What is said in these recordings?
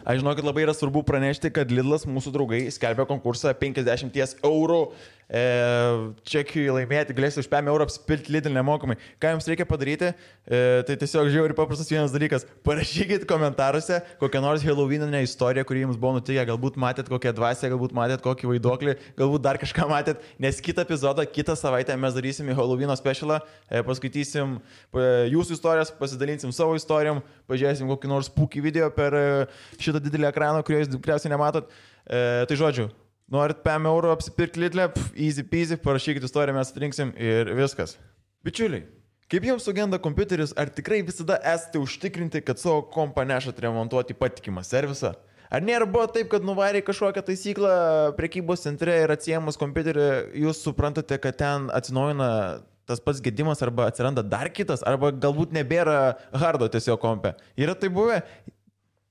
Aš žinau, kad labai yra svarbu pranešti, kad Lidlas mūsų draugai skelbia konkursą 50 eurų čekiui laimėti, galėsite už 5 eurų apsipilti Lidl nemokamai. Ką jums reikia padaryti? Tai tiesiog žiauriai paprastas vienas dalykas. Parašykit komentaruose kokią nors Halloweeninę istoriją, kuri jums buvo nutikę. Galbūt matėt kokią dvasę, galbūt matėt kokį vaiduoklį, galbūt dar kažką matėt. Nes kitą epizodą, kitą savaitę mes darysim Halloweeno specialą, paskaitysim jūsų istorijas, pasidalinsim savo istorijom, pažiūrėsim kokį nors spooky video per šitą didelį ekraną, kurio jūs tikriausiai nematot. Tai žodžiu, norit 5 eurų apsipirkti Lidlę, easy peasy, parašykit istoriją, mes atrinksim ir viskas. Bičiuliai, kaip jums sugenda kompiuteris, ar tikrai visada esate užtikrinti, kad savo kompą nešat remontuoti patikimą servisą? Ar nėra buvo taip, kad nuvarė kažkokią taisyklą prekybos centre ir atsiemus kompiuterį, jūs suprantate, kad ten atsinaujina tas pats gedimas arba atsiranda dar kitas, arba galbūt nebėra hardo tiesiog kompe. Yra tai buvę?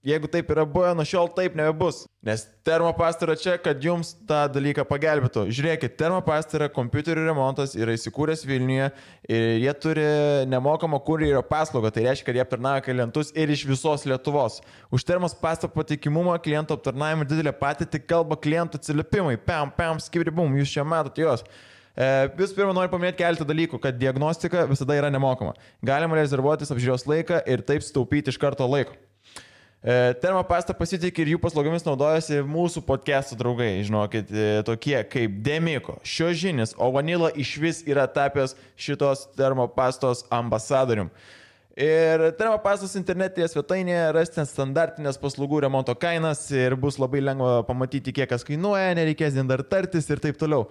Jeigu taip yra buvę, nuo šiol taip nebebus. Nes Termopasta yra čia, kad jums tą dalyką pagelbėtų. Žiūrėkit, Termopasta yra kompiuterių remontas, yra įsikūręs Vilniuje ir jie turi nemokamą kurjerio paslaugą. Tai reiškia, kad jie aptarnauja klientus ir iš visos Lietuvos. Už Termopasta patikimumą, klientų aptarnavimą didelę patirtį kalba klientų atsiliepimai. Pam, skibri-bum, jūs čia matote juos. Visų pirma, noriu paminėti keletą dalykų, kad diagnostika visada yra nemokama. Galima rezervuotis apžiūros laiką ir taip sutaupyti iš karto laiko. Termopasta pasitikė ir jų paslaugomis naudojasi mūsų podcastų draugai, žinokit, tokie kaip Demiko, Šiožinis, o Vanilla išvis yra tapęs šitos Termopastos ambasadorium. Ir Termopastos internetinėje svetainėje rasite standartinės paslaugų remonto kainas ir bus labai lengva pamatyti, kiek kas kainuoja, nereikės dar tartis ir taip toliau.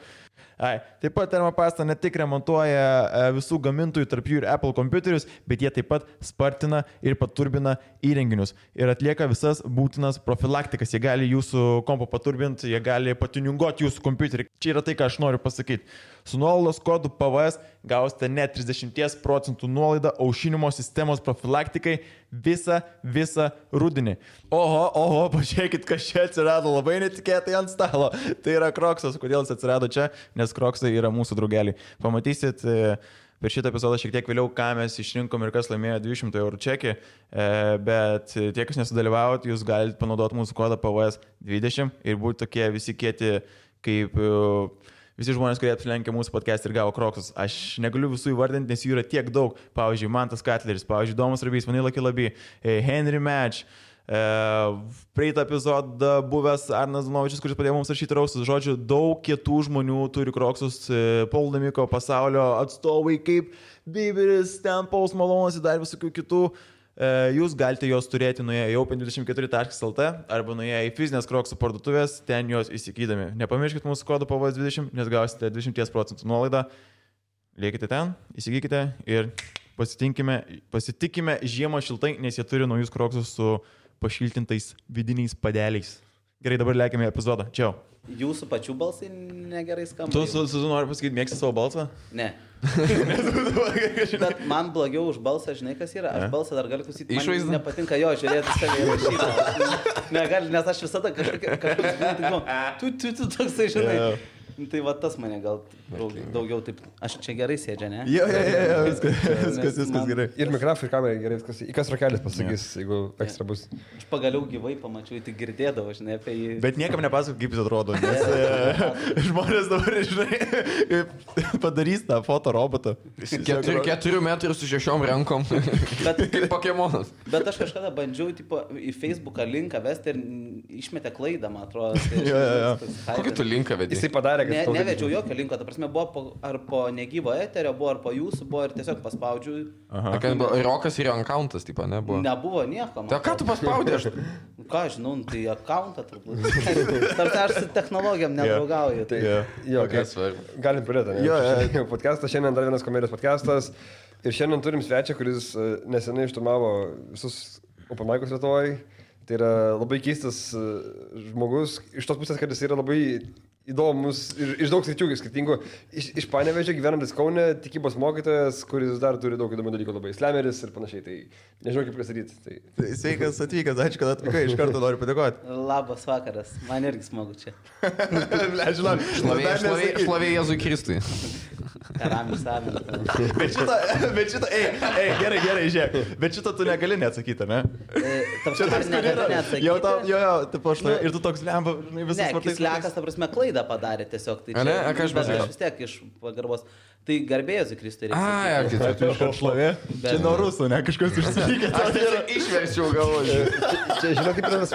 Taip pat Termopasta ne tik remontuoja visų gamintojų, tarp jų ir Apple kompiuterius, bet jie taip pat spartina ir paturbina įrenginius ir atlieka visas būtinas profilaktikas. Jie gali jūsų kompą paturbinti, jie gali patuniunguoti jūsų kompiuterį. Čia yra tai, ką aš noriu pasakyti. Su nuolaidos kodu PVS gausite net 30% nuolaidą aušinimo sistemos profilaktikai visą rudenį. Oho, pažiūrėkit, kas čia atsirado labai netikėtai ant stalo. Tai yra Kroksas. Kodėl jis atsirado čia? Nes Kroksai yra mūsų draugeliai. Pamatysit per šitą epizodą šiek tiek vėliau, ką mes išrinkom ir kas laimėjo 200 eurų čekį, bet tie, kas nesudalyvavot, jūs galite panaudoti mūsų kodą PVS 20 ir būti tokie visi kieti kaip visi žmonės, kurie apsilenkė mūsų podcast ir gavo Kroksus. Aš negaliu visų įvardinti, nes jų yra tiek daug. Pavyzdžiui, Mantas Katleris, pavyzdžiui, Domas Rabys, Vanilla Kilaby, Henry Match, praeitą epizodą buvęs Arnas Dunovičius, kuris padėjo mums rašyti raustus. Žodžiu, daug kietų žmonių turi Kroksus, Paul Damiko pasaulio atstovai kaip Biberis, ten Pauls Malonas ir dar visokių kitų. Jūs galite juos turėti nuėję į open24.lt arba nuėję į fizinės Kroksų parduotuvės, ten juos įsigydami. Nepamirškite mūsų kodo PVS 20, nes gausite 20% nuolaidą. Liekite ten, įsigykite ir pasitikime žiemą šiltai, nes jie turi naujus Kroksus su pašiltintais vidiniais padeliais. Gerai, dabar lėkime į epizodą. Čiau. Jūsų pačių balsai negerai skamba. Tu nori pasakyti, mėgsti savo balsą? Ne. Bet man blogiau už balsą, žinai, kas yra. Aš balsą dar galiu klausyti. Man nepatinka jo žiūrėti save įrašytą. Negali, nes aš visada kažkaip tu toksai, žinai. Tai va tas mane gal daugiau taip. Aš čia gerai sėdžia, ne? Jo, viskas gerai. Ir mikrofai, ir kamera gerai, viskas. Į kas rakelis pasakys, jeigu ekstra bus. Aš pagaliau gyvai pamačiau, tik girdėdavau, žinai, apie jį. Bet niekam nepasakau, kaip jis atrodo, nes žmonės dabar, žinai, padarys tą fotorobotą. 4 metrų su 6 rankom. Kaip Pokemonas. Bet aš kažkada bandžiau į Facebooką linką vesti ir išmetė klaidą, man atrodo. Kokį tu linką vedai? Jisai padarė, kad nevedžiau jokio linko, ta prasme, buvo ar po negyvo eterio, buvo ar po jūsų, buvo ir tiesiog paspaudžiu. Rokas ir jo accountas, tipo, nebuvo? Nebuvo nieko. Tai ką tu paspaudė? Ką žinau, tai accountą turbūt. Tarsi aš su technologijom nedraugauju. Galim pradėti. Podcastas, šiandien dar vienas komedijos podcastas. Ir šiandien turim svečią, kuris nesenai išturmavo visus open mic'us Lietuvoje. Tai yra labai keistas žmogus, iš tos pusės, kad jis yra labai įdomus ir iš daug sričių skirtingų. Iš Panevėžio gyvenantis Kaune tikybos mokytojas, kuris dar turi daug įdomių dalykų, labai slemeris ir panašiai. Tai nežinau kaip pristatyti. Tai sveikas atvykęs, ačiū, kad atvykai, iš karto noriu padėkoti. Labas vakaras, man irgi smagu čia. Šlovė Jėzui Kristui. Karamis Amen. Bet šitą, gerai, žiūrėk. Bet šitą tu negali neatsakyti, ne? Čia toks negali neatsakyti. Jo, taip aš ir tu toks lemba, žinai, visas vartais. Ne, Kislekas, ta prasme, klaidą padarė tiesiog. Tai čia, ką aš pasakiau? Vis tiek iš pagarbos. Tai garbėjus į Kristų reikia. Tai iš šlovė. Čia nuo rusų, ne? Kažkas užsilikė. Aš išverčiau galvoju. Čia, žinai, kaip yra tas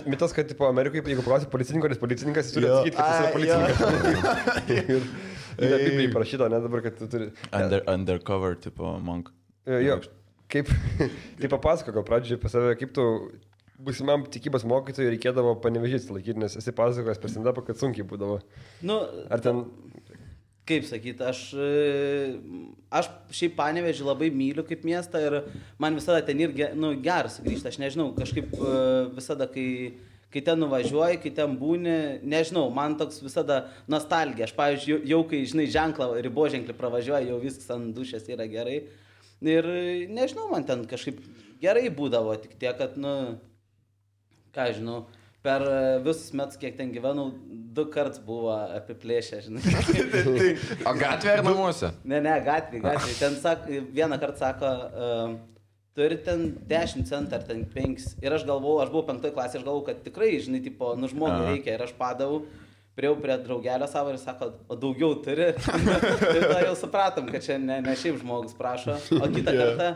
mitas, kad tipo Amerikoje, jeigu paklausi policininko, nes policininkas jis turi atsakyti, kad jis yra policininkas. Yra Biblijai parašyta, ne dabar, kad tu turi... Undercover, tipo, monk. Jo, kaip... Tai papasako, gal pradžiai apie save, kaip tu būsimam tikybos mokytojui reikėdavo Panevėžys laikyti, nes esi pasakojęs per stand-upą, kad sunkiai būdavo. Nu, ar ten... Kaip sakyti, aš šiaip Panevėžį labai myliu kaip miestą ir man visada ten ir geras sugrįžti. Aš nežinau, kažkaip visada, kai ten nuvažiuoji, kai ten būni, nežinau, man toks visada nostalgija. Aš, pavyzdžiui, jau kai, žinai, riboženklį pravažiuoju, jau viskas ant dušės yra gerai. Ir nežinau, man ten kažkaip gerai būdavo, tik tiek, kad, ką žinau, per visus metus, kiek ten gyvenau, 2 kartus buvo apiplėšę, žinai. O gatvė ar namuose? Ne, gatvė. Ten vieną kartą sako, turi ten 10 centų ar ten 5. Ir aš buvau 5 klasė, aš galvojau, kad tikrai, žinai, tipo, žmogui reikia. Ir aš padavau, priejau prie draugelio savo ir sako, o daugiau turi. Ir tada jau supratom, kad čia ne šiaip žmogus prašo. O kitą kartą...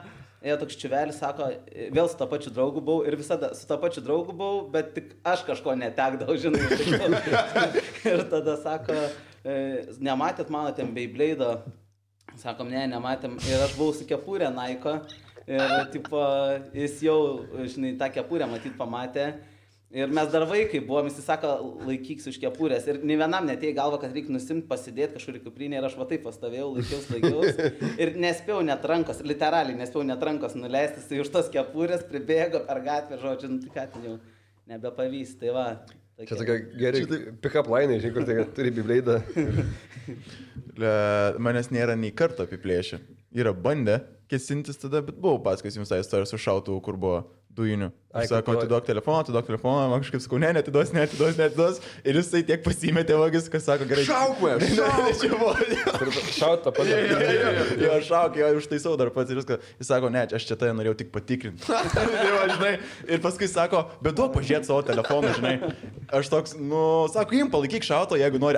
toks čiuvelis sako, vėl su to pačiu draugu buvau ir visada su to pačiu draugu buvau, bet tik aš kažko netekdavau, žinai. Ir tada sako, nematėt mano ten Beyblade'o? Sakom, nematėm. Ir aš buvau su kepurė Naiko ir tipo, jis jau, žinai, tą kepurę matyt pamatė. Ir mes dar vaikai buvom, jis sako, laikyks už kepurės. Ir nei vienam netėjo galva, kad reikia nusimti, pasidėti kažkur į kuprinę. Ir aš va taip pastovėjau, laikiaus. Ir nespėjau net rankos, literaliai nespėjau net rankos nuleisti. Jis už tos kepurės pribėgo per gatvę, žodžiu, tai ką ten jau nebepavys. Tai va. Tokia. Čia tokia geri pick-up line, žinai, kur tai turi Beyblade'ą. Manęs nėra nei karto apiplėšę. Yra bandę kesintis tada, bet buvau paskais jums tą istoriją su šautuvu, kur buvo dujinių. Aš sako, atiduok telefoną, man kažkaip sakau, neatiduos. Ir jisai tiek pasimetė vagis, kas sako, gerai. Šauk! Šaut tą patį. Jo, šauk, jo, užtaisau dar pats ir viską. Jis sako, ne, aš čia tai norėjau tik patikrinti. Ir paskui sako, bet duok pažiūrėti savo telefoną, žinai. Aš toks, sako, jim palaikyk šauto, jeigu nori.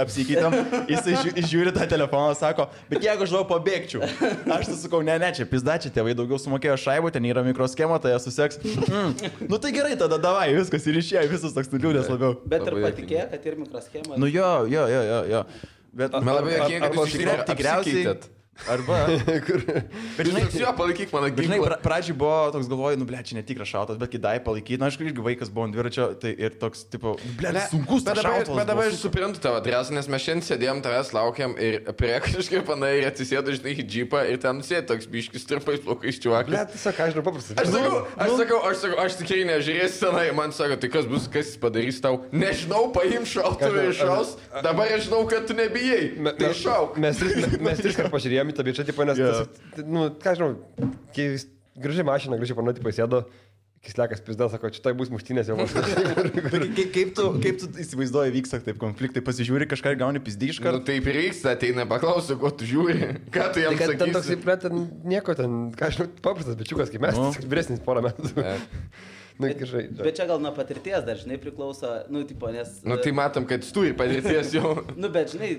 Apsikeitam. Jisai žiūri tą telefoną, sako, bet jeigu aš daug pabėgčiau. Aš tai sakau, ne, čia pizdačiai, tėvai daugiau sumokėjo šaibų, ten yra mikroschema, tai jie suseks. Tai gerai, tada davai, viskas ir išėjo, visus toks nuliūdės labiau. Bet ir patikėjo, kad ir mikroschema. Jo. Bet man labai jokinga, kad jūs tikriausiai... Arba... Bet žinai, jo, palaikyk mano ginklą. Žinai, pradžiai buvo toks galvoju, čia netikras šautas, bet kai dai palaikyti, aš irgi vaikas buvau ant dviračio, tai ir toks, tipo, sunkus tas šautas. Bet dabar aš suprantu tavo adresą, nes mes šiandien sėdėjom, tavęs laukiam ir prie kažkaip panai ir atsisėdo, žinai, į džipą ir ten sėdė toks biškis trupais plaukais čiuvakas. Bet tiesiog, aš žinau paprastai. Aš tikrai nežiūrėsiu tenai, man sako, tai kas jis padarys tau? Nežinau, paim šautuvą ir šaus, dabar aš žinau, kad tu nebijai. Tai šauk. Mes 3 kartus pažiūrėjome į tą bičią, tipo, nes, ką žinau, gražiai mašina, gražiai panai, tipo, sėdo, Kislekas pizda, sako, čia tai bus muštynės jau. Kaip tu įsivaizduoji, vyksta taip konfliktai, pasižiūri kažką ir gauni pizdį iš karto? Taip ir reiks, ateina, paklausiu, ko tu žiūri, ką tu jam sakysi. Ten toks, nieko, ką žinau, paprastas bičiukas, kaip mes, vyresnis porą metų. Bet čia gal nuo patirties dar, žinai, priklauso, tipo, nes... Tai matom, kad tu turi patirties jau. Bet, žinai,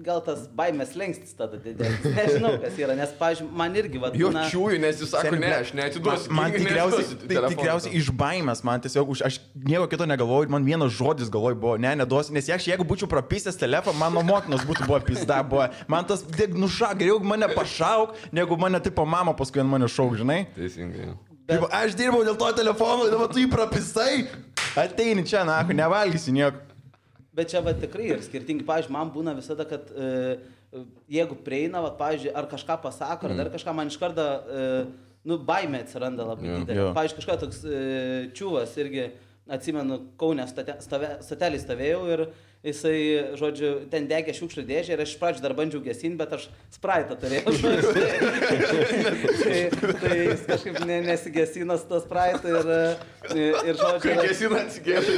gal tas baimės lengstis tada didėlis. Nežinau, kas yra, nes, pavyzdžiui, man irgi, va... Jo čiūju, nes jis sako, ne, aš neatiduosiu. Man tikriausiai iš baimės, man tiesiog, aš nieko kito negalvoju, man vienas žodis galvoju buvo, neduosiu, nes jeigu būčiau prapisęs telefoną, mano motinos būtų buvo pizda, buvo. Man tas, geriau mane pašauk, negu mane, tipo, mama paskui ant mane šauk, žinai? Teisingai. Bet... Aš dirbau dėl to telefono, dabar tu jį prapisai, ateini čia, nevalgysi nieko. Bet čia va tikrai ir skirtingi, pavyzdžiui, man būna visada, kad jeigu prieina, va, pavyzdžiui, ar kažką pasako, ar dar kažką, man iš karto, baimė atsiranda labai didelė. Pavyzdžiui, kažką toks čiūvas irgi, atsimenu, Kaune stotelį stovėjau ir jisai, žodžiu, ten degė šiukšlių dėžę ir aš iš pradžių dar bandžiau gesinti, bet aš spraitą turėjau. Tai jis kažkaip nesigesina su to spraitu ir žodžiu... Kai gesina atsigėšė.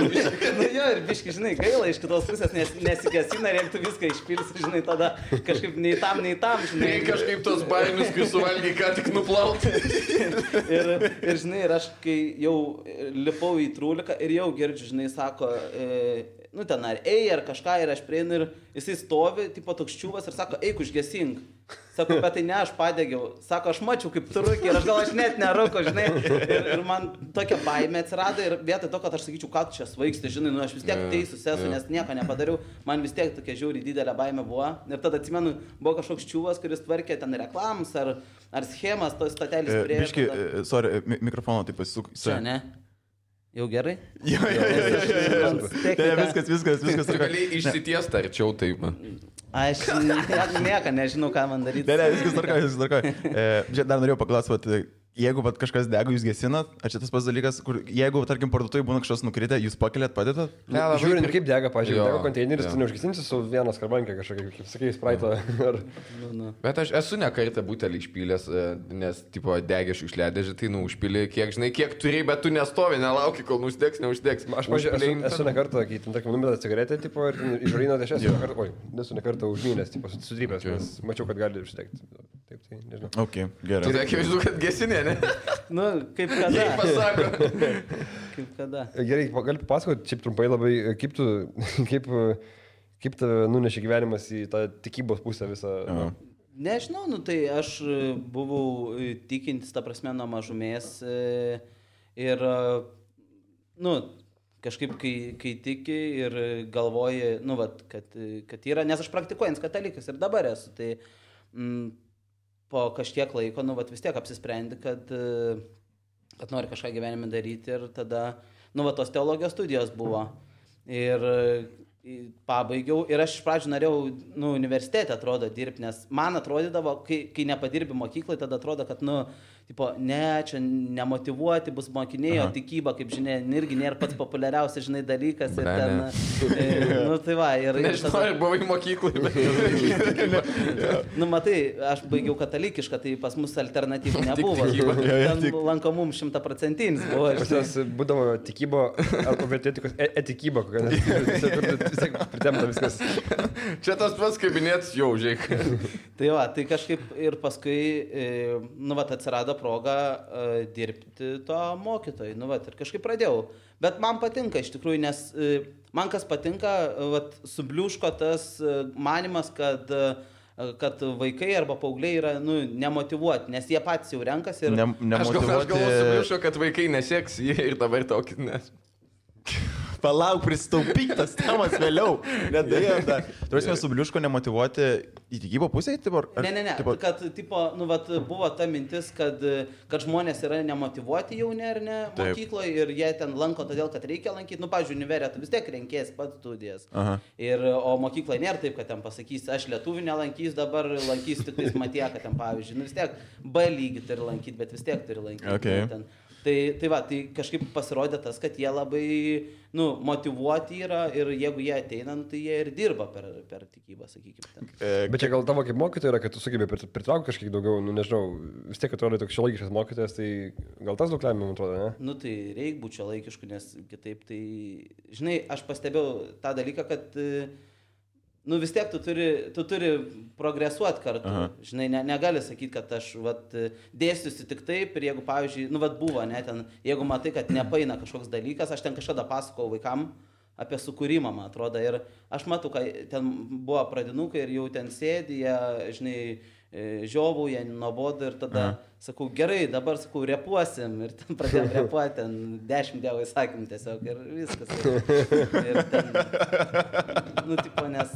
Nu jo, ir biški, žinai, gaila iš kitos pusės nesigesina ir jeigu tu viską išpilsi, žinai, tada kažkaip nei tam, žinai. Tai kažkaip tos baimius, kai suvalgy, ką tik nuplauti. ir žinai, ir aš kai jau lipau į trūliką ir jau girdžiu, žinai, sako, nu ten ar ar kažką ir aš prieinu ir jisai stovi, tipo toks čiūvas ir sako, eik užgesink. Sako, bet tai ne, aš padegiau. Sako, aš mačiau kaip tu rūki ir aš net nerūko, žinai. Ir man tokia baimė atsirado ir vietoj to, kad aš sakyčiau, ką tu čia svaigsti, žinai, nu aš vis tiek teisus esu, nes nieko nepadariau. Man vis tiek tokia žiauriai didelė baimė buvo. Ir tada atsimenu, buvo kažkoks čiūvas, kuris tvarkė ten reklams ar schemas, tos statelės prie. Biški, sorry, mikrofono taip pasisuk. Čia, ne? Jau gerai? Jo. Viskas. Tu gali išsitiesti arčiau taip. Aš nieko nežinau, ką man daryti. Ne, viskas tvarkoja. Dar norėjau paklausyti, jeigu kažkas dega, jūs gesinat, ar čia tas pats dalykas, kur jeigu, tarkim, parduotuvai būna kažkas nukritę, jūs pakeliat, padėtat? Ne, žiūrint, kaip dega, pažiūrėjau, dega konteineris, tu neužgesinsi su vieną skarbankę kažkokią, kaip sakai, spraitą. Bet aš esu ne kartą butelį išpylęs, nes, tipo, degė šiukšliadėžį, tai, užpylė, kiek turi, bet tu nestovi, nelauki, kol neuždegs. Aš, pažiūrėjau, esu ne kartą, kai, tarkim, numetą cigaretę, tipo, ir išvarino dešes, nesu ne kartą užmynęs, tipo, sudrypęs, nes mačiau, kad gali uždegti. Taip, tai nežinau. Ok, gerai. Tai akivaizdu, kad gesinė, ne? Nu, kaip kada. Pasako. Kaip kada. Gerai, gali papasakoti, šiaip trumpai labai, kaip tave nunešė gyvenimas į tą tikybos pusę visą. Nežinau, nu tai aš buvau tikintis, ta prasme, nuo mažumės ir, nu, kažkaip, kai tiki ir galvoji, nu, vat, kad yra, nes aš praktikuojant katalikas ir dabar esu, tai po kažkiek laiko, nu, vat, vis tiek apsisprendi, kad nori kažką gyvenime daryti ir tada, nu, vat, tos teologijos studijos buvo ir pabaigiau ir aš iš pradžių norėjau, nu, universitete atrodo dirbti, nes man atrodydavo, kai nepadirbi mokyklai, tada atrodo, kad, nu, tipo, ne, čia nemotyvuoti bus mokiniai, o tikyba, kaip žinia, irgi nėra pats populiariausias, žinai, dalykas. Ir ten, nu, tai va. Nežinau, ar buvai mokyklai, bet... Nu, matai, aš baigiau katalikišką, tai pas mus alternatyvų nebuvo. Ten lankomum 100% buvo. Pas jas būdavo tikybo, arba vertėtikos etikybo, vis tiek pritemta viskas. Čia tas pats kabinėtis jau, žiūrėk. Tai va, tai kažkaip ir paskui, nu, va, atsirado proga dirbti to mokytojai, nu, va, ir kažkaip pradėjau. Bet man patinka iš tikrųjų, nes man kas patinka, va, subliūško tas manimas, kad vaikai arba paaugliai yra, nu, nemotyvuoti, nes jie patys jau renkasi ir... Aš galvoju, subliūško, kad vaikai neseks jį ir dabar tokį nes. Palauk, pristaupyk tas temas vėliau. Nedėjau dar. Turėsime subliūško nemotyvuoti į tikybą pusę? Ne. Kad, tipo, nu, vat, buvo ta mintis, kad žmonės yra nemotyvuoti jauni ar ne mokykloje ir jie ten lanko todėl, kad reikia lankyti. Nu, pavyzdžiui, univerė, tu vis tiek renkės pats studijas. O mokykloje nėra taip, kad ten pasakys, aš lietuvių nelankys, dabar lankys tik tais matieką ten, pavyzdžiui. Nu, vis tiek B lygį turi lankyti, bet vis tiek turi lankyti. Okay. Tai va, tai kažkaip pasirodė tas, kad jie labai, nu, motyvuoti yra ir jeigu jie ateina, nu, tai jie ir dirba per tikybą, sakykime. Bet čia gal tavo kaip mokytoja yra, kad tu sugebė pritraukti kažkiek daugiau, nu, nežinau, vis tiek atrodo toks šiuolaikiškas mokytojas, tai gal tas daug lemia, man atrodo, ne? Nu, tai reikia būti šiuolaikišku, nes kitaip tai, žinai, aš pastebėjau tą dalyką, kad nu vis tiek tu turi progresuoti kartu. Žinai, negali sakyti, kad aš vat, dėstysiu tik taip ir jeigu, pavyzdžiui, nu vat buvo, ne, ten, jeigu matai, kad nepaina kažkoks dalykas, aš ten kažkada pasakojau vaikam apie sukūrimą, man atrodo, ir aš matau, kad ten buvo pradinukai ir jau ten sėdi, jie, žinai, žiovauja, nuobodu ir tada sakau, gerai, dabar sakau, repuosim ir ten pradėjom repuoti, ten 10 dievo įsakymų tiesiog ir viskas. Ir ten, nu, tipo, nes...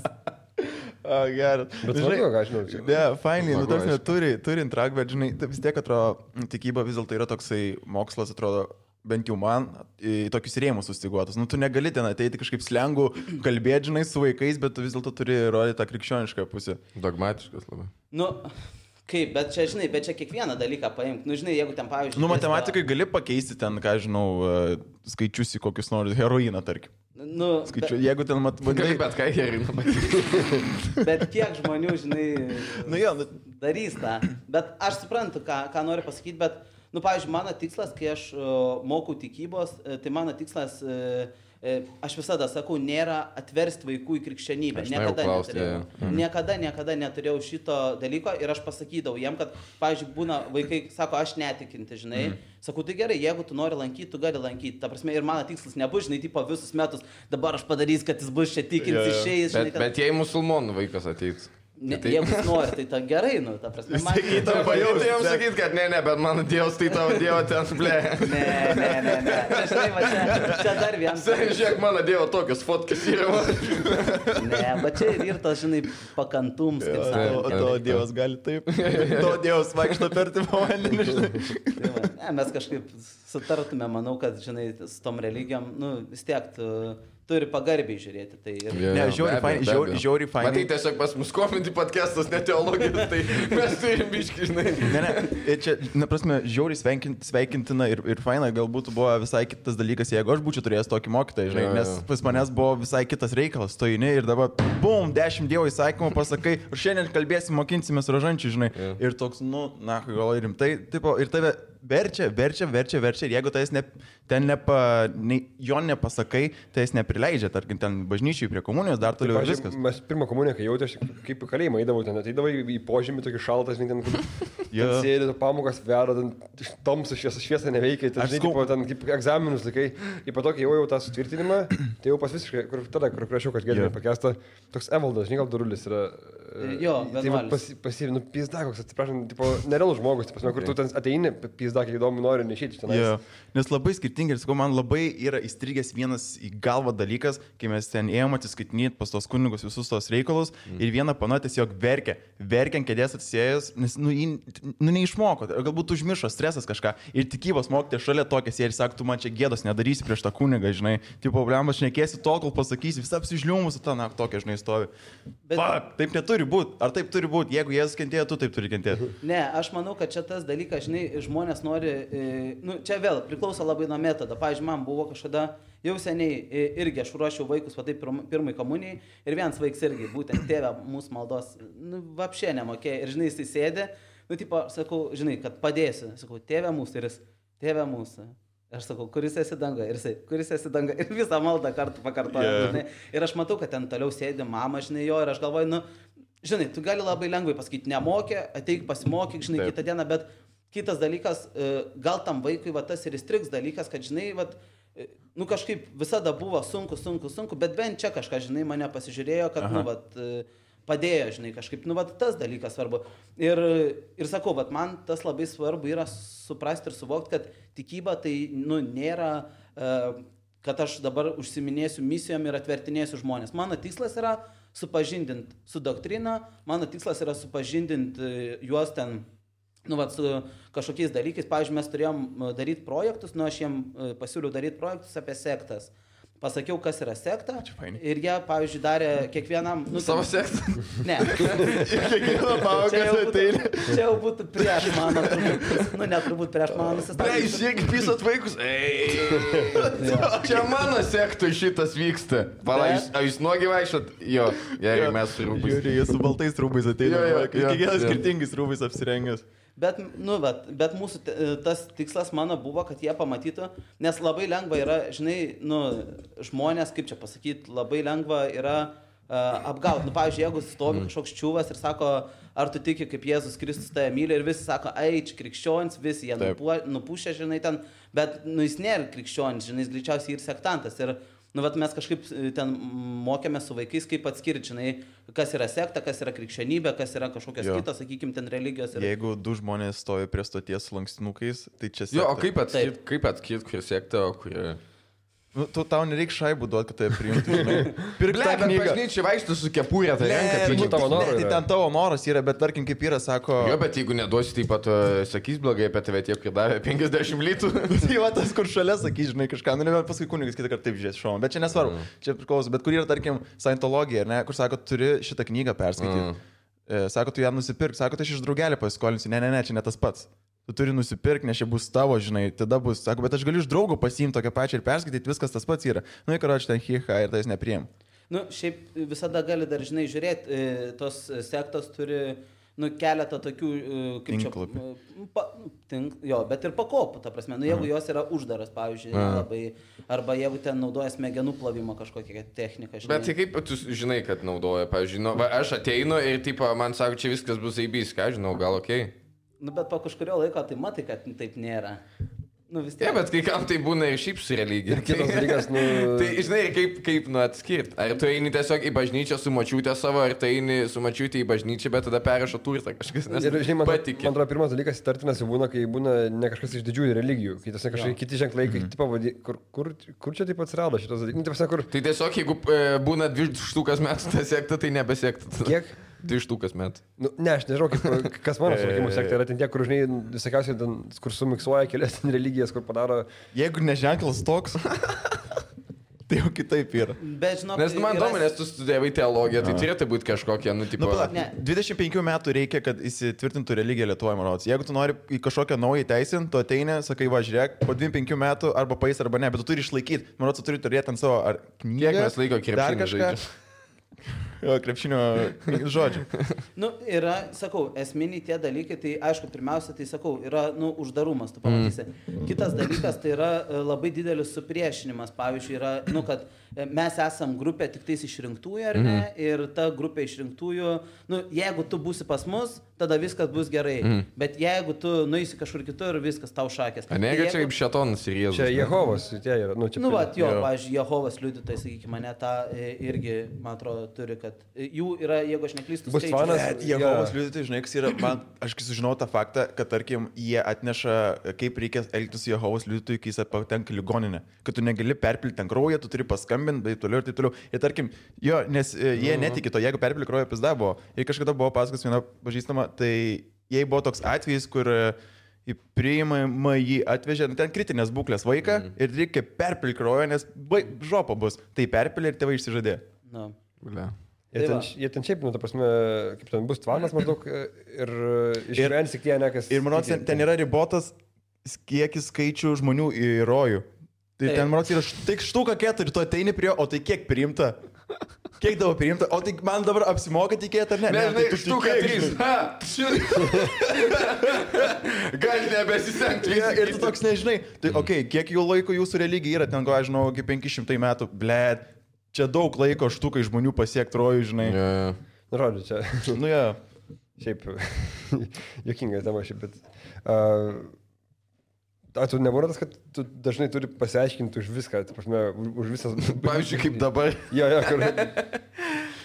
Geras. Bet smagu, ką žinau. Ne, fainai, nu, tarsi turi intrak, bet, žinai, vis tiek atrodo, tikyba vis dėlto yra toksai mokslas, atrodo, bent jau man, į tokius rėmus sustiguotus. Nu, tu negali ten ateiti kažkaip slengų, kalbėti, žinai, su vaikais, bet tu vis dėlto turi rodyti tą krikščionišką pusę. Dogmatiškas labai. Nu, Kaip, bet čia, žinai, bet čia kiekvieną dalyką paimk. Nu, žinai, jeigu ten, pavyzdžiui... Nu, matematikai gali pakeisti ten, ką žinau, skaičius į kokius nors heroiną, tarkim. Nu, jeigu ten gali bet ką heroiną pakeisti. Bet kiek žmonių, žinai, darys tą. Bet aš suprantu, ką noriu pasakyti, bet, nu, pavyzdžiui, mano tikslas, kai aš mokau tikybos, tai mano tikslas... Aš visada sakau, nėra atversti vaikų į krikščionybę. Niekada neturėjau šito dalyko ir aš pasakydavau jiem, kad, pavyzdžiui, būna vaikai, sako, aš netikinti, žinai. Sakau, tai gerai, jeigu tu nori lankyti, tu gali lankyti. Ta prasme, ir mano tikslas nebus, žinai, tipo visus metus, dabar aš padarysiu, kad jis bus čia tikintis, išeis. Bet jei musulmonų vaikas ateiks. Jeigu jis nori, tai ta gerai, nu, ta prasme. Tai jam sakyt, kad ne, bet mano Dievas, tai tavo Dievo ten, ble. Ne. Čia dar vienas. Žiūrėk, mano Dievo tokios fotkės yra. Ne, bet čia ir tas, žinai, pakantums, kaip sakoma. O tavo Dievas gali taip. Tavo Dievas vaikšto per tipo vandenį, žinai. Ne, mes kažkaip sutartume, manau, kad, žinai, su tom religijom, nu, vis tiek turi pagarbiai žiūrėti. Tai ir... Ne, žiauriai fainai. Matai, tiesiog pas mus komentai podcastas, ne teologijos, tai mes turim biškį, žinai. Ne, čia, prasme, žiauriai sveikintina ir faina, galbūt buvo visai kitas dalykas, jeigu aš būčiau turėjęs tokį mokytoją, žinai, nes pas manęs buvo visai kitas reikalas, stojini ir dabar, bum, 10 Dievo įsakymų pasakai, ir šiandien kalbėsim, mokinsimės rožančių, žinai. Ir toks, nu, na, gal rimtai, tipo, ir tave verčia, ir jeigu tai jo nepasakai, tai jis neprileidžia, tarkim, ten bažnyčiai prie komunijos, dar toliau ir viskas. Mes pirmą komuniją, kai jautė, aš kaip į kalėjimą eidavau, ten ateidavau į požemį, tokį šaltas, ten sėdė, pamokas veda, ten tamsu šviesa neveikia, ten, žinai, ten kaip egzaminus laikai, ir po to, kai jau tą sutvirtinimą, tai jau pas visiškai, kur prašiau, kad gėdė pakestą, toks Evaldas, žinai, gal Darulis yra. Jo, pasivinu, pizda, koks, atsiprašom, tipo, nerealus žmogus, kur tu ten ateini, pizda, kiek įdomu nori, neišėti čia. Nes labai skirtingai, ir sakau, man labai yra įstrigęs vienas į galvą dalykas, kai mes ten ėjom atsiskaitinėti pas tos kunigus visus tos reikalus ir vieną pana tiesiog verkia ant kėdės atsisėjęs, nes, neišmoko, galbūt užmiršo stresas kažką ir tikybos mokytė šalia tokia sėdi ir sako, tu man čia gėdos nedarysi prieš tą kunigą, žinai, tipo, problemas šnekėsi tol, kol pasakysi, visą apsižliumus, tokia, žinai, stovi. Taip neturi būti, ar taip turi būti, jeigu Jėzus kentėjo, tu taip turi kentėti. Ne, aš manau, kad čia tas dalykas, žinai, žmonės nori, čia vėl priklauso labai nuo metodo. Pavyzdžiui, man buvo kažkada jau seniai irgi aš ruošiau vaikus, va taip pirmai komunijai ir vienas vaiks irgi, būtent tėvė mūsų maldos, vapšė nemokėjo ir, žinai, jis sėdė, tipo, sakau, žinai, kad padėsiu, sakau, tėvė mūsų ir jis, tėvė mūsų. Aš sakau, kuris esi danga ir jisai, kuris esi danga ir visą maldą kartu pakartoja, žinai. Ir aš matau, kad ten toliau sėdi mama, žinai, jo ir aš galvoju, žinai, tu gali labai lengvai pasakyti, nemokė, ateik pasimokyk, žinai, kitą dieną, bet kitas dalykas, gal tam vaikui va tas ir įstriks dalykas, kad, žinai, va, kažkaip visada buvo sunku, bet bent čia kažką, žinai, mane pasižiūrėjo, kad, va, padėjo, žinai, kažkaip, va, tas dalykas svarbu. Ir sakau, va, man tas labai svarbu yra suprasti ir suvokti, kad tikyba tai, nėra, kad aš dabar užsiminėsiu misijom ir atvertinėsiu žmonės. Mano tikslas yra supažindinti su doktrina, mano tikslas yra supažindinti juos ten, su kažkokiais dalykais. Pavyzdžiui, mes turėjom daryti projektus, aš jiem pasiūliau daryti projektus apie sektas. Pasakiau, kas yra sekta ir jie, pavyzdžiui, darė kiekvienam... Savo sektą? Ne. Kiekvieną pamoką ateina. Čia jau būtų prieš mano, neturbūt prieš mano nusistatymą. Žiūrėk, pisat vaikus. Čia mano sektui šitas vyksta. Pala, jūs nuogi vaikščiat? Jo, jeigu mes su rūbais. Žiūrėk, jie su baltais rūbais ateina. Kiekvienas skirtingais rūbais apsirengęs. Bet mūsų tas tikslas mano buvo, kad jie pamatytų, nes labai lengva yra, žinai, žmonės, kaip čia pasakyti, labai lengva yra apgauti. Pavyzdžiui, jeigu stovi kažkoks čiūvas ir sako, ar tu tiki, kaip Jėzus Kristus tave myli ir visi sako, čia krikščionis, visi jie nupušia, žinai, ten, bet jis nėra krikščionis, žinai, jis greičiausiai ir sektantas. Ir mes kažkaip ten mokėme su vaikais, kaip atskirti, žinai, kas yra sekta, kas yra krikščionybė, kas yra kažkokios kitos, sakykime, ten religijos. Jeigu du žmonės stovi prie stoties su lankstinukais, tai čia sekta. Jo, o kaip atskirti, kur sekta, o kur... Tau nereikia šaibų duoti, kad tai priimtų, žinai. Pirk tą knygą. Bažnyčiai vaikštų su kepurė, tai renka, tai tavo noras. Tai ten tavo noras yra, bet tarkim, kaip yra, sako... Jo, bet jeigu neduosi, taip pat sakys blogai apie tave tiek, kaip davė 50 litų. Tai va tas, kur šalia sakys, žinai, kažką, nebent paskui kunigas kitą kartą taip žiūrės šoną. Bet čia nesvarbu, čia priklauso. Bet kur yra, tarkim, Scientologija, ne, kur sako, turi šitą knygą perskaityti. Sako, tu ją nusipirk, sako, tai aš iš draugelį pasiskolinsiu, ne, čia ne tas pats. Tu turi nusipirkti, nes čia bus tavo, žinai, tada bus, sako, bet aš galiu iš draugo pasiimti tokią pačią ir perskaityti, viskas tas pats yra. Nu, karoči, ten hiha ir tai jis nepriim. Nu, šiaip visada gali dar, žinai, žiūrėti, tos sektos turi, nu, keletą tokių, kaip čia, bet ir pakopų, ta prasme, nu, jeigu jos yra uždaras, pavyzdžiui, labai, arba jeigu ten naudoja smegenų plovimo kažkokią techniką. Žinai. Bet tai kaip tu žinai, kad naudoja, pavyzdžiui, nu, aš ateinu ir, tipo, man sako, čia viskas bus eibys, ką žinau, gal okei. Nu, bet po kažkurio laiko tai matai, kad taip nėra. Nu, vis tiek. Ne, bet kai kam tai būna ir šiaip su religija. Ir kitas dalykas, nu... Tai, žinai, kaip atskirti. Ar tu eini tiesiog į bažnyčią su močiutė savo, ar tu eini su močiutė į bažnyčią, bet tada perrašo turtą kažkas, nes ir, žinai, patikė. Man atrodo, pirmas dalykas įtartinas jau būna, kai būna ne kažkas iš didžiųjų religijų, kai tiesiog kažkokie kiti ženklai, kai tipo, kur čia taip atsirado šitas dalykas. Tai tiesiog, jeigu būna 2 štukas metų ta sekta, tai nebesekta. Kiek? 2 štukas metų. Nu, ne, aš nežinau, kas mano suvokimo sekta yra ten tie, kur, žinai, visokiausiai, kur sumiksuoja kelias religijas, kur padaro... Jeigu neženklas toks, tai jau kitaip yra. Bet, žinok, nes man įdomu, nes tu studijavai teologiją, tai turėtų būti kažkokia, nu, tipo... 25 metų reikia, kad įsitvirtintų religiją Lietuvoje, man rodos. Jeigu tu nori į kažkokią naują teisinį, tu ateini, sakai, va, žiūrėk, po 25 metų arba pais arba ne, bet tu turi išlaikyti. Man rodos, tu turi turėti ant savo ar knygą. Kiek mes laiko krepšinį žaidžiame? Jo, krepšinio žodžių. Nu, yra, sakau, esminiai tie dalykai, tai aišku, pirmiausia, tai sakau, yra, nu, uždarumas, tu pamatysi. Kitas dalykas, tai yra labai didelis supriešinimas, pavyzdžiui, yra, nu, kad mes esam grupė tik tais išrinktųjų, ar ne, ir ta grupė išrinktųjų, nu, jeigu tu būsi pas mus, tada viskas bus gerai, bet jeigu tu nueisi kažkur kitur, viskas tau šakės. A negi čia kaip šetonas ir Jėzus. Čia Jehovas, tie yra, nu, čia... Nu, va, jo, pavyzdžiui, Jehovas liudytojai, sakykime, mane tą irgi, man atrodo, turi, kad jų yra, jeigu aš neklystu, bus fanas. Jehovos liudytojai, žinai, kas yra, man, aš sužinau tą faktą, kad, tarkim, jie atneša, kaip reikia elgtis su Jehovos liudytojai, kai jis patenka ligoninę. Kad tu negali perpilti ten kraują, tu turi paskambinti, bet toliau ir taip toliau. Ir tarkim, jo, nes jie netiki to, jeigu perpilti kraują, pizda buvo. Ir kažkada buvo pasakas viena pažįstama, tai jei buvo toks atvejis, kur į priimamą jį atvežė, ten kritinės būklės vaiką ir reikia perpilti kraują, nes žopa bus. Tai perpilė ir tėvai išsižadė. No. Jie ten šiaip, nu, ta prasme, kaip ten bus tvanas maždaug ir išgyvens tik tie, ne kas... Ir manau, ten yra ribotas kiekis skaičių žmonių į rojų. Tai ten, manau, yra tik štuka 4, tu ateini prie jo, o tai kiek priimta? Kiek tavo priimta? O tai man dabar apsimoka tikėti, ar ne? Ne, tai štuka 3. Gali nebesisengti. Ir tu toks nežinai. Tai, okei, kiek jų laiko jūsų religija yra, ten, ko aš žinau, iki 500 metų, blėt. Čia daug laiko štukai žmonių pasiekti rojų, žinai. Nu, žodžiu, čia. Nu, jo. Šiaip, juokinga tema šiaip, bet... Tu nebūna tas, kad tu dažnai turi pasiaiškinti už viską, tai prasme, už visas... Pavyzdžiui, kaip dabar. Jo, kur...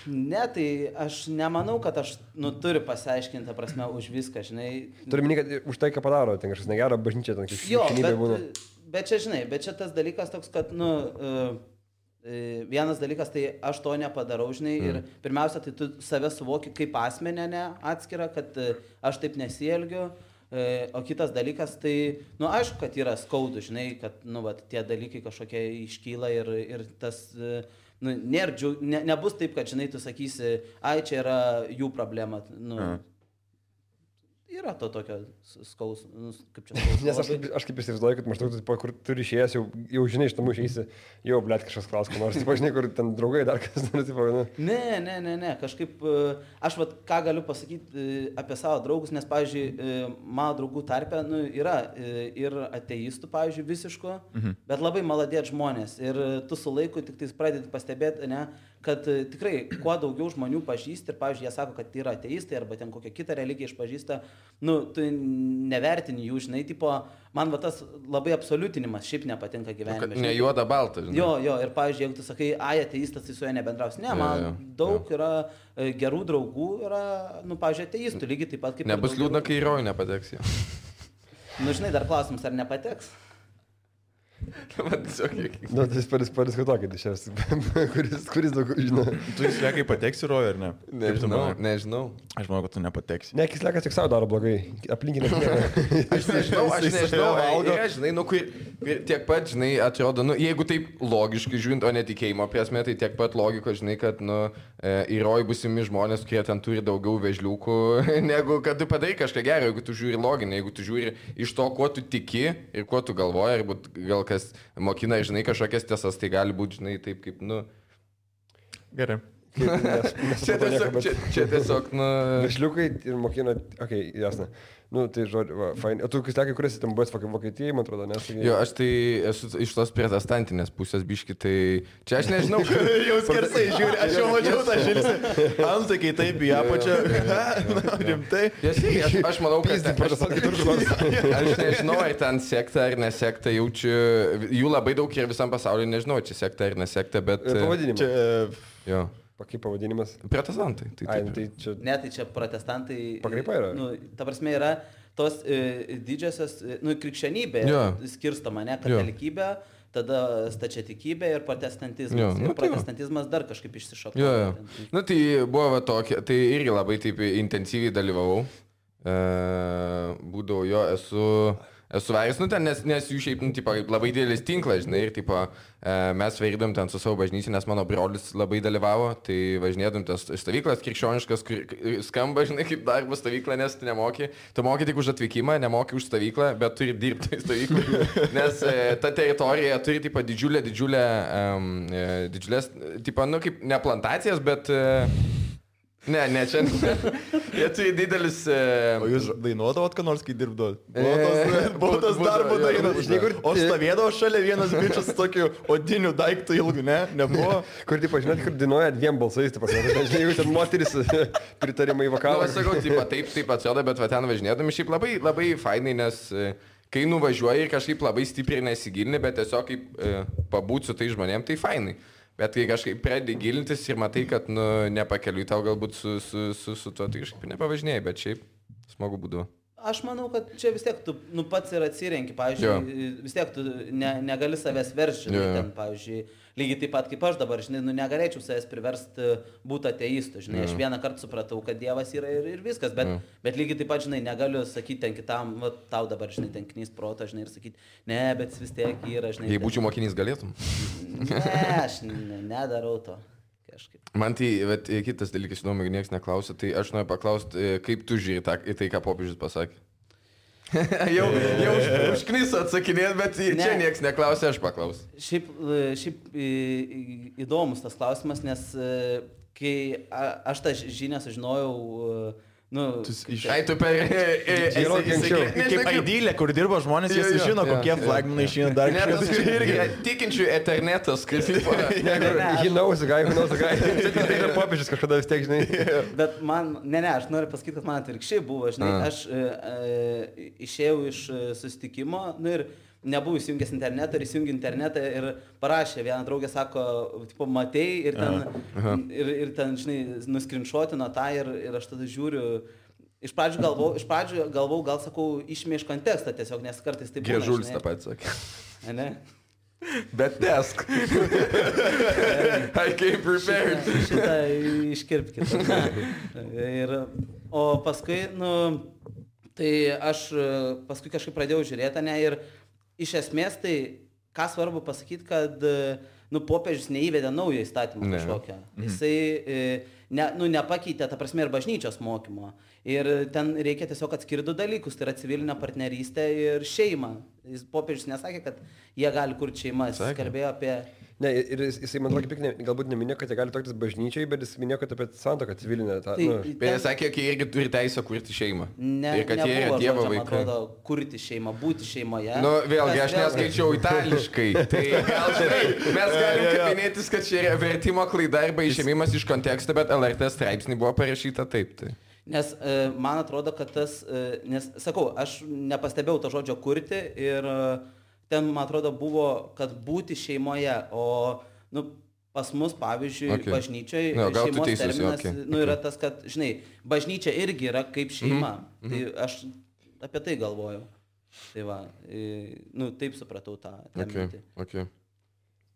Ne, tai aš nemanau, kad aš, nu, turiu pasiaiškinti, prasme, už viską, žinai. Turiu minėti, kad už tai, ką padaro, ten kažkas negero, bažnyčia, ten kažkaip būna. Bet čia, žinai, bet čia tas dalykas toks, kad, nu... Vienas dalykas, tai aš to nepadarau, žinai, ir pirmiausia, tai tu save suvoki kaip asmenę, ne, atskirą, kad aš taip nesielgiu, o kitas dalykas, tai, nu, aišku, kad yra skaudu, žinai, kad, nu, va, tie dalykai kažkokie iškyla ir tas, nu, nebus taip, kad, žinai, tu sakysi, ai, čia yra jų problema, nu, yra to tokio skausmo, kaip čia skausmo. Nes aš kaip įsivaizduoju, kad maždaug tu, kur turi išėjęs, jau žinai, iš namų išeisi, jau, blėt, kažkas klaus, ko nors, žinai, kur ten draugai dar kas nors, nu. Ne, kažkaip, aš vat ką galiu pasakyti apie savo draugus, nes, pavyzdžiui, mano draugų tarpe, nu, yra ir ateistų, pavyzdžiui, visiško, bet labai maladėt žmonės ir tu su laiku tik tais pradedi pastebėti, ne, kad tikrai kuo daugiau žmonių pažįsti ir, pavyzdžiui, jie sako, kad tai yra ateistai arba ten kokią kitą religiją išpažįsta, nu, tu nevertini jų, žinai, tipo, man va tas labai absoliutinimas šiaip nepatinka gyvenime. Ne juoda balta, žinai. Jo, ir, pavyzdžiui, jeigu tu sakai, ai, ateistas, tai su juo nebendraus. Ne, man daug yra gerų draugų, yra, nu, pavyzdžiui, ateistų, lygiai taip pat kaip... Nebus liūdna, kai į rojų nepateks jau. Nu, žinai, dar klausimas, ar nepateks? Nu, tai jis padiskutuokit iš šias, kuris daug žino. Tu į Sleką pateksi, Roja, ar ne? Nežinau. Aš manau, kad tu nepateksi. Ne, Slekas tik savo daro blogai. Aplinkinė. Aš nežinau. Žinai, nu, tiek pat, žinai, atrodo, nu, jeigu taip logiškai žiūrint, o netikėjimo prasme, tai tiek pat logiko, žinai, kad, nu, į Rojų busimi žmonės, kurie ten turi daugiau vežliukų, negu kad tu padarai kažką gero, jeigu tu žiūri loginį, jeigu tu žiūri iš to, kuo tu tiki ir kuo tu galvoji, arba gal kas mokina, žinai, kažkokias tiesas, tai gali būti, žinai, taip kaip, nu... Gerai. Čia tiesiog, nu... Vežliukai ir mokina, okei, jasna. Nu, tai žodžiu, fain. O tu, Slekai, kuris ten buvęs Vokietijai, man atrodo, nes... Jo, aš tai esu iš tos protestantinės pusės biški, tai... Čia aš nežinau, jau skersai žiūri, aš jau mačiau tą žilsį. Antakiai taip į apačią. Rimtai. Aš manau, kad... Aš nežinau, ar ten sekta ar nesekta, jaučiu... Jų labai daug ir visam pasaulyje, nežinau, čia sekta ar nesekta, bet... Pavadinimas. Jo. Kaip pavadinimas? Protestantai. Tai čia... Ne, tai čia protestantai... Pakraipa yra? Nu, ta prasme yra tos didžiosios, nu, krikščionybė skirstoma, ne, katalikybė, tada stačiatikybė ir protestantizmas. Ir protestantizmas dar kažkaip išsišoko. Nu, tai buvo va tokia, tai irgi labai taip intensyviai dalyvavau. Būdavau esu varis, nu ten, nes jų šiaip, nu, tipo, labai didelis tinklas, žinai, ir, tipo, mes vairydom ten su savo bažnyčia, nes mano brolis labai dalyvavo, tai važinėdom tas stovyklas krikščioniškas, kur skamba, žinai, kaip darbo stovykla, nes tu nemoki, tu moki tik už atvykimą, nemoki už stovyklą, bet turi dirbti stovyklą, nes ta teritorija turi, tipo, didžiulės, tipo, nu, kaip ne plantacijas, bet... Ne, čia. Jie turi didelis... O jūs dainuodavot, ką nors, kai dirbdavot? Buvo tas darbo dainas. O stovėdavo šalia vienas bičias su tokiu odiniu daiktu ilgu, ne? Nebuvo? Kur, tipo, žinot, kur dainuoja dviem balsais, tipo, žinai, jeigu ten moteris pritarimai vokalą. Nu, aš sakau, taip atsioda, bet va ten važinėdami šiaip labai, labai fainai, nes kai nuvažiuoji ir kažkaip labai stipriai nesigilini, bet tiesiog kaip pabūt su tai žmonėm, tai fainai. Bet kai kažkaip pradedi gilintis ir matai, kad, nu, nepakeliui tau galbūt su tuo, tai kažkaip nepavažinėjai, bet šiaip smagu būdavo. Aš manau, kad čia vis tiek tu, nu, pats ir atsirenki, pavyzdžiui, vis tiek tu negali savęs versti, ten, pavyzdžiui, lygiai taip pat kaip aš dabar, žinai, nu, negalėčiau savęs priversti būti ateistu, žinai, aš vieną kartą supratau, kad Dievas yra ir viskas, bet lygiai taip pat, žinai, negaliu sakyti ten kitam, va, tau dabar, žinai, ten knys protą, žinai, ir sakyti, ne, bet vis tiek yra, žinai. Jei būčiau mokinys, galėtum? Ne, aš nedarau to. Kažkaip. Man tai, bet kitas dalykas, įdomu, jeigu niekas neklausia, tai aš noriu paklausti, kaip tu žiūri į tai, ką popiežius pasakė. jau užkniso atsakinėt, bet čia niekas neklausia, aš paklausiu. Šiaip įdomus tas klausimas, nes kai aš tą žinią sužinojau, nu... Ai, tu per... Kaip Aidylė, kur dirba žmonės, jie sužino, kokie flagmanai išeina dar kažkas. Tikinčių eternetas, kaip... Žinausi, gai. Tai yra popiežius kažkada vis tiek, žinai. Bet man, aš noriu pasakyti, kad man atvirkščiai buvo, žinai, aš išėjau iš susitikimo, nu ir nebuvau įsijungęs internetą ir įsijungi internetą ir parašė, viena draugė sako, tipo, matei ir ten, žinai, nuskrinšotino tą ir aš tada žiūriu, iš pradžių galvau, gal sakau, išmė iš kontekstą tiesiog, nes kartais taip būna. Griežulis tą patį sakė. Ne? Bet tesk. I came prepared. Šitą iškirpkite. O paskui, nu, tai aš paskui kažkaip pradėjau žiūrėti, ne, ir iš esmės tai, ką svarbu pasakyti, kad, nu, popiežius neįvedė naują įstatymą kažkokią. Jisai, nepakeitė, ta prasme, ir bažnyčios mokymo. Ir ten reikia tiesiog atskirti du dalykus, tai yra civilinė partnerystė ir šeima. Popiežius nesakė, kad jie gali kurti šeimas, jis kalbėjo apie... Ne, ir jisai, man atrodo, galbūt neminėjo, kad jie gali tokius bažnyčiai, bet jis minėjo, kad apie santuoką civilinę. Bet jis sakė, kad jie irgi turi teisę kurti šeimą. Ir kad jie yra Dievo vaikai. Man atrodo, kurti šeimą, būti šeimoje. Nu, vėlgi, aš neskaičiau itališkai. Tai gal žinai, mes galim kabinėtis, kad čia yra vertimo klaida arba išėmimas iš konteksto, bet LRT straipsnį buvo parašyta taip. Tai. Nes man atrodo, kad tas, nes, sakau, aš nepastebėjau to žodžio kurti ir ten, man atrodo, buvo, kad būti šeimoje, o, nu, pas mus, pavyzdžiui, bažnyčiai šeimos terminas, nu, yra tas, kad, žinai, bažnyčia irgi yra kaip šeima. Tai aš apie tai galvojau. Tai va, nu, taip supratau tą mintį. Okay.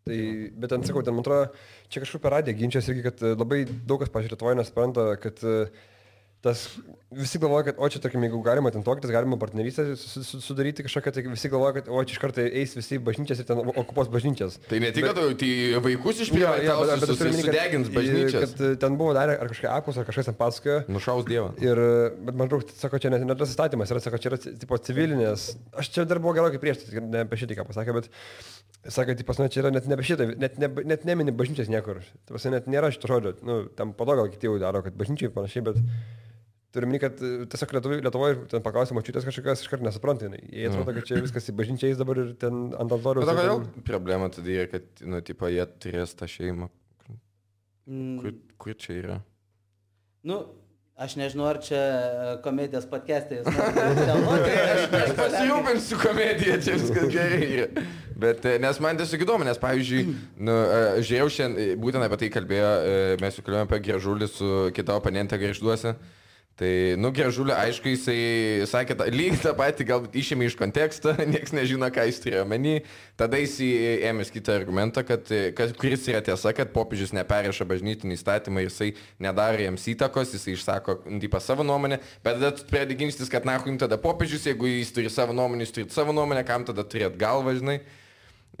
Tai, bet ten sakau, ten man atrodo, čia kažkur per radiją ginčias irgi, kad labai daug kas, pažiūrėjau, Lietuvoje nesupranta, kad tas visi galvoja, kad, o čia, tarkim, jeigu galima ten toktis, galima partnerystę sudaryti kažkokią, tai visi galvoja, kad, o čia iš karto eis visi bažnyčias ir ten okupuos bažnyčias. Tai ne tik, kad tai vaikus išprievartausius, sudegins bažnyčias. Kad ten buvo darę ar kažką apus, ar kažkas ten pasakojo. Nušaus Dievą. Bet man atrodo, sako, čia ne tas įstatymas, yra, sako, čia yra tipo civilinės. Aš čia dar buvau gerokai prieš, ne apie šitą ką pasakė, bet sakė, tai pas mane čia yra net ne apie šitą, net nemini bažnyčias niekur. Tai pas net nėra šito žodžio. Nu, tam po to gal kiti jau daro, kad bažnyčiai panašiai, bet turime, kad tiesiog Lietuvoje ten paklausė mačiutės kažkokios iškart nesupranta. Jie atrodo, kad čia viskas į bažnyčią eis dabar ir ten ant altoriaus. Bet kodėl problema tada yra, kad, nu, tipo, jie turės tą šeimą. Kur čia yra? Nu, aš nežinau, ar čia komedijos podcast'ai. Aš pasirūpinsiu komediją, čia viskas gerai yra. Bet, nes man tiesiog įdomu, nes, pavyzdžiui, nu, žiūrėjau šiandien, būtent apie tai kalbėjo, mes jau kalbėjome apie Gražulį su kita oponente Gargžduose. Tai, nu, Gražulį, aišku, jisai sakė, lygiai tą patį, galbūt išėmė iš konteksto, nieks nežino, ką jis turėjo menį. Tada jis ėmės kitą argumentą, kuris yra tiesa, kad popiežius neperėša bažnytinį įstatymą ir jisai nedaro jiems įtakos, jisai išsako savo nuomonę, bet tada pradedi ginčytis, kad jums tada popiežius, jeigu jis turi savo nuomonę, jūs turite savo nuomonę, kam tada turėt galvą, žinai.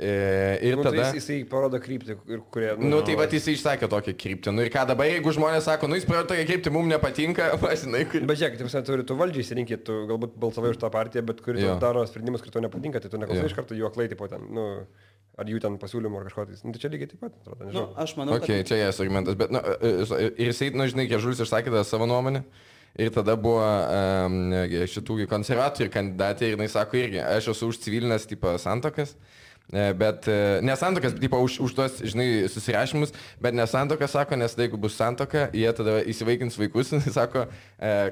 Ir tada jisai parodo kryptį, kurie... Nu, tai va, jisai išsakė tokią kryptį. Nu ir ką dabar, jeigu žmonės sako, nu jis parodo tokią kryptį, mums nepatinka, pasinai, kur... Bet žiūrėk, tu turi valdžiai įsirinkti, tu galbūt balsavai už tą partiją, bet kuri daro sprendimus, kurie tau nepatinka, tai tu neklausai iš karto jų aklai, tipo ten, nu, ar jų ten pasiūlymų ar kažko tai. Nu, tai čia lygiai taip pat, atrodo, nežinau. Nu, aš manau, okay, čia jas argumentas, bet, nu, ir jisai, nu, žinai, Gražulis išsakė tą savo nuomonę. Ir tada buvo šitų konservatorių kandidatė ir jinai sako irgi, aš esu už civilinės tipo santuokas. Bet nesantokas, tipo, už tos, žinai, susirašymus, bet nesantokas sako, nes jeigu bus santoka, jie tada įsivaikins vaikus, jis sako,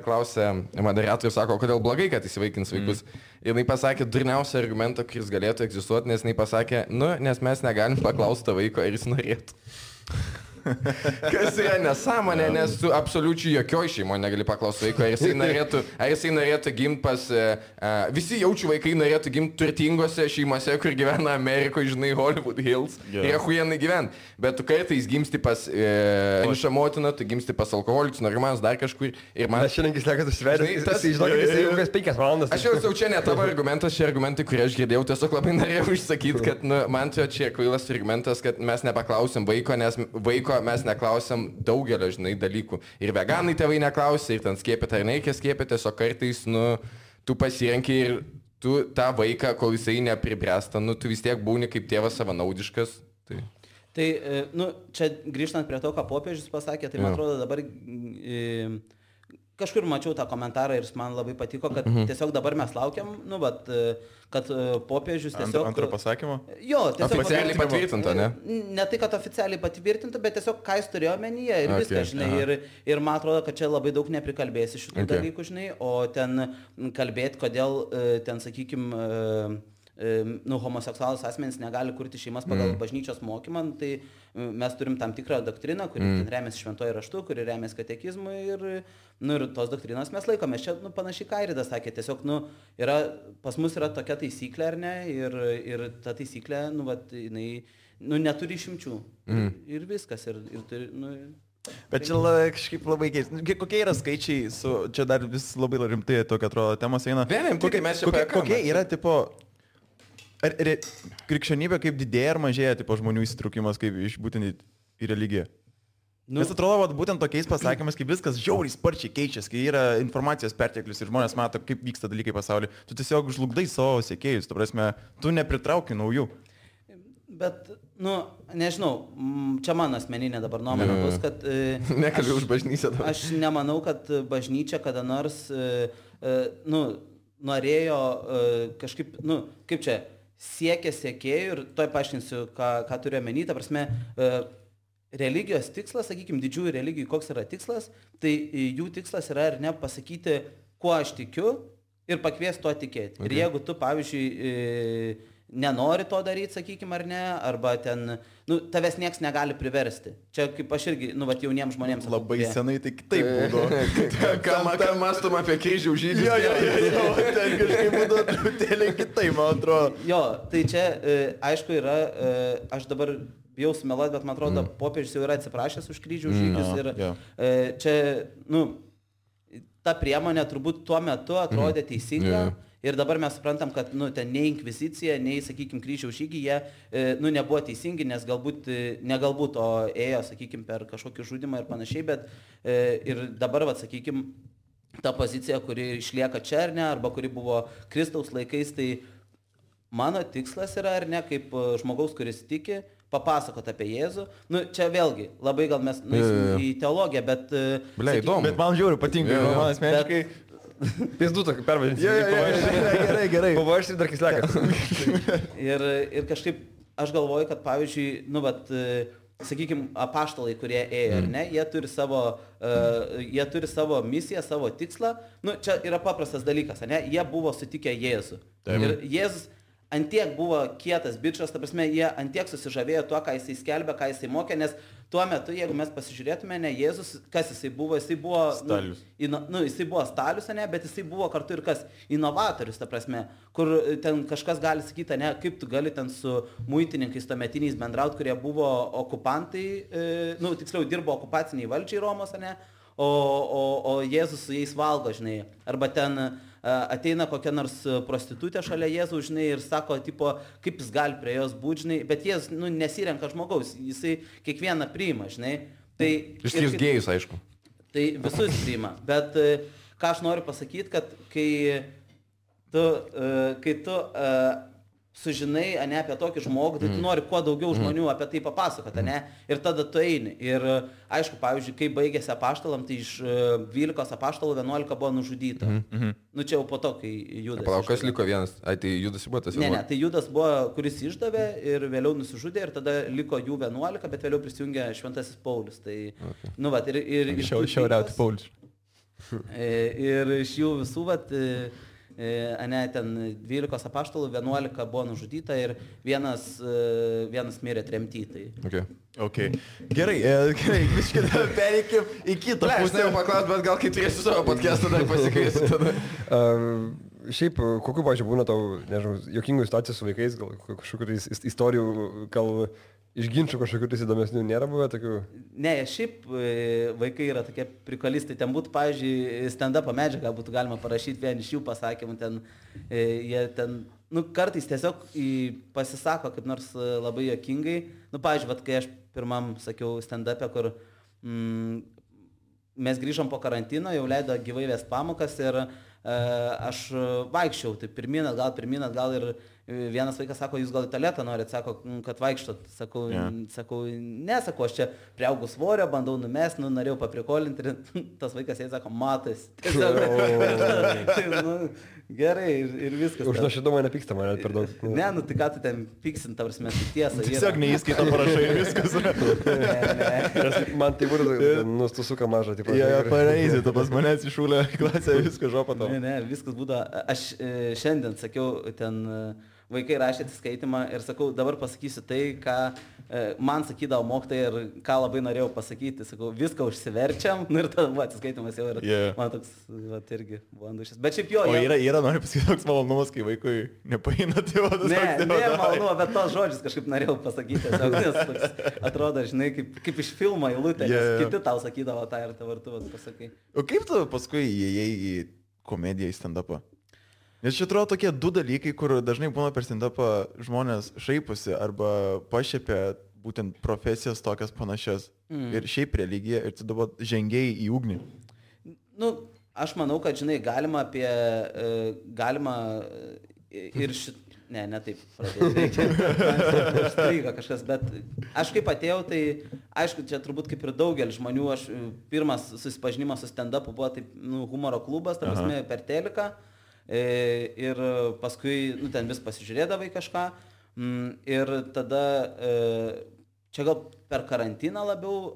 klausė moderatorius, sako, kodėl blogai, kad įsivaikins vaikus. Ir jinai pasakė durniausią argumentą, kuris galėtų egzistuoti, nes jinai pasakė, nu, nes mes negalim paklausti to vaiko, ar jis norėtų. Kas yra nesąmonė, nes tu absoliučiai jokioj šeimoje negali paklausti vaiko, ar jisai norėtų gimti pas... visi jaučių vaikai norėtų gimti turtingose šeimose, kur gyvena Amerikoje, žinai, Hollywood Hills. Ir achujenai gyventi. Bet tu kartais gimsti pas vienišą motiną, tu gimsti pas alkoholikus, narkomanus, dar kažkur. Ir man... Aš šiandien sakė, tu sverdi, žinokit, jisai jau kas 5 valandas. Aš jau čia ne tavo argumentas, šie argumentai, kurie aš girdėjau, tiesiog labai norėjau išsakyti, kad nu, man čia kvailas argumentas, kad mes nepaklausim vaiko, nes vaiko mes neklausiam daugelio, žinai, dalykų. Ir veganai tėvai neklausia, ir ten skiepyti ar nereikia skiepyti, tiesiog kartais, nu, tu pasirenki ir tu tą vaiką, kol jisai nepribręsta, nu, tu vis tiek būni kaip tėvas savanaudiškas. Tai, nu, čia grįžtant prie to, ką popiežius pasakė, tai man atrodo dabar... Kažkur mačiau tą komentarą ir man labai patiko, kad tiesiog dabar mes laukiam, nu, bet, kad popiežius tiesiog... Antro pasakymo? Jo, tiesiog... Oficialiai patvirtinta, ne? Ne tai, kad oficialiai patvirtinta, bet tiesiog ką jis turėjo omenyje ir viską, žinai. Ir man atrodo, kad čia labai daug neprikalbėsi šitų dalykų, žinai, o ten kalbėti, kodėl ten, sakykime... Nu, homoseksualus asmenys negali kurti šeimas pagal bažnyčios mokymą, tai mes turim tam tikrą doktriną, kuri remiasi šventojo raštu, kuri remiasi katekizmu ir tos doktrinos mes laikomės. Čia, nu, panašiai Kairidas sakė, tiesiog, nu, pas mus yra tokia taisyklė, ar ne, ir ta taisyklė, nu, vat, jinai, nu, neturi išimčių. Ir viskas, ir turi, nu... Bet čia kažkaip labai keista. Kokie yra skaičiai, čia dar vis labai rimtai tokia atrodo temos eina. Kokie yra, tipo... Ar krikščionybė kaip didėja ar mažėja, tipo, žmonių įsitraukimas kaip iš būtent į religiją? Nu, nes atrodo, būtent tokiais pasakymais, kaip viskas žiauriai sparčiai keičiasi, kai yra informacijos perteklius ir žmonės mato, kaip vyksta dalykai pasaulyje, tu tiesiog žlugdai savo sekėjus, tu prasme, tu nepritrauki naujų. Bet, nu, nežinau, čia mano asmeninė dabar nuomonė bus, kad... Nekalbėjau už bažnyčią dabar. Aš nemanau, kad bažnyčia kada nors, nu, norėjo kažkaip, nu, kaip čia... siekia sekėjų ir toj paaiškinsiu, ką turiu omeny, ta prasme, religijos tikslas, sakykime, didžiųjų religijų, koks yra tikslas, tai jų tikslas yra ar ne pasakyti, kuo aš tikiu ir pakviesti tuo tikėti. Ir jeigu tu, pavyzdžiui, nenori to daryti, sakykime, ar ne, arba ten, tavęs nieks negali priversti. Čia kaip aš irgi, jauniems žmonėms. Labai senai tai kitaip būdavo. Ką mąstum apie kryžių žydus? Jo, ten kažkaip būdavo truputėlį kitaip, man atrodo. Jo, tai čia, aišku, yra, aš dabar bijau sumeluoti, bet man atrodo, popiežius jau yra atsiprašęs už kryžių žygius ir čia, ta priemonė turbūt tuo metu atrodė teisinga. Ir dabar mes suprantam, kad ten nei inkvizicija, nei, sakykime, kryžiaus žygiai, jie nebuvo teisingi, nes negalbūt, o ėjo, sakykime, per kažkokį žudimą ir panašiai, bet ir dabar, sakykime, ta pozicija, kuri išlieka čia ar ne, arba kuri buvo Kristaus laikais, tai mano tikslas yra, ar ne, kaip žmogaus, kuris tiki, papasakot apie Jėzų. Čia vėlgi, labai gal mes į teologiją, bet... Įdomu. Bet man žiūri, patinka, man asmeniškai... Pizdu tokį pervadinti. Gerai. Pavašti dar kislekas. Ir kažkaip aš galvoju, kad pavyzdžiui, sakykime, apaštalai, kurie ėjo, ar ne, jie turi savo misiją, savo tikslą. Čia yra paprastas dalykas, ar ne, jie buvo sutikę Jėzų. Ir Jėzus antiek buvo kietas bičas, ta prasme, jie antiek susižavėjo tuo, ką jisai skelbė, ką jisai mokė, nes tuo metu, jeigu mes pasižiūrėtume, ne, Jėzus, kas jisai buvo Stalius. Jisai buvo Stalius, ne, bet jisai buvo kartu ir kas inovatorius, ta prasme, kur ten kažkas gali sakyti, ne, kaip tu gali ten su muitininkais tuometiniais bendraut, kurie buvo okupantai, tiksliau dirbo okupaciniai valdžiai Romos, ne, o Jėzus su jais valgo, žinai, arba ten ateina kokia nors prostitutė šalia Jėzaus, žinai, ir sako, tipo, kaip jis gali prie jos būti, žinai, bet Jėzus, nesirenka žmogaus, jisai kiekvieną priima, žinai. Tai, išskyrus gėjus, aišku. Tai visus priima, bet ką aš noriu pasakyti, kad kai tu sužinai, ne, apie tokį žmogų, tai tu nori kuo daugiau žmonių apie tai papasakoti, ne, ir tada tu eini. Ir aišku, pavyzdžiui, kai baigėsi apaštalam, tai iš 12 apaštalų 11 buvo nužudyta. Čia jau po to, kai Judas. Palauk, kas liko vienas? Tai Judas buvo tas? Ne, tai Judas buvo, kuris išdavė ir vėliau nusižudė ir tada liko jų 11, bet vėliau prisijungė Šventasis Paulius. Tai, ir šiauriauti Paulius. Ir iš jų visų, ten 12 apaštalų 11 buvo nužudyta ir vienas mirė tremty. Okay. Gerai, biškai pereikim į kitą pusę. Aš norėjau paklausti, bet gal kai turėsiu savo podcastą dar pasikviesiu tada. Šiaip, kokiu, pavyzdžiui, būna tau, nežinau, jokingų situacijų su vaikais, gal kažkokių istorijų, gal iš ginčių kažkokių įdomesnių nėra buvę tokių? Ne, šiaip vaikai yra tokie prikalistai. Ten būtų, pavyzdžiui, stand-up medžiagą būtų galima parašyti vien iš jų pasakymų. Jie ten, kartais tiesiog pasisako kaip nors labai jokingai. Pavyzdžiui, kai aš pirmam sakiau stand-up'e, kur mes grįžom po karantino, jau leido gyvai vest pamokas ir aš vaikščiau, tai pirmin atgal ir vienas vaikas sako, jūs gal į tualetą norit, sako, kad vaikštot. Sakau, sakau, aš čia priaugau svorio, bandau numest, norėjau paprikolinti ir tas vaikas jai sako, matas. Gerai ir viskas. Už nuoširdumą nepyksta mane per daug. Ne, tai ką tu ten pyksin, ta prasme, tai tiesa. Tiesiog neįskaito parašai ir viskas. Ne. Man tai būtų nustusuka mažą. Pareisi, tu pas manęs išūlė klasę, viską žopą tau. Ne, viskas būtų. Aš šiandien sakiau, ten vaikai rašė atsiskaitimą ir sakau, dabar pasakysiu tai, ką man sakydavo mokytojai ir ką labai norėjau pasakyti. Sakau, viską užsiverčiam, ir tada buvo atsiskaitimas jau ir man toks, irgi buvo andušis. Bet šiaip jo. O yra nori pasakyti toks malonumas, kai vaikui nepaina tėvas. Ne, malonu, bet tos žodžius kažkaip norėjau pasakyti. Tiesiog, nes toks atrodo, žinai, kaip iš filmo eilutė, nes kiti tau sakydavo tą ir dabar tu pasakai. O kaip tu paskui įėjai į komediją, į stand-upą? Nes čia atrodo tokie du dalykai, kur dažnai būna per stand-upą žmonės šaiposi arba pašiepia būtent profesijas tokias panašias. Ir šiaip religija, ir tu dabar žengiai į ugnį. Aš manau, kad, žinai, galima ir ne taip pradėti. Užstryga kažkas, bet aš kaip atėjau, tai aišku, čia turbūt kaip ir daugelis žmonių, aš pirmas susipažinimas su stand-upu buvo taip, humoro klubas, ta prasme, per teliką. Ir paskui ten vis pasižiūrėdavai kažką ir tada čia gal per karantiną labiau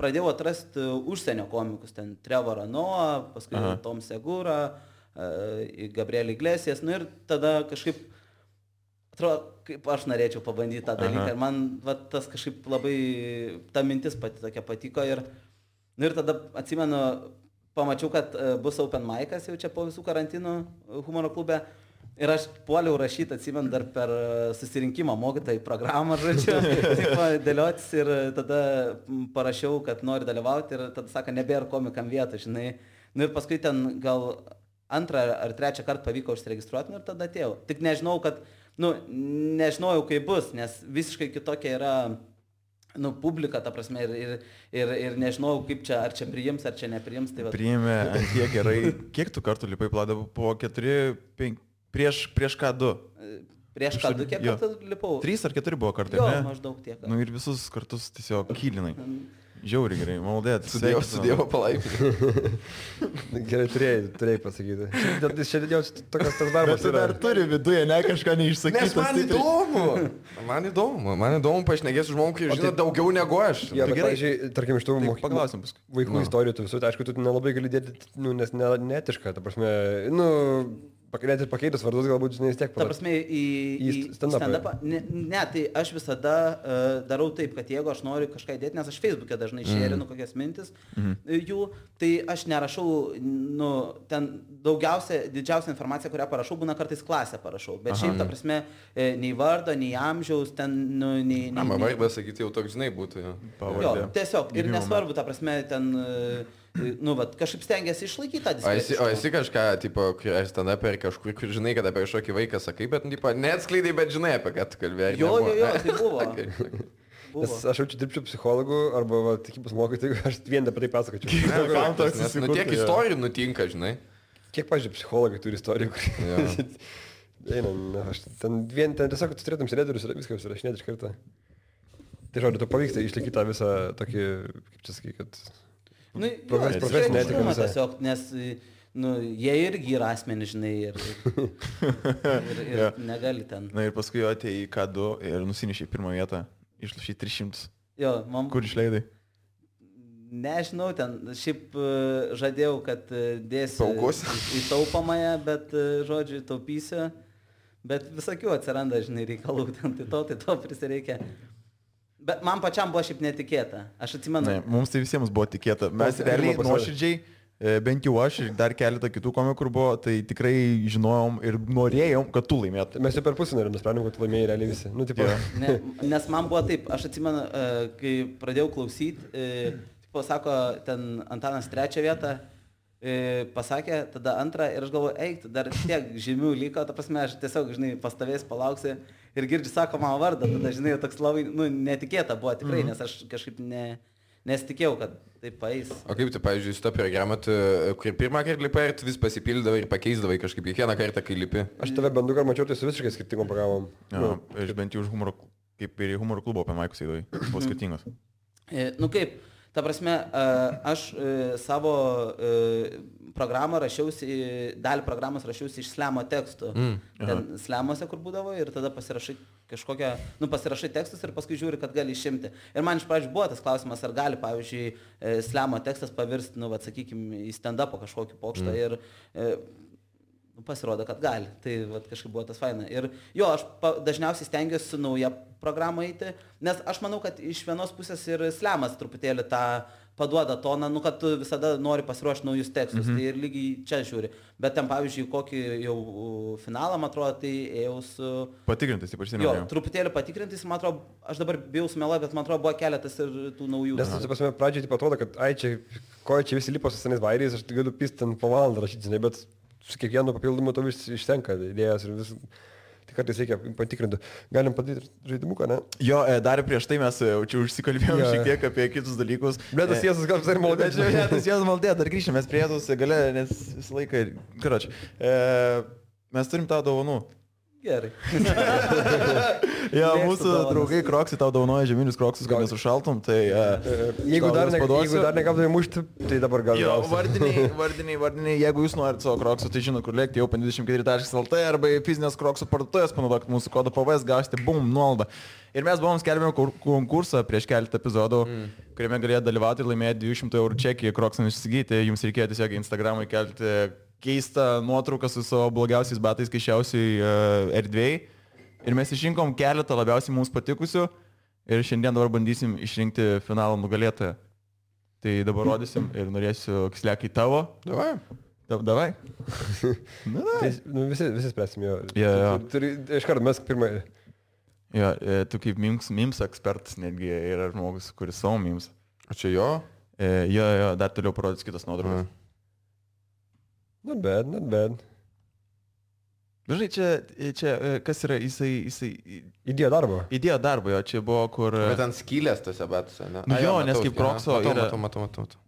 pradėjau atrasti užsienio komikus, ten Trevorą Noah, paskui Tom Segura, Gabriel Iglesias, ir tada kažkaip atrodo, kaip aš norėčiau pabandyti tą dalyką. Ir man tas kažkaip labai, ta mintis tokia patiko. Ir tada atsimenu, pamačiau, kad bus open mic'as jau čia po visų karantinų humoro klube. Ir aš puoliau rašyti, atsimenu, dar per susirinkimą mokytojai programą, žodžiu, dėliotis ir tada parašiau, kad noriu dalyvauti ir tada sako, nebėra komikam vietų, žinai. Ir paskui ten gal 2 ar 3 kartą pavyko užsiregistruoti ir tada atėjau. Tik nežinau, nežinojau, kaip bus, nes visiškai kitokia yra publika, ta prasme, ir nežinau, kaip čia, ar čia priims, ar čia nepriims. Tai priėmė ant tiek gerai. Kiek tu kartų lipai Vladą? Po 4, 5, prieš ką 2? Prieš ką 2, kiek kartų lipau? 3 ar 4 buvo kartai, jo, ne? Maždaug tiek. Ir visus kartus tiesiog kylinai. Žiauri gerai, maldėt. Su Dievo palaiminimu. Gerai, turėjai pasakyti. Šiandien jau toks darbas. Bet tu dar turi viduje, ne kažką neišsakyti. Nes man įdomu pašnekėti su žmogumi, kai žino daugiau negu aš. Ja, bet, pavyzdžiui, tarkim, iš tų paklausim paskui. Vaikų istorijų, tu visų, aišku, tu nelabai gali dėti, nes netiška, ta prasme, net ir pakeitus vardus galbūt, žinai, vis tiek ta prasme, į stand-upą. Ne, tai aš visada darau taip, kad jeigu aš noriu kažką įdėti, nes aš Facebook'e dažnai šerinu kokias mintis jų, tai aš nerašau, ten didžiausia informacija, kurią parašau, būna kartais klasę parašau. Bet šiaip, ta prasme, nei vardo, nei amžiaus, ten, nei... Man vardą sakyti jau toks, žinai, būtų. Jo, tiesiog. Ir nesvarbu, ta prasme, ten... kažkaip stengiasi išlaikyti tą diskusiją. O esi kažką, tipo, stand-up ar kažkur, kur žinai, kad apie kažkokį vaiką sakai, bet, tipo, neatskleidai, bet žinai, apie ką tu kalbėjai. Jo, tai buvo. Nes aš jaučiu dirbčiau psichologų arba tikybos mokytojų, aš vien apie tai pasakočiau. Nes tiek istorijų nutinka, žinai. Kiek, pažiūrėjau, psichologai turi istorijų, kur... Ten tiesiog tu turėtum sėdėti ir viską užsirašinėti iš karto. Tai žodžiu, tu pavyksta išlaikyti tą visą tokį, kaip čia sakai, kad... profesinė etika visą. Tiesiog, nes jie irgi yra asmenys, žinai, ir negali ten. Na ir paskui atėjai į K2 ir nusinešai pirmą vietą, išlašai 300. Jo, Kur išleidai? Nežinau, ten šiaip žadėjau, kad dėsiu į taupamąją, bet, žodžiu, taupysiu, bet visokių atsiranda, žinai, reikalų, tai to prisireikia. Bet man pačiam buvo šiaip netikėta. Aš atsimenu. Ne, mums tai visiems buvo tikėta. Mes realiai nuoširdžiai, bent jau aš ir dar keletą kitų komikų buvo, tai tikrai žinojom ir norėjom, kad tu laimėtum. Mes jau per pusę nusprendėm, kad tu laimėjai realiai visi. Nes man buvo taip, aš atsimenu, kai pradėjau klausyti, sako, ten Antanas 3 vietą, pasakė, tada 2 ir aš galvoju, eik, dar tiek žymių liko, ta prasme, aš tiesiog, žinai, pastovės, palauksiu ir girdžiu, sako mano vardą, tada, žinai, toks labai, netikėta buvo tikrai, nes aš kažkaip nesitikėjau, kad taip paeis. O kaip tu, pavyzdžiui, su to programą, kur pirmą kartą lipai ir tu vis pasipildavai ir pakeisdavai kažkaip kiekvieną kartą, kai lipi? Aš tave bandu, kad mačiau, tai su visiškai skirtingom programom. Aš bent jau už humoro, kaip ir į humoro klubo apie Maikus eidavai, buvo skirtingos. Kaip? Ta prasme, aš savo programą rašiausi, dalį programos rašiausi iš slemo tekstų. Ten slemuose, kur būdavo, ir tada pasirašai kažkokią, pasirašai tekstus ir paskui žiūri, kad gali išimti. Ir man iš pradžių buvo tas klausimas, ar gali, pavyzdžiui, slemo tekstas pavirsti, sakykime, į stand-upą kažkokį pokštą. Ir pasirodo, kad gali. Tai kažkaip buvo tas faina. Ir jo, aš dažniausiai stengiuosi su nauja programa eiti, nes aš manau, kad iš vienos pusės ir slemas truputėlį tą paduoda toną, kad tu visada nori pasiruošti naujus tekstus. Tai ir lygiai čia žiūri. Bet ten, pavyzdžiui, kokį jau finalą, man atrodo, tai ėjau su... Patikrintais, ypač seniau. Jo, truputėlį patikrintais, man atrodo, aš dabar bijau sumeluoti, bet man atrodo, buvo keletas ir tų naujų. Nes, pasime, pradžioje taip atrodo, kad čia visi lipo su senais vairiais, aš galiu pisti ten po valandą rašyti, žinai, bet su kiekvienu papildomu to vis išsenka idėjas ir vis... Tai kartais reikia patikrinti. Galim padaryti žaidimuką, ne? Jo, dar prieš tai mes čia užsikalbėjom šiek tiek apie kitus dalykus. Bet tas Jėzus gal visai maldė. Tas Jėzus maldė, dar grįžtame, mes prie tos gale, nes visą laiką... Karoč, mes turim tau dovanų. Gerai. Jo, mūsų draugai Kroksai tau dovanoja žieminius Kroksus, kad nesušaltum, tai... Jeigu dar negavdavai mušti, tai dabar gal... Jo, vardiniai, jeigu jūs norit savo Kroksų, tai žinot, kur lėkti jau 24.lt arba fizinės Kroksų parduotuvės, panaudokit mūsų kodą PVS, gausite nuolaidą. Ir mes buvom skelbėme konkursą prieš keletą epizodų, kuriame galėjo dalyvauti ir laimėti 200 eurų čekį Kroksams įsigyti. Jums reikėjo tiesiog Instagram'ui kelti keistą nuotrauką su savo blogiausiais batais kaišiausiai erdvėjai. Ir mes išrinkom keletą labiausiai mums patikusių ir šiandien dabar bandysim išrinkti finalo nugalėtoją. Tai dabar rodysim ir norėsiu Kislekai tavo. Davai. Tai, visi spręsim jo. Jo. Iškart mes pirmą. Jo, tu kaip memes ekspertas netgi yra žmogus, kuris savo memes. O čia jo? Jo, dar toliau parodys kitas nuotraukas. Not bad. Dažnai čia kas yra, jisai... Įdėjo darbo, jo, čia buvo kur... Bet ant skylės tose batuose, ne? Nu jo, nes kaip Krokso yra... Matau.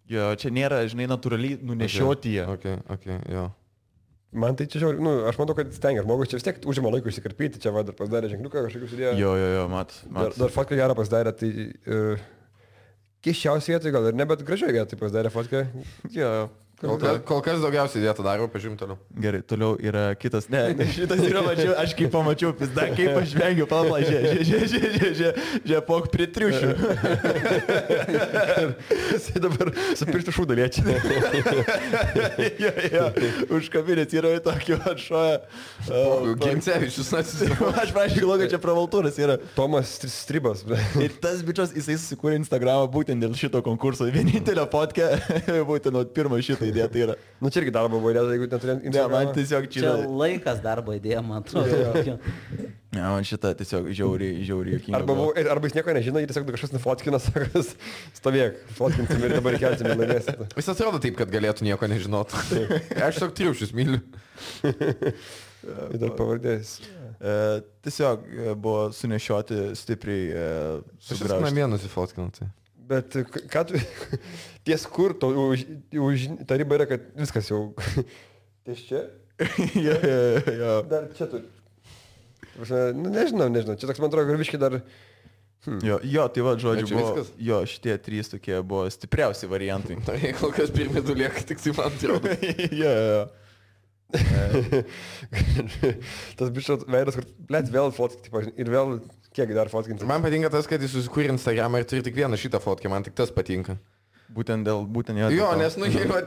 Jo, čia nėra, žinai, natūraliai nunešioti jie. Okay, jo. Man tai čia žiauri, aš matau, kad stengia žmogus, čia vis tiek užima laikų išsikarpyti, čia dar pasidarė ženkliuką kažkokius įdėjo. Jo, mat. Dar fotką gerą pasidarė, tai keiščiausiai vietoj gal ir ne, bet gražiai vietoj pasidarė fotką. Jo. Kol kas daugiausiai dėta daro, pažiūrim toliau. Gerai, toliau yra kitas. Ne, šitas yra mačiau, aš kaip pamačiau, pizda, kaip aš vengiu, pala, žia, pok prie triušių. Jisai dabar su pirštų šūdą liečia. Jo, užkabinės yra tokio atšoja. Gimcevičius atsisako. Aš prašau, kad čia pravaltūras yra. Tomas Stribas. Ir tas bičias, jisai susikūrė Instagramą būtent dėl šito konkurso. Vienintelio fotkę, būtent nuo pirmo šito idėja tai yra. Nu čia irgi darbo buvo idėja, jeigu neturėjom Instagramą. Ne, man tiesiog čia laikas darbo idėja, man atrodo. Ne, man šitą tiesiog žiauriai jokinga. Arba jis nieko nežino, jis tiesiog kažkas nufotkina, sakas, stovėk, fotkinsim ir dabar kelsim ir laimėsim. Jis atrodo taip, kad galėtų nieko nežinot. Aš tiesiog triušius myliu. Ir dar pavardės. Tiesiog buvo sunešioti stipriai sugraužti. Aš namie nusifotkinau tai. Bet ką tu, ties kur, ta riba yra, kad viskas jau, ties čia? Jo. Dar čia turi. Nežinau, čia toks man atrodo, kad viškai dar... Jo, tai va, žodžiu, buvo, viskas? jo, šitie trys tokie buvo stipriausi variantai. Tai kol kas pirmie du lieka, tik tai man atrodo. Jo. Tas bišas veidas, kur, blėt, vėl fotkinti, ir vėl... Kiek dar fotkinti? Man patinka tas, kad jis susikūrė Instagramą ir turi tik vieną šitą fotkę, man tik tas patinka. Būtent jo. Jo, nes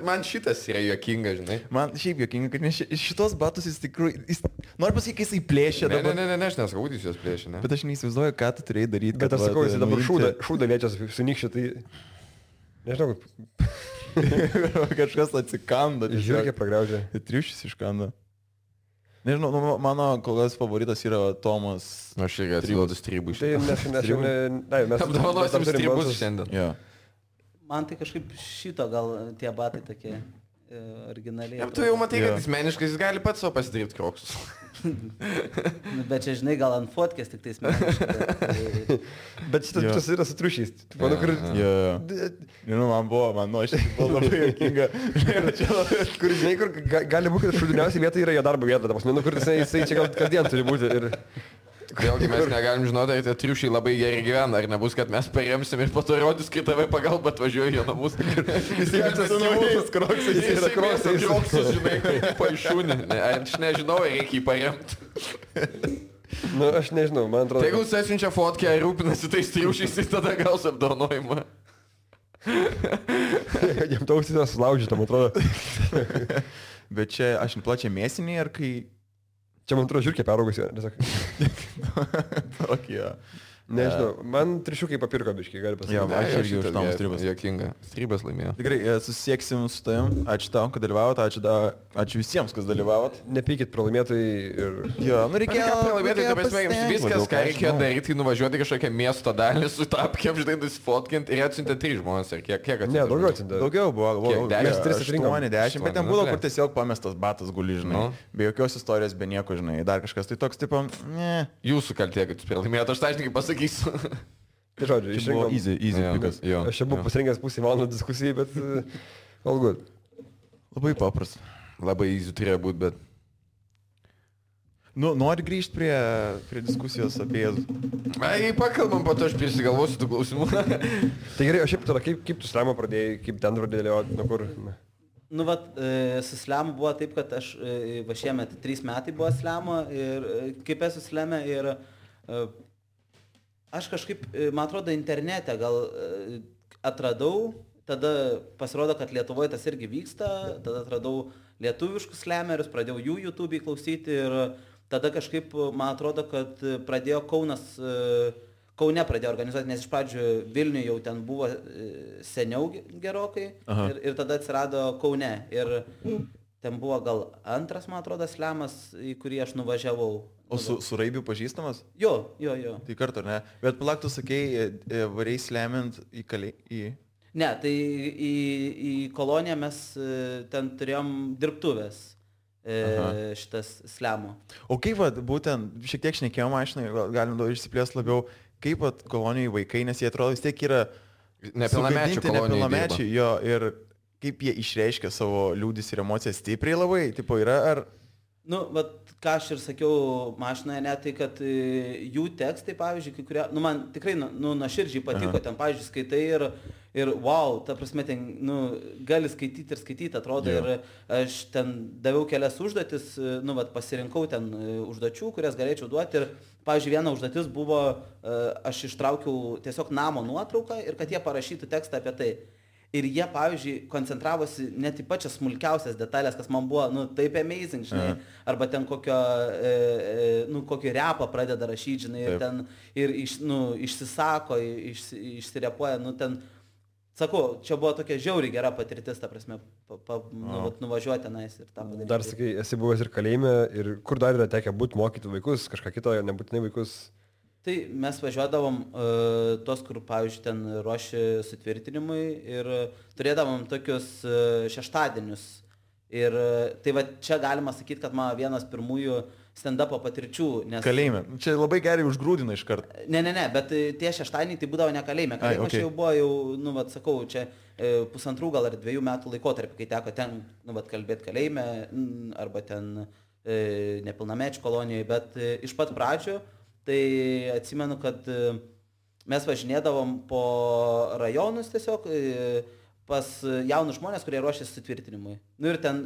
man šitas yra juokinga, žinai. Man šiaip juokinga, kad šitos batus jis tikrųjų... Noriu pasakyti, kai jisai plėšė dabar. Ne, aš nesakau, kad jis juos plėšė, ne. Bet aš neįsivaizduoju, ką tu turėjai daryti. Bet aš sakau, jisai dabar šūdą liečia sunikščią, tai... Nežinau, kažkas atsikando. Žiūrėk, pragraužė. Triušis iškando. Nežinau, mano kol kas favoritas yra Tomas. Aš irgi atsiduodu stribų iš šiandien. Mes apdovanosim stribus šiandien. Jo. Man tai kažkaip šito gal tie batai tokie originaliai. Tu jau matai, kad jis meniškai, jis gali pats savo pasidaryti Kroksus. Bet čia, žinai, gal ant fotkės tik tais meniškai. Bet šitas yra su triušiais. Manau, kur... Man buvo labai juokinga. Kur, žinai, kur gali būti, kad šūdiniausiai vieta yra jo darbo vieta. Manau, kur jisai čia gal kasdien turi būti. Ir... Vėlgi mes negalim žinoti, ar tie triušiai labai gerai gyvena, ar nebus, kad mes paremsim ir po to rodys, kai tave pagalba atvažiuoja jo namus. Jis yra namus, Kroksas, jis yra Kroksus, žinai, paaišūnė. Aš nežinau, reikia jį paremti. Nu, aš nežinau, man atrodo. Tai jeigu jis atsiunčia fotkę ir rūpinasi tais triušiais, tai tada gaus apdovanojimą. Jam tausis yra sulaužyta, man atrodo. Bet čia aš plačiai mėsinį, ar kai... Čia man atrodo žiūrkė peraugusi. Tokie. Nežinau, man trišiukai papirko biškai, gali pasakyti. Jo, aš irgi už Tomas Stribas. Jokinga. Stribas laimėjo. Tikrai, susieksim su tavim. Ačiū tau, kad dalyvavot. Ačiū visiems, kas dalyvavot. Nepykit pralaimėtojai ir... Jo, reikėjo pralaimėtojai, tai pasmėgiams viskas, ką reikėjo daryti, nuvažiuoti kažkokią miesto dalį, su tapkiam, žinai, nusifotkinti ir atsiuntė 3 žmonės. Ir kiek atsiuntė? Ne, daugiau atsiuntė. Daugiau buvo. Mes 8-10, bet ten buvo, kur tiesiog pamestas batas guli, žinai. Be jokios istorijos, be nieko, žinai. Dar kažkas tai toks, tipo, ne. Jūsų kaltė, kad jūs pralaimėjote, aš sąžininkai pasakysiu. Tai žodžiu, išrinkom. Easy pikas. Aš čia buvau pasirinkęs pusę valandą diskusijai, bet all good. Labai paprasta. Labai easy turėjo būti, bet... Nu, nori grįžti prie diskusijos apie Jėzų. Ai, pakalbam, po to aš prisigalvosiu tų klausimų. Tai gerai, o šiaip tada, kaip tu slemą pradėjai, kaip ten pradėjai dėlioti, nuo kur? Nu, vat, su slemu buvo taip, kad aš va šiemet 3 metai buvo slemo ir kaip esu sleme ir aš kažkaip, man atrodo, internete gal atradau, tada pasirodo, kad Lietuvoje tas irgi vyksta, tada atradau lietuviškus slemerius, pradėjau jų YouTube'į klausyti ir tada kažkaip, man atrodo, kad pradėjo Kaune pradėjo organizuoti, nes iš pradžių Vilniuje jau ten buvo seniau gerokai ir tada atsirado Kaune. Ir ten buvo gal antras, man atrodo, slemas, į kurį aš nuvažiavau. O su Raibiu pažįstamas? Jo. Tai kartu, ne? Bet palauk, tu sakei, variai slemint į... Ne, tai į koloniją mes ten turėjom dirbtuvės. Šitas slemo. O kaip būtent, šiek tiek šnekėjom, galim išsiplės labiau, kaip kolonijai vaikai, nes jie atrodo vis tiek yra nepilnamečiai, jo, ir kaip jie išreiškia savo liūdis ir emocijas stipriai labai, tipo yra ar... Nu, ką aš ir sakiau mašinoje, ne, tai kad jų tekstai, pavyzdžiui, kai kurie, man tikrai, nuoširdžiai patiko, ten, pavyzdžiui, skaitai ir wow, ta prasme, ten, gali skaityti, atrodo, ir aš ten daviau kelias užduotis, pasirinkau ten užduočių, kurias galėčiau duoti ir, pavyzdžiui, viena užduotis buvo, aš ištraukiau tiesiog namo nuotrauką ir kad jie parašytų tekstą apie tai. Ir jie, pavyzdžiui, koncentravosi net į pačias smulkiausias detalės, kas man buvo, taip amazing, žinai, arba ten kokį repą pradeda rašyti, žinai, ir ten, išsisako, išsirepuoja, ten, sakau, čia buvo tokia žiauriai gera patirtis, ta prasme, nuvažiuoti tenais ir tą padaryti. Dar sakai, esi buvęs ir kalėjime, ir kur dar yra tekę būti mokyti vaikus, kažką kito, nebūtinai vaikus? Tai mes važiuodavom tos, kur, pavyzdžiui, ten ruoši sutvirtinimui ir turėdavom tokius šeštadienius. Ir tai čia galima sakyti, kad mano vienas pirmųjų stand-upo patirčių. Nes... Kalėjime. Čia labai gerai užgrūdina iš karto. Ne, bet tie šeštadieniai tai būdavo ne kalėjime. Kalėjime okay. Čia jau buvo, sakau, čia 1,5 gal ar 2 metų laikotarpį, kai teko ten, kalbėti kalėjime arba ten nepilnamečių kolonijoje, bet iš pat pradžių tai atsimenu, kad mes važinėdavom po rajonus tiesiog pas jaunus žmonės, kurie ruošėsi sutvirtinimui. Ir ten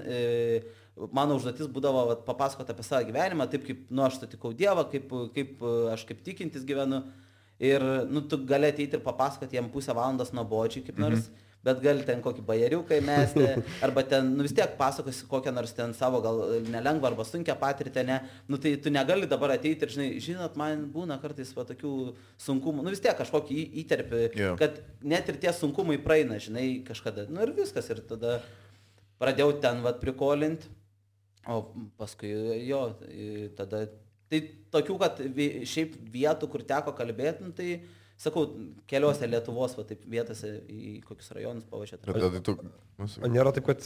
mano užduotis būdavo papasakoti apie savo gyvenimą, taip kaip aš sutikau Dievą, kaip aš kaip tikintis gyvenu. Ir tu gali ateiti ir papasakoti jam pusę valandos nuobodžiai kaip nors, bet gali ten kokį bajeriuką įmesti, arba ten, vis tiek pasakosi kokią nors ten savo gal nelengvą arba sunkią patirtį, ne, tai tu negali dabar ateiti ir, žinot, man būna kartais tokių sunkumų, vis tiek kažkokį įterpį, kad net ir tie sunkumai praeina, žinai, kažkada, ir viskas, ir tada pradėjau ten, prikolinti, o paskui tada, tai tokių, kad šiaip vietų, kur teko kalbėti, tai sakau, keliose Lietuvos taip vietose į kokius rajonus pavažiuoti. O nėra taip, kad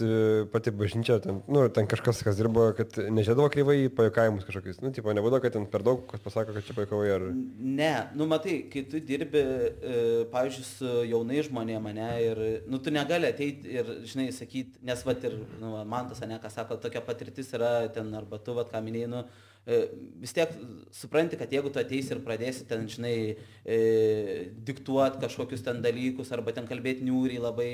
pati bažnyčia, ten kažkas, kas dirbo, kad nežiūrėdavo kreivai į pajuokavimus kažkokius? Nebūdavo, kad ten per daug, kas pasako, kad čia pajuokavai ar... Ne, matai, kai tu dirbi, pavyzdžiui, su jaunai žmonėm, ne, ir, tu negali ateiti ir, žinai, sakyti, nes, ir, man tas, ne, ką sako, tokia patirtis yra ten, arba tu, ką minėjai, vis tiek supranti, kad jeigu tu ateisi ir pradėsi ten, žinai, diktuoti kažkokius ten dalykus arba ten kalbėti niūriai labai,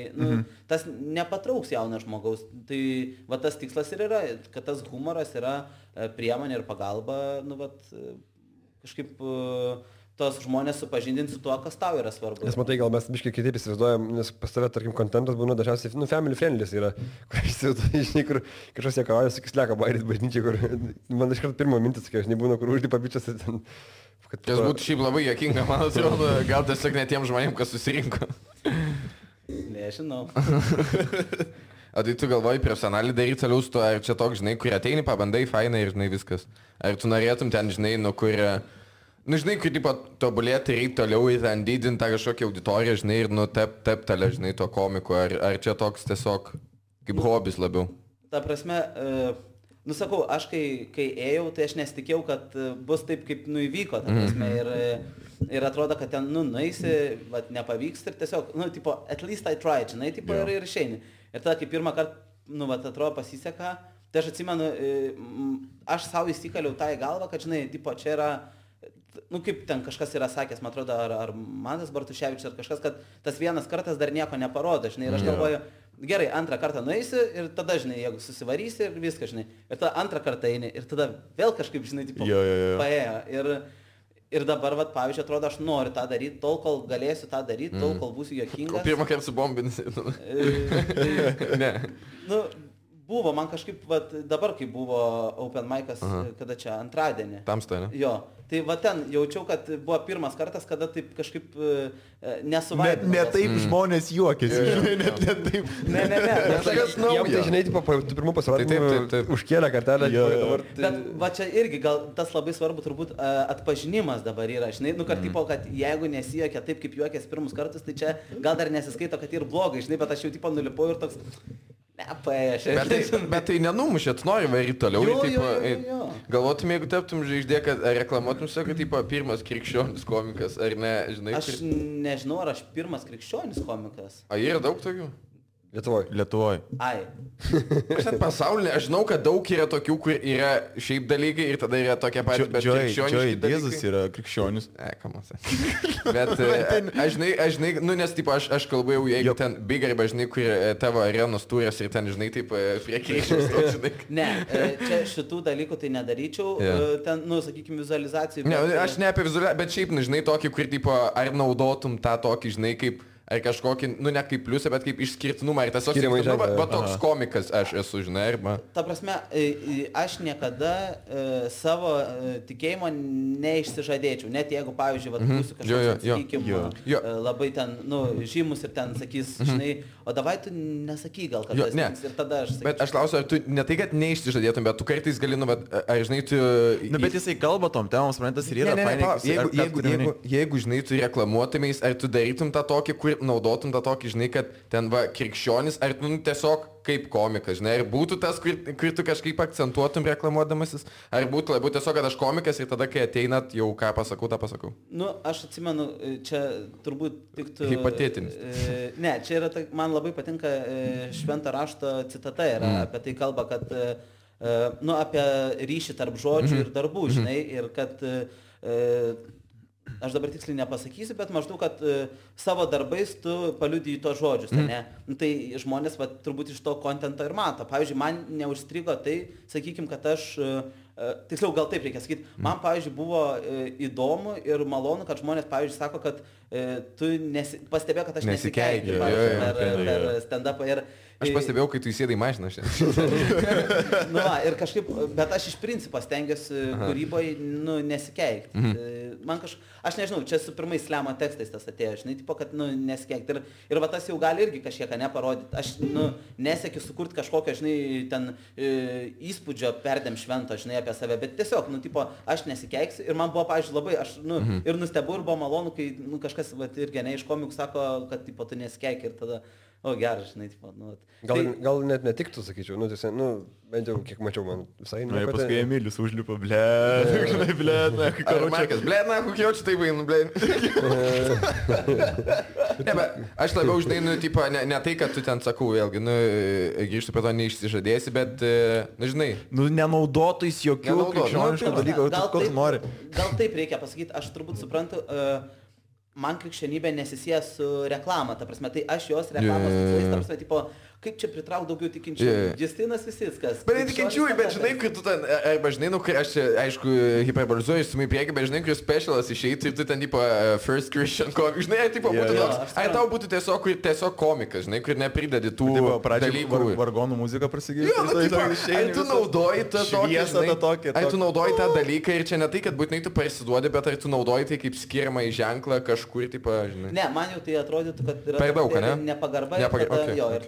tas nepatrauks jauno žmogaus. Tai tas tikslas ir yra, kad tas humoras yra priemonė ir pagalba, kažkaip tos žmonės supažindinti su tuo, kas tau yra svarbu. Nes matai, gal mes biškai kitaip įsivaizduojam, nes pas tave, tarkim, kontentas būna dažniausiai, family friendly yra, kur kažkas jėkauja, sakys, leka bairit bažnyčiai, kur man iš karto pirmo mintis, kai aš nebūna, kur užlipa bičias ir ten... Tas būtų šiaip labai juokinga, man atrodo, gal tiesiog ne tiem žmonėm, kas susirinko. Nežinau. O tai tu galvoji profesionaliai daryti toliau su to, ar čia toks, žinai, kur ateini, pabandai, fainai ir, žinai, viskas. Ar tu norėtum ten, žinai, kur... žinai, kai tipo tobulėti reikia toliau ir ten didinti tą kažkokią auditoriją, žinai, ir teptelę, žinai, to komiko, ar čia toks tiesiog kaip hobis labiau? Ta prasme, sakau, aš kai ėjau, tai aš nesitikėjau, kad bus taip, kaip įvyko, ta prasme, ir atrodo, kad ten, nueisi, nepavyks ir tiesiog, tipo, at least I tried, žinai, tipo, ir išeini. Ir tada, kai pirmą kartą, atrodo, pasiseka, tai aš atsimenu, aš savo įsikaliau tą į galvą, kad, žinai, tipo, čia yra, kaip ten kažkas yra sakęs, man atrodo, ar Mantas Bartuševičius, ar kažkas, kad tas vienas kartas dar nieko neparodo, žinai, ir aš galvoju, gerai, antrą kartą nueisi ir tada, žinai, jeigu susivarysi ir viską, žinai, ir tada antrą kartą eini ir tada vėl kažkaip, žinai, tipo, paėjo. Ir dabar, pavyzdžiui, atrodo, aš noriu tą daryti, tol, kol galėsiu tą daryti, tol, kol būsiu juokingas. O pirmą kartą su bombinasi. Ne. Buvo, man kažkaip, dabar kai buvo Open Mic'as, kada čia antradienį. Tamsta, ne? Jo, tai ten jaučiau, kad buvo pirmas kartas, kada taip kažkaip nesuvaidinau. Ne taip žmonės juokėsi, žinai, net taip. Ne. Jam tai, žinai, tu pirmų pasirodymų užkėlė kartelę. Bet va čia irgi gal tas labai svarbu turbūt atpažinimas dabar yra, žinai, kad tipo, kad jeigu nesijuokia taip, kaip juokės pirmus kartus, tai čia gal dar nesiskaito, kad ir blogai, žinai, bet aš jau tipo nulipau ir toks... Bet tai nenumušė, tu nori varyti toliau. Galvotum, jeigu taptum žvaigždė, kad reklamuotum savo, kad tipo, pirmas krikščionis komikas, ar ne, žinai? Aš nežinau, ar aš pirmas krikščionis komikas. A, yra daug tokių? Lietuvoj. Ai. Aš net pasaulyje, aš žinau, kad daug yra tokių, kur yra šiaip dalykai ir tada yra tokie patys, bet krikščioniški dalykai. Jėzus yra krikščionis. Kamuose. Bet aš žinai, nu nes tipo, aš kalbu jau, jeigu ten big arba, žinai, kur tavo arenos turės ir ten, žinai, taip prie krikščionius, žinai. Ne, čia šitų dalykų tai nedaryčiau, ten, nu, sakykime, vizualizacijų. Ne, aš ne apie vizualizaciją, bet šiaip, nu, žinai, tokį, kur, tipo, ar naudotum tą tokį, žinai, kaip ar kažkokį, nu ne kaip pliusą, bet kaip išskirtinumą. Ir tas va toks komikas aš esu, žinai, arba... Ta prasme, aš niekada savo tikėjimo neišsižadėčiau. Net jeigu, pavyzdžiui, būsiu kažkoks, sakykime, labai ten, nu, žymus ir ten sakys, žinai, o davai tu nesakyk gal, kad tas tiks ir tada aš sakyčiau. Bet aš klausiu, ar tu ne tai, kad neišsižadėtum, bet tu kartais gali, nu, bet, ar žinai, tu... Nu, bet jisai kalba tom temom, suprantas, ir yra fainai. Jeigu, žinai, tu reklamuotumės, ar tu darytum tą tokį, kur naudotum tą tokį, žinai, kad ten va krikščionis, ar tu tiesiog kaip komikas, žinai, ar būtų tas, kur tu kažkaip akcentuotum reklamuodamasis, ar būtų labiau tiesiog, kad aš komikas ir tada, kai ateinat, jau ką pasakau, tą pasakau. Nu, aš atsimenu, čia turbūt tiktų... Hipotetinis. Ne, čia yra, man labai patinka švento rašto citata, yra apie tai kalba, kad, nu, apie ryšį tarp žodžių ir darbų, žinai, ir kad... Aš dabar tiksliai nepasakysiu, bet maždaug, kad savo darbais tu paliudiji tos žodžius, ne? Nu, tai žmonės va, turbūt iš to kontento ir mato. Pavyzdžiui, man neužstrigo tai, sakykime, kad aš, tiksliau gal taip reikia sakyti, man, pavyzdžiui, buvo įdomu ir malonu, kad žmonės, pavyzdžiui, sako, kad tu pastebėjo, kad aš nesikeikiu per stand-upą ir... Aš pastebėjau, kai tu įsėdai mašiną šiandien. Nu, ir kažkaip, bet aš iš principo stengiuosi kūryboje, nu, nesikeikti. Man aš nežinau, čia su pirmais slemo tekstais tas atėjo, žinai, tipo, kad, nu, nesikeikti. Ir va tas jau gali irgi kažkiek neparodyti. Aš, nu, nesiekiu sukurti kažkokią, žinai, ten įspūdžio perdėm švento, žinai, apie save, bet tiesiog, nu, tipo, aš nesikeiksiu. Ir man buvo, pavyzdžiui, labai, aš, nu, ir nustebu, ir buvo malonu, kai, nu, kažkas, va, irgi, ne, iš komikų sako, kad, tipo, tu nesikeiki ir tada... O, geras, žinai, tipo, nu... Gal net netiktų, sakyčiau, nu, tiesiog, nu, bent jau, kiek mačiau, man visai... Na, paskui Emilis užlipo, žinai, na, kai karučiakas, na, kokie jaučiu tai vainu, Ne, bet aš labiau, žinai, nu, tipo, ne tai, kad tu ten sakau, vėlgi, nu, grįžtu prie to neišsižadėsi, bet, nu, žinai... Nu, nenaudotais jokių krikščioniškų dalykų, ko tu nori. Gal taip reikia pasakyti, aš turbūt suprantu... Man krikščionybė nesisieja su reklama, ta prasme, tai aš jos reklamos tikslais, ta prasme, tipo, kaip čia pritrauk daugiau tikinčiųjų. Justinas Visickas. Bet tikinčiųjų, bet žinai, kai tu ten, arba žinai, nu, kai aš čia, aišku, hiperbolizuoju su mui priekį, bet žinai, kai specialas išeitų ir tu ten, tipo, first Christian comic, žinai, tipo, būtų toks, ar tau būtų tiesiog komikas, žinai, kur nepridedi tų dalykų. Vargonų muzika prasigėjo. Jo, nu, tipo, ar tu naudoji tą tokį, ar tu naudoji tą dalyką ir čia ne tai, kad būtinai tu parsiduodi, bet ar tu naudoji tai kaip skiriamą į ženklą kažkur, tipo, žinai. Ne, man jau tai atrodytų, kad yra per daug, ne? Nepagarba ir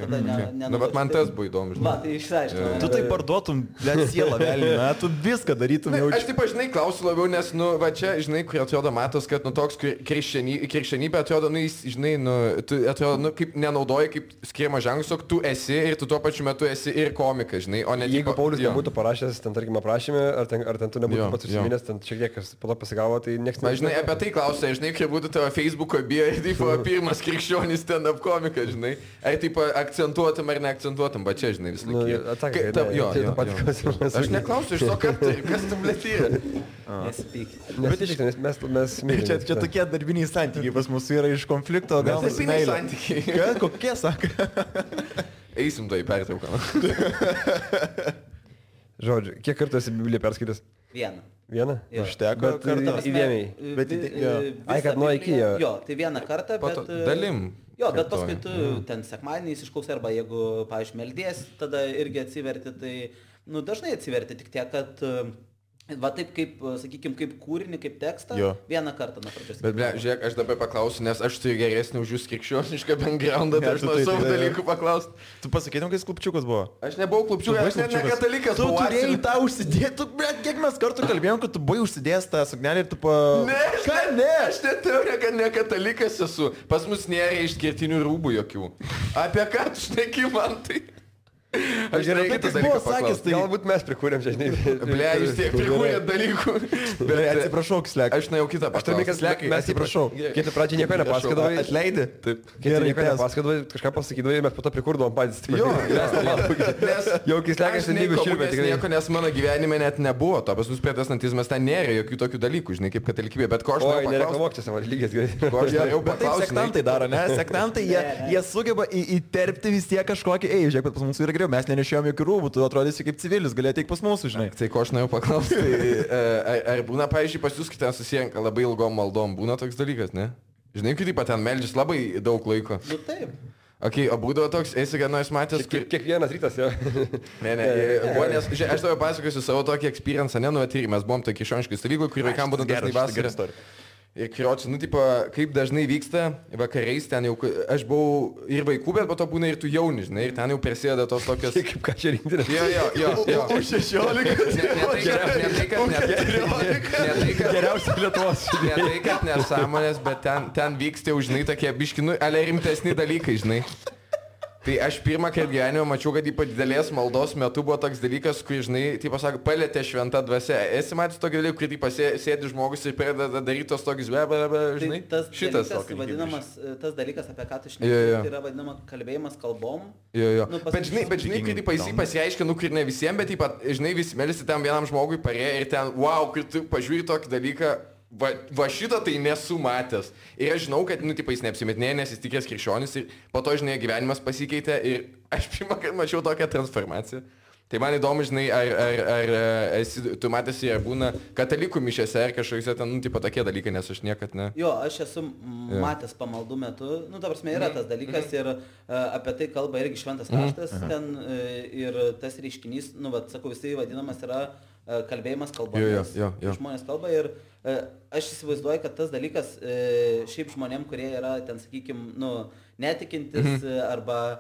tada nu, bet man tas buvo įdomu, žinai. Va, tai išsiaiškinau. Tu tai parduotum, blėt, sielą velnį, na, tu viską darytum jau. Aš taip, žinai, klausiu labiau, nes, nu, va čia, žinai, kur atrodo matos, kad, nu, toks krikščionybė atrodo, nu, jis, žinai, nu, tu atrodo, nu, kaip nenaudoji kaip skiriamą ženklą, tu esi ir tu tuo pačiu metu esi ir komikas, žinai, o ne... Jeigu Paulius nebūtų parašęs, ten, tarkim, aprašymę, ar ten tu nebūtų pats užsiminęs, ten šiek tiek kas po to pasigavo, tai nieks nežinai. Žinai, apie tai klausia, žinai, kai būtų tavo Facebook'o bio ir, tipo, pirmas krikščionis stand-up komikas, žinai, ar, tipo, akcentuotum ar neakcentuotum, bet čia, žinai, vis laik. Aš neklausiu iš to, kas tu blėtyra. Nesipyk. Bet mes mylim. Čia tokie darbiniai santykiai pas mus yra iš konflikto, gal darbiniai santykiai. Kokie, sako? Eisim tai pertrauką. Žodžiu, kiek kartų esi Bibliją perskaitęs? Vieną? Užteko kartą. Įdėmiai. Ai, kad nuo iki jo. Jo, tai vieną kartą, bet... Dalim. Jo, bet paskui tu ten sekmadieniais išklausai, arba jeigu, pavyzdžiui, meldies, tada irgi atsiverti, tai, dažnai atsiverti, tik tiek, kad, va taip kaip, sakykime, kaip kūrinį, kaip tekstą, vieną kartą nuo pradžios. Bet, žiūrėk, aš dabar paklausiu, nes aš turiu geresnį už jūs krikščionišką backgroundą, tai aš nuo savo dalykų paklausti. Tu pasakytum, kai klubčiukas buvo? Aš nebuvau klubčiukas, aš ne katalikas. Tu turėjai tą užsidėti, kiek mes kartų kalbėjom, kad tu buvai užsidėjęs tą suknelį ir tu Ne, aš neteorija, kad ne katalikas esu. Pas mus nėra išskirtinių rūbų jokių. Apie ką tu šneki man tai? Aš gerai kitas dalykas sakęs, tai galbūt mes prikūrėm čia, žinai. Ble, jūs tiek prikūrėt dalykų. Bet atsiprašau, Slek. Aš nuėjau kitą paklausti. Mes atsiprašau. Kai tu pradžiai nieko nepasakodavai. Atleidi? Taip. Kai tu nieko nepasakodavai, kažką pasakydavai ir mes po to prikūrdavom patys. Jo, jau kai Slekas lygių šilbė tikrai. Nieko, nes mano gyvenime net nebuvo to. Pas mus protestantizmas ten nėra jokių tokių dalykų, žinai, kaip katalikybė. Bet ko aš norėjau paklausti. Sektantai daro, ne? Sektantai, jie sugeba įterpti vis tiek kažkokį, žiūrėk, pas mūsų yra geriau, mes nenešėjom jokių rūbų, tu atrodysi kaip civilis, galėjai teik pas mūsų, žinai. Tai ko aš norėjau paklausti, ar būna, pavyzdžiui, pas jūs, kai ten susirenka labai ilgom maldom, būna toks dalykas, ne? Žinai, kaip ten meldžias labai daug laiko. Taip. Ok, o būdavo toks, esi ką nors matęs... Kiekvienas rytas, jo. Ne, nes, aš tavo pasakosiu savo tokį experience, mes buvom tokie krikščioniškai stovykloj, kur vaikam būna dažnai vasarą. Ir kriaučiu, kaip dažnai vyksta vakariais, ten jau, aš buvau ir vaikų, bet po to būna ir tu jauni, žinai, ir ten jau prasideda tos tokios... Kaip ką čia rinkti? Jo. Už 16. Geriausia Lietuvos. Ne tai, kad nesąmonės, bet ten vyksta jau, žinai, tokie biškinu, ale rimtesni dalykai, žinai. Tai aš pirmą kartą gyvenime mačiau, kad ypač didelės maldos metu buvo toks dalykas, kur, žinai, taip pasako, palėtė šventą dvasia. Esi matęs tokį dalyką, kur taip sėdi žmogus ir pradeda daryti tos tokius žinai? Tai šitas vadinamas, tas dalykas, apie ką tu šneki, tai yra vadinama kalbėjimas kalbom. Jo. Bet žinai, kai taip pasireiškia, kur ne visiems, bet taip pat, žinai, visi melisi tam vienam žmogui parėjo ir ten, wow, kai tu pažiūri tokį dalyką. Va šitą tai nesu matęs. Ir aš žinau, kad, jis neapsimetinėja, nes jis tikės krikščionis ir po to, žinai, gyvenimas pasikeitė ir aš pirmą kartą mačiau tokią transformaciją. Tai man įdomu, žinai, ar tu matėsi, ar būna katalikų mišiose, ar kažkokiuose ten, tokie dalykai, nes aš niekad ne. Jo, aš esu matęs pamaldų metu, ta prasme, yra tas dalykas ir apie tai kalba irgi šventas raštas ten ir tas reiškinys, sakau, jisai vadinamas yra kalbėjimas kalbomis. Žmonės kalba ir aš įsivaizduoju, kad tas dalykas šiaip žmonėm, kurie yra ten, sakykime, netikintis arba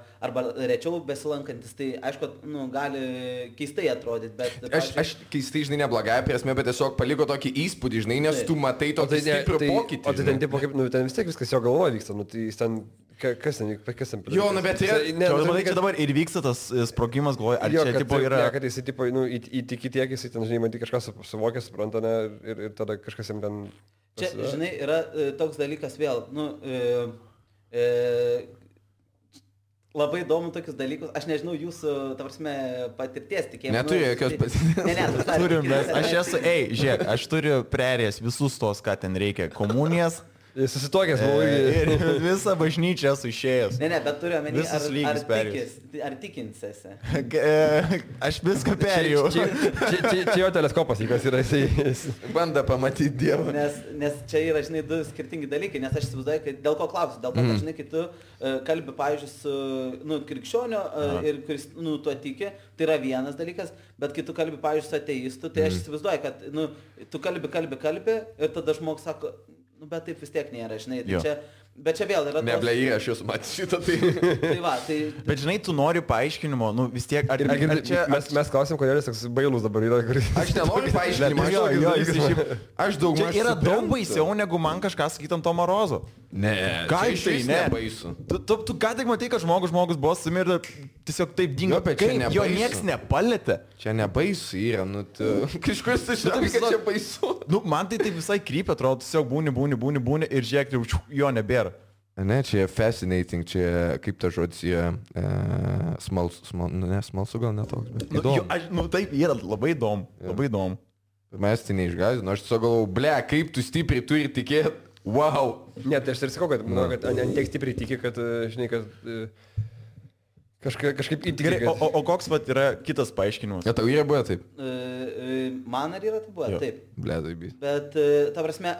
rečiau besilankantis, tai aišku, gali keistai atrodyti, bet... Aš keistai, žinai, neblogąją prasme, bet tiesiog paliko tokį įspūdį, žinai, nes tu matai tokį stiprų pokytį. O tai ten, tipo, kaip, ten vis tiek viskas jo galvoje vyksta, tai jis ten... Kas ten? Jo, bet yra... Čia dabar ir vyksta tas sprogimas, galvoju, ar čia tipo yra... Ne, kad jisai, tipo, įtiki tiek, jisai ten, žinai, man tik kažkas suvokia, supranta, ne, ir tada kažkas jam ten... Čia, žinai, yra toks dalykas vėl, labai įdomu tokius dalykus, aš nežinau jūsų, ta prasme, patirties tikėjimo. Neturiu jokios patirties. Turim, aš esu, žiūrėk, aš turiu prerės visus tos, ką ten reikia, komunijas. Susitokęs buvau ir visą bažnyčią esu išėjęs. Ne, bet turiu omeny, ar tikinsiesi. Aš viską perėjau. Čia jo teleskopas, kas yra jisai. Banda pamatyti Dievą. Nes čia yra, žinai, du skirtingi dalykai, nes aš įsivaizduoju, kad dėl ko klausiu, dėl to, kad, žinai, kai tu kalbi, pavyzdžiui, su krikščionio ir kuris, tuo tiki, tai yra vienas dalykas, bet kai tu kalbi, pavyzdžiui, su ateistu, tai aš įsivaizduoju, kad, tu kalbi ir tada žmogus sako, bet taip vis tiek nėra, žinai, tai čia, bet čia vėl yra... Neblei, aš jūs matau šitą, tai... tai... Bet žinai, tu nori paaiškinimo, vis tiek... Mes klausim, kodėl jis toks bailus dabar yra. Aš nenoriu paaiškinimo, aš daug mažiau... Čia yra daug baisiau, negu man kažką sakytam Tomo Rozo. Ne, ką tai ne? Baisu. Tu ką tik matai, kad žmogus buvo sumirda, tiesiog taip dingo, kaip jo nieks nepalėtė. Čia nebaisu yra, kažkas tai žinai, kad čia baisu. Man tai visai krypia, atrodo, tiesiog būni ir žiūrėk, jo nebėra. Ne, čia fascinating, čia kaip ta žodis, smalsu gal netoks, bet įdomu. Taip, yra labai įdomu. Mes tai neišgąsdino, aš tiesiog galvojau, ble, kaip tu stipriai turi tikėti, wow. Ne, tai aš ir sakau, kad ant tiek stipriai tiki, kad, žinai, kad Kažkaip įtikinti. Gerai, o koks vat yra kitas paaiškinimas? Ja, tau yra buvę taip? Man ar yra tai buvę? Taip. Bledai, bi. Bet, ta prasme,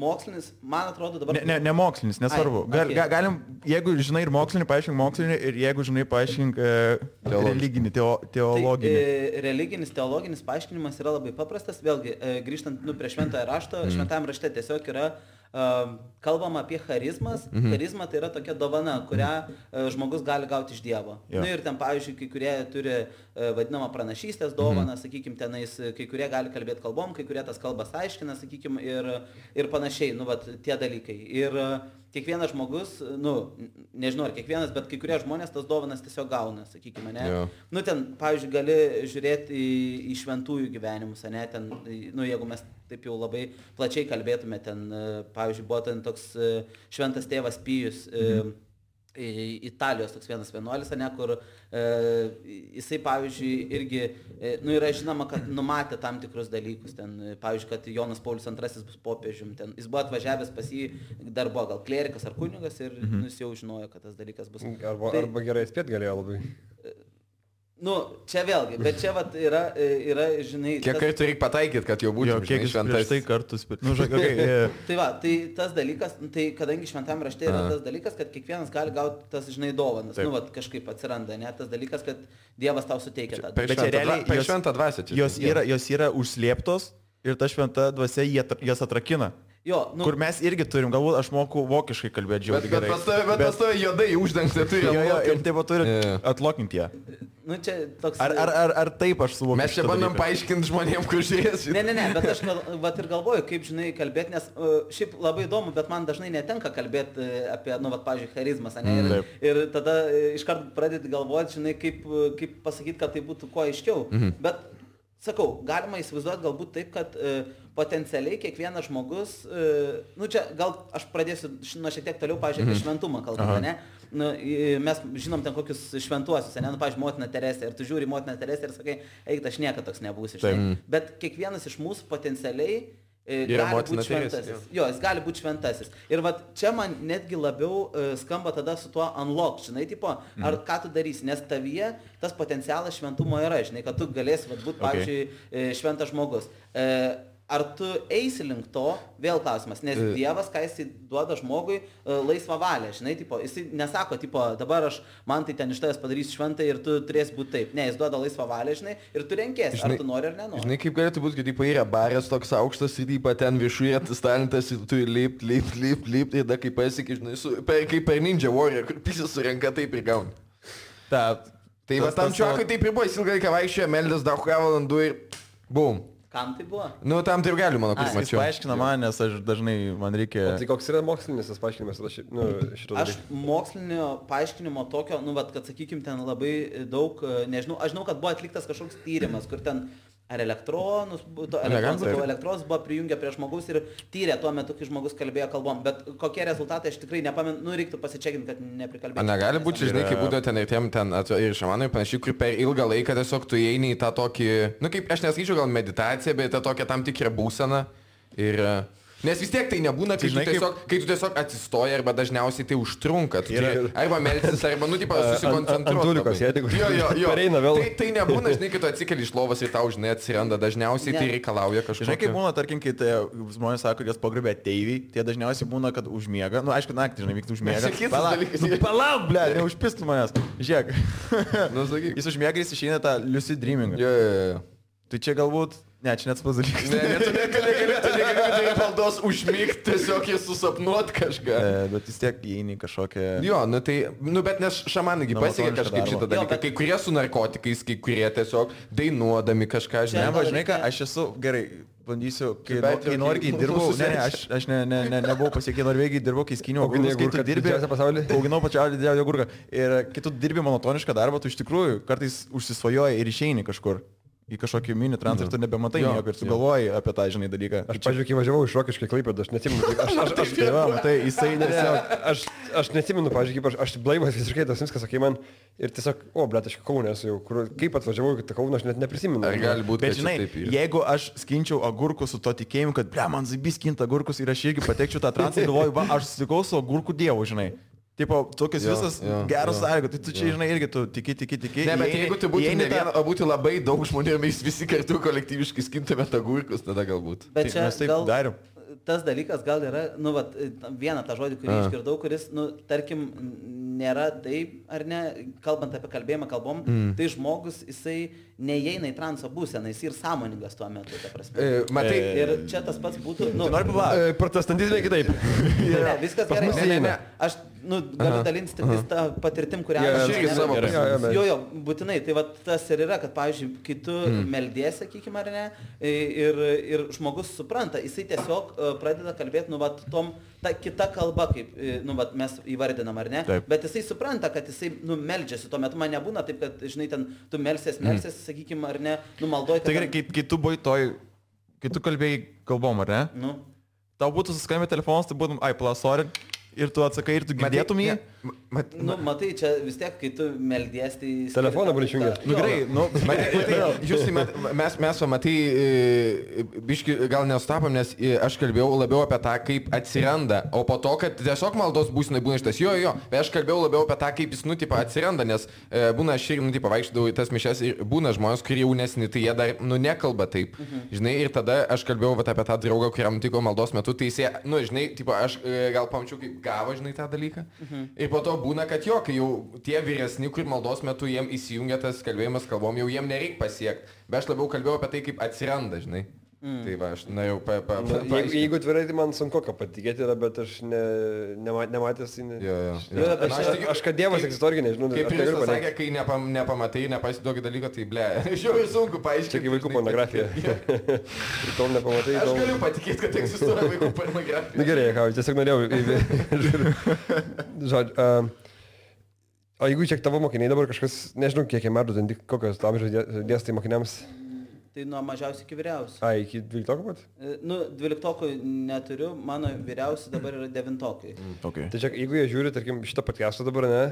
mokslinis, man atrodo dabar... Ne mokslinis, nesvarbu. Galim, jeigu žinai ir mokslinį, paaiškink mokslinį, ir jeigu žinai, paaiškink religinį, teologinį. Tai, religinis, teologinis paaiškinimas yra labai paprastas. Vėlgi, grįžtant prie šventąją rašto, šventajame rašte tiesiog yra kalbama apie charizmas. Charizma tai yra tokia dovana, kurią žmogus gali gauti iš Dievo. Nu, ir ten, pavyzdžiui, kai kurie turi vadinamą pranašystės dovaną, sakykime, tenais, kai kurie gali kalbėti kalbom, kai kurie tas kalbas aiškina, sakykime, ir panašiai, nu, vat, tie dalykai. Ir kiekvienas žmogus, nu, nežinau ar kiekvienas, bet kai kurie žmonės tas dovanas tiesiog gauna, sakykime, ne? Nu, ten, pavyzdžiui, gali žiūrėti į šventųjų gyvenimus, ne? Ten, nu, jeigu mes taip jau labai plačiai kalbėtume, ten, pavyzdžiui, buvo ten toks šventas tėvas Pijus, Italijos toks vienas vienuolis, ne, kur jisai, pavyzdžiui, irgi, nu, yra žinoma, kad numatė tam tikrus dalykus, ten, pavyzdžiui, kad Jonas Paulius II bus popiežium, ten, jis buvo atvažiavęs pas jį, dar buvo gal klerikas ar kunigas ir jis jau žinojo, kad tas dalykas bus. Arba gerai spėt galėjo labai. Nu, čia vėlgi, bet čia vat yra, žinai... Kiek kartų reikia pataikyti, kad jau būtų šventas? Tai kartus, bet... Nu, Tai va, tai tas dalykas, tai kadangi šventame rašte yra tas dalykas, kad kiekvienas gali gauti tas, žinai, dovanas. Nu, vat kažkaip atsiranda, ne? Tas dalykas, kad Dievas tau suteikia tą. Bet čia realiai šventą dvasią čia. Jos yra užslėptos ir ta šventa dvasia jas atrakina. Jo, nu, kur mes irgi turim, galbūt aš moku vokiškai kalbėti žiauriai gerai. Bet pas tave juodai uždengti turi. Jo, ir taip pat turi atlokinti ją. Nu, čia toks... Ar taip aš suvokiu? Mes čia bandom paaiškinti žmonėms, kur žiūrės. Ne, bet aš vat ir galvoju, kaip, žinai, kalbėti, nes šiaip labai įdomu, bet man dažnai netenka kalbėti apie, nu, vat, pavyzdžiui, charizmas, ne? Ir tada iškart pradėti galvoti, žinai, kaip pasakyti, kad tai būtų kuo aiškiau. Bet, sakau, galima įsivaizduoti galbūt taip, kad potencialiai kiekvienas žmogus, nu čia gal aš pradėsiu nuo šiek tiek toliau, pavyzdžiui, apie šventumą kalbant, ne? Nu, mes žinom ten kokius šventuosius, ne? Nu, pavyzdžiui, motina Teresė, ir tu žiūri motina Teresė ir sakai, eik, aš niekada toks nebūsiu, žinai. Bet kiekvienas iš mūsų potencialiai gali būti šventasis. Jo, jis gali būti šventasis. Ir vat čia man netgi labiau skamba tada su tuo unlock, žinai, tipo, ar ką tu darysi, nes tavyje tas potencialas šventumo yra, žinai, kad tu galėsi būti, pavyzdžiui, šventas žmogus. Ar tu eisi link to, vėl klausimas, nes Dievas, ką jis duoda žmogui, laisvą valią, žinai, tipo, jis nesako, tipo, dabar man tai ten iš tavęs padarys šventą ir tu turėsi būti taip. Ne, jis duoda laisvą valią, žinai, ir tu renkiesi, ar tu nori ar nenori. Žinai, kaip galėtų būti, kad tipo, yra barės toks aukštas ir tipo, ten viršuje tas talentas ir tu lipt ir tada kaip pasiekia, žinai, kaip per Ninja Warrior, kur pisas surenka taip ir gauni. Tai va tam čiuakui taip ir buvo, jis ilgai vaikščiojo, meldės daug valandų ir bum. Kam tai buvo? Nu, tam tai ir galiu, mano, kaip mačiau. Jis paaiškina man, nes aš dažnai, man reikia... O tai koks yra mokslinis tas paaiškinimas? Šito aš mokslinio paaiškinimo tokio, nu, vat, kad, sakykim, ten labai daug, nežinau, aš žinau, kad buvo atliktas kažkoks tyrimas, kur ten ar elektronus buvo prijungę prie žmogaus ir tyrė tuo metu, kai žmogus kalbėjo kalbom, bet kokie rezultatai aš tikrai nepamenu, nu, reiktų pasičekinti, kad neprikalbėti. Negali būti, žinai, kaip būdavo ten ir šamanai panašiai, kur per ilgą laiką tiesiog tu įeini į tą tokį, nu, kaip aš nesakyčiau gal meditaciją, bet tą tokią tam tikrą būseną ir... Nes vis tiek tai nebūna, kai, kai tu tiesiog atsistoji arba dažniausiai tai užtrunka. Arba melsis, arba, nu, tipo, susikoncentruoti. Antulikos, jeigu pareina vėl. Tai nebūna, žinai, kai tu atsikeli iš lovos ir tau, žinai, atsiranda. Dažniausiai tai reikalauja kažko. Žinai, kaip būna, tarkim, kai žmonės sako, kad jas pagrobė ateiviai, tai dažniausiai būna, kad užmiega. Nu, aišku, naktį, žinai, vyktų užmiega. Palauk, ble, neužpistų manęs. Žiūrėk. Jis užmiega, jis išeina tą lucid dreamingą. Tai čia galbūt... Ne, čia net spas dalykas. Ne, tu negali valdos užmygti, tiesiog jis susapnuot kažką. Bet vis tiek įeini kažkokią... Jo, nu tai, nu bet nes šamanai pasiekia kažkaip šitą dalyką. Kai kurie su narkotikais, kai kurie tiesiog dainuodami kažką, žinai. Ne, žinai ką, aš esu, gerai, bandysiu, kai Norvegijai dirbau, aš nebuvau pasiekė Norvegijai, dirbau, kai skyniau agurkus, kai tu dirbi, auginau pačiausiai didžiausią agurką. Ir kai tu dirbi monotonišką darbą, tu iš tikrųjų kartais užsisvajoji ir išeini kažkur. Į kažkokį mini transportą nebematai nieko ir tu galvoji apie tą, žinai, dalyką. Aš, pavyzdžiui, kai važiavau iš Rokiškio į Klaipėdą, aš neatsimenu. Aš neatsimenu, pavyzdžiui, kaip aš blaivas visiškai tas viskas, sakai man, ir tiesiog, blet, aš Kaune esu jau, kaip atvažiavau į Kauną, aš net neprisimenu. Ar gali būti, bet žinai, jeigu aš skinčiau agurkus su to tikėjimu, kad, ble, man zaibys skinta agurkus ir aš irgi patekčiau tą transportą, galvoju, va, aš susitikau su agurkų dievu, žinai. Tipo, tokius visas geras sąlygos, tai tu čia, žinai, irgi tu tiki. Ne, bet jeigu tu būtų ne viena, o būtų labai daug žmonių ir mes visi kartu kolektyviškai skintume tą gurkus, tada galbūt. Bet čia mes taip darėm. Tas dalykas gal yra, vieną tą žodį, kurį išgirdau, kuris, tarkim, nėra taip, ar ne, kalbant apie kalbėjimą kalbom, tai žmogus, jisai neįeina į transo būseną, jis ir sąmoningas tuo metu, ta prasme. Matai, ir čia tas pats būtų, protestantizmai kitaip. Ne, viskas gerai. Ne. Aš, galiu dalintis tik tą patirtim, kurią aš irgi savo patirtim. Jo, būtinai. Tai tas ir yra, kad, pavyzdžiui, kai tu meldies, sakykime, ar ne, ir žmogus supranta, jisai tiesiog pradeda kalbėti, ta kita kalba, kaip, mes įvardinam, ar ne, bet jisai supranta, kad jisai, meldžiasi. Tuo metu man nebūna taip, kad, žinai, ten tu melsies, sakykime, ar ne, maldoji. Tai gerai, kai tu buvai kai tu kalbėjai kalbom, ar ne? Tau būtų suskambė telefonas, tai būtum, sorry. Ir tu atsakai, ir tu girdėtum jį? Matai, čia vis tiek, kai tu meldies, tai... Telefoną buli išjungęs. Mes matai, biški gal nesutapom, nes aš kalbėjau labiau apie tą, kaip atsiranda, o po to, kad tiesiog maldos būsinai būna šitas. Bet aš kalbėjau labiau apie tą, kaip jis, atsiranda, nes būna aš ir, vaikštau į tas mišes ir būna žmonės, kurie jaunesni, tai jie dar, nekalba taip. Žinai, ir tada aš kalbėjau apie tą draugą, kuriam tiko maldos metu, tai jis, žinai, aš gal pamačiau, kaip gavo, žinai, tą dalyką. Ir po to būna, kad kai jau tie vyresni, kur maldos metu jiem įsijungia tas kalbėjimas kalbom, jau jiem nereikia pasiekti. Bet aš labiau kalbėjau apie tai, kaip atsiranda, žinai. Tai va, aš norėjau Jeigu tvirai, tai man sunku ką patikėti yra, bet aš nematęs. Aš kad Dievas egzistuoja, irgi nežinau. Kaip ir jis pasakė, kai nepamatai, nepasiduogi dalyko, tai ble. Žiūrėjau, sunku paaiškinti. Čia kaip vaikų pornografija. Ir tol nepamatai. Aš galiu patikėti, kad egzistuoja vaikų pornografija. Na gerai, tiesiog norėjau. Žodžiu. O jeigu čia tavo mokiniai dabar kažkas, nežinau, kiek metų, kokios amžiaus dėstai mokiniams? Tai nuo mažiausiai iki vyriausių. Iki 12 pat? 12 neturiu, mano vyriausi dabar yra 9. Okay. Tai čia, jeigu jie žiūri, tarkim, šitą podcastą dabar, ne,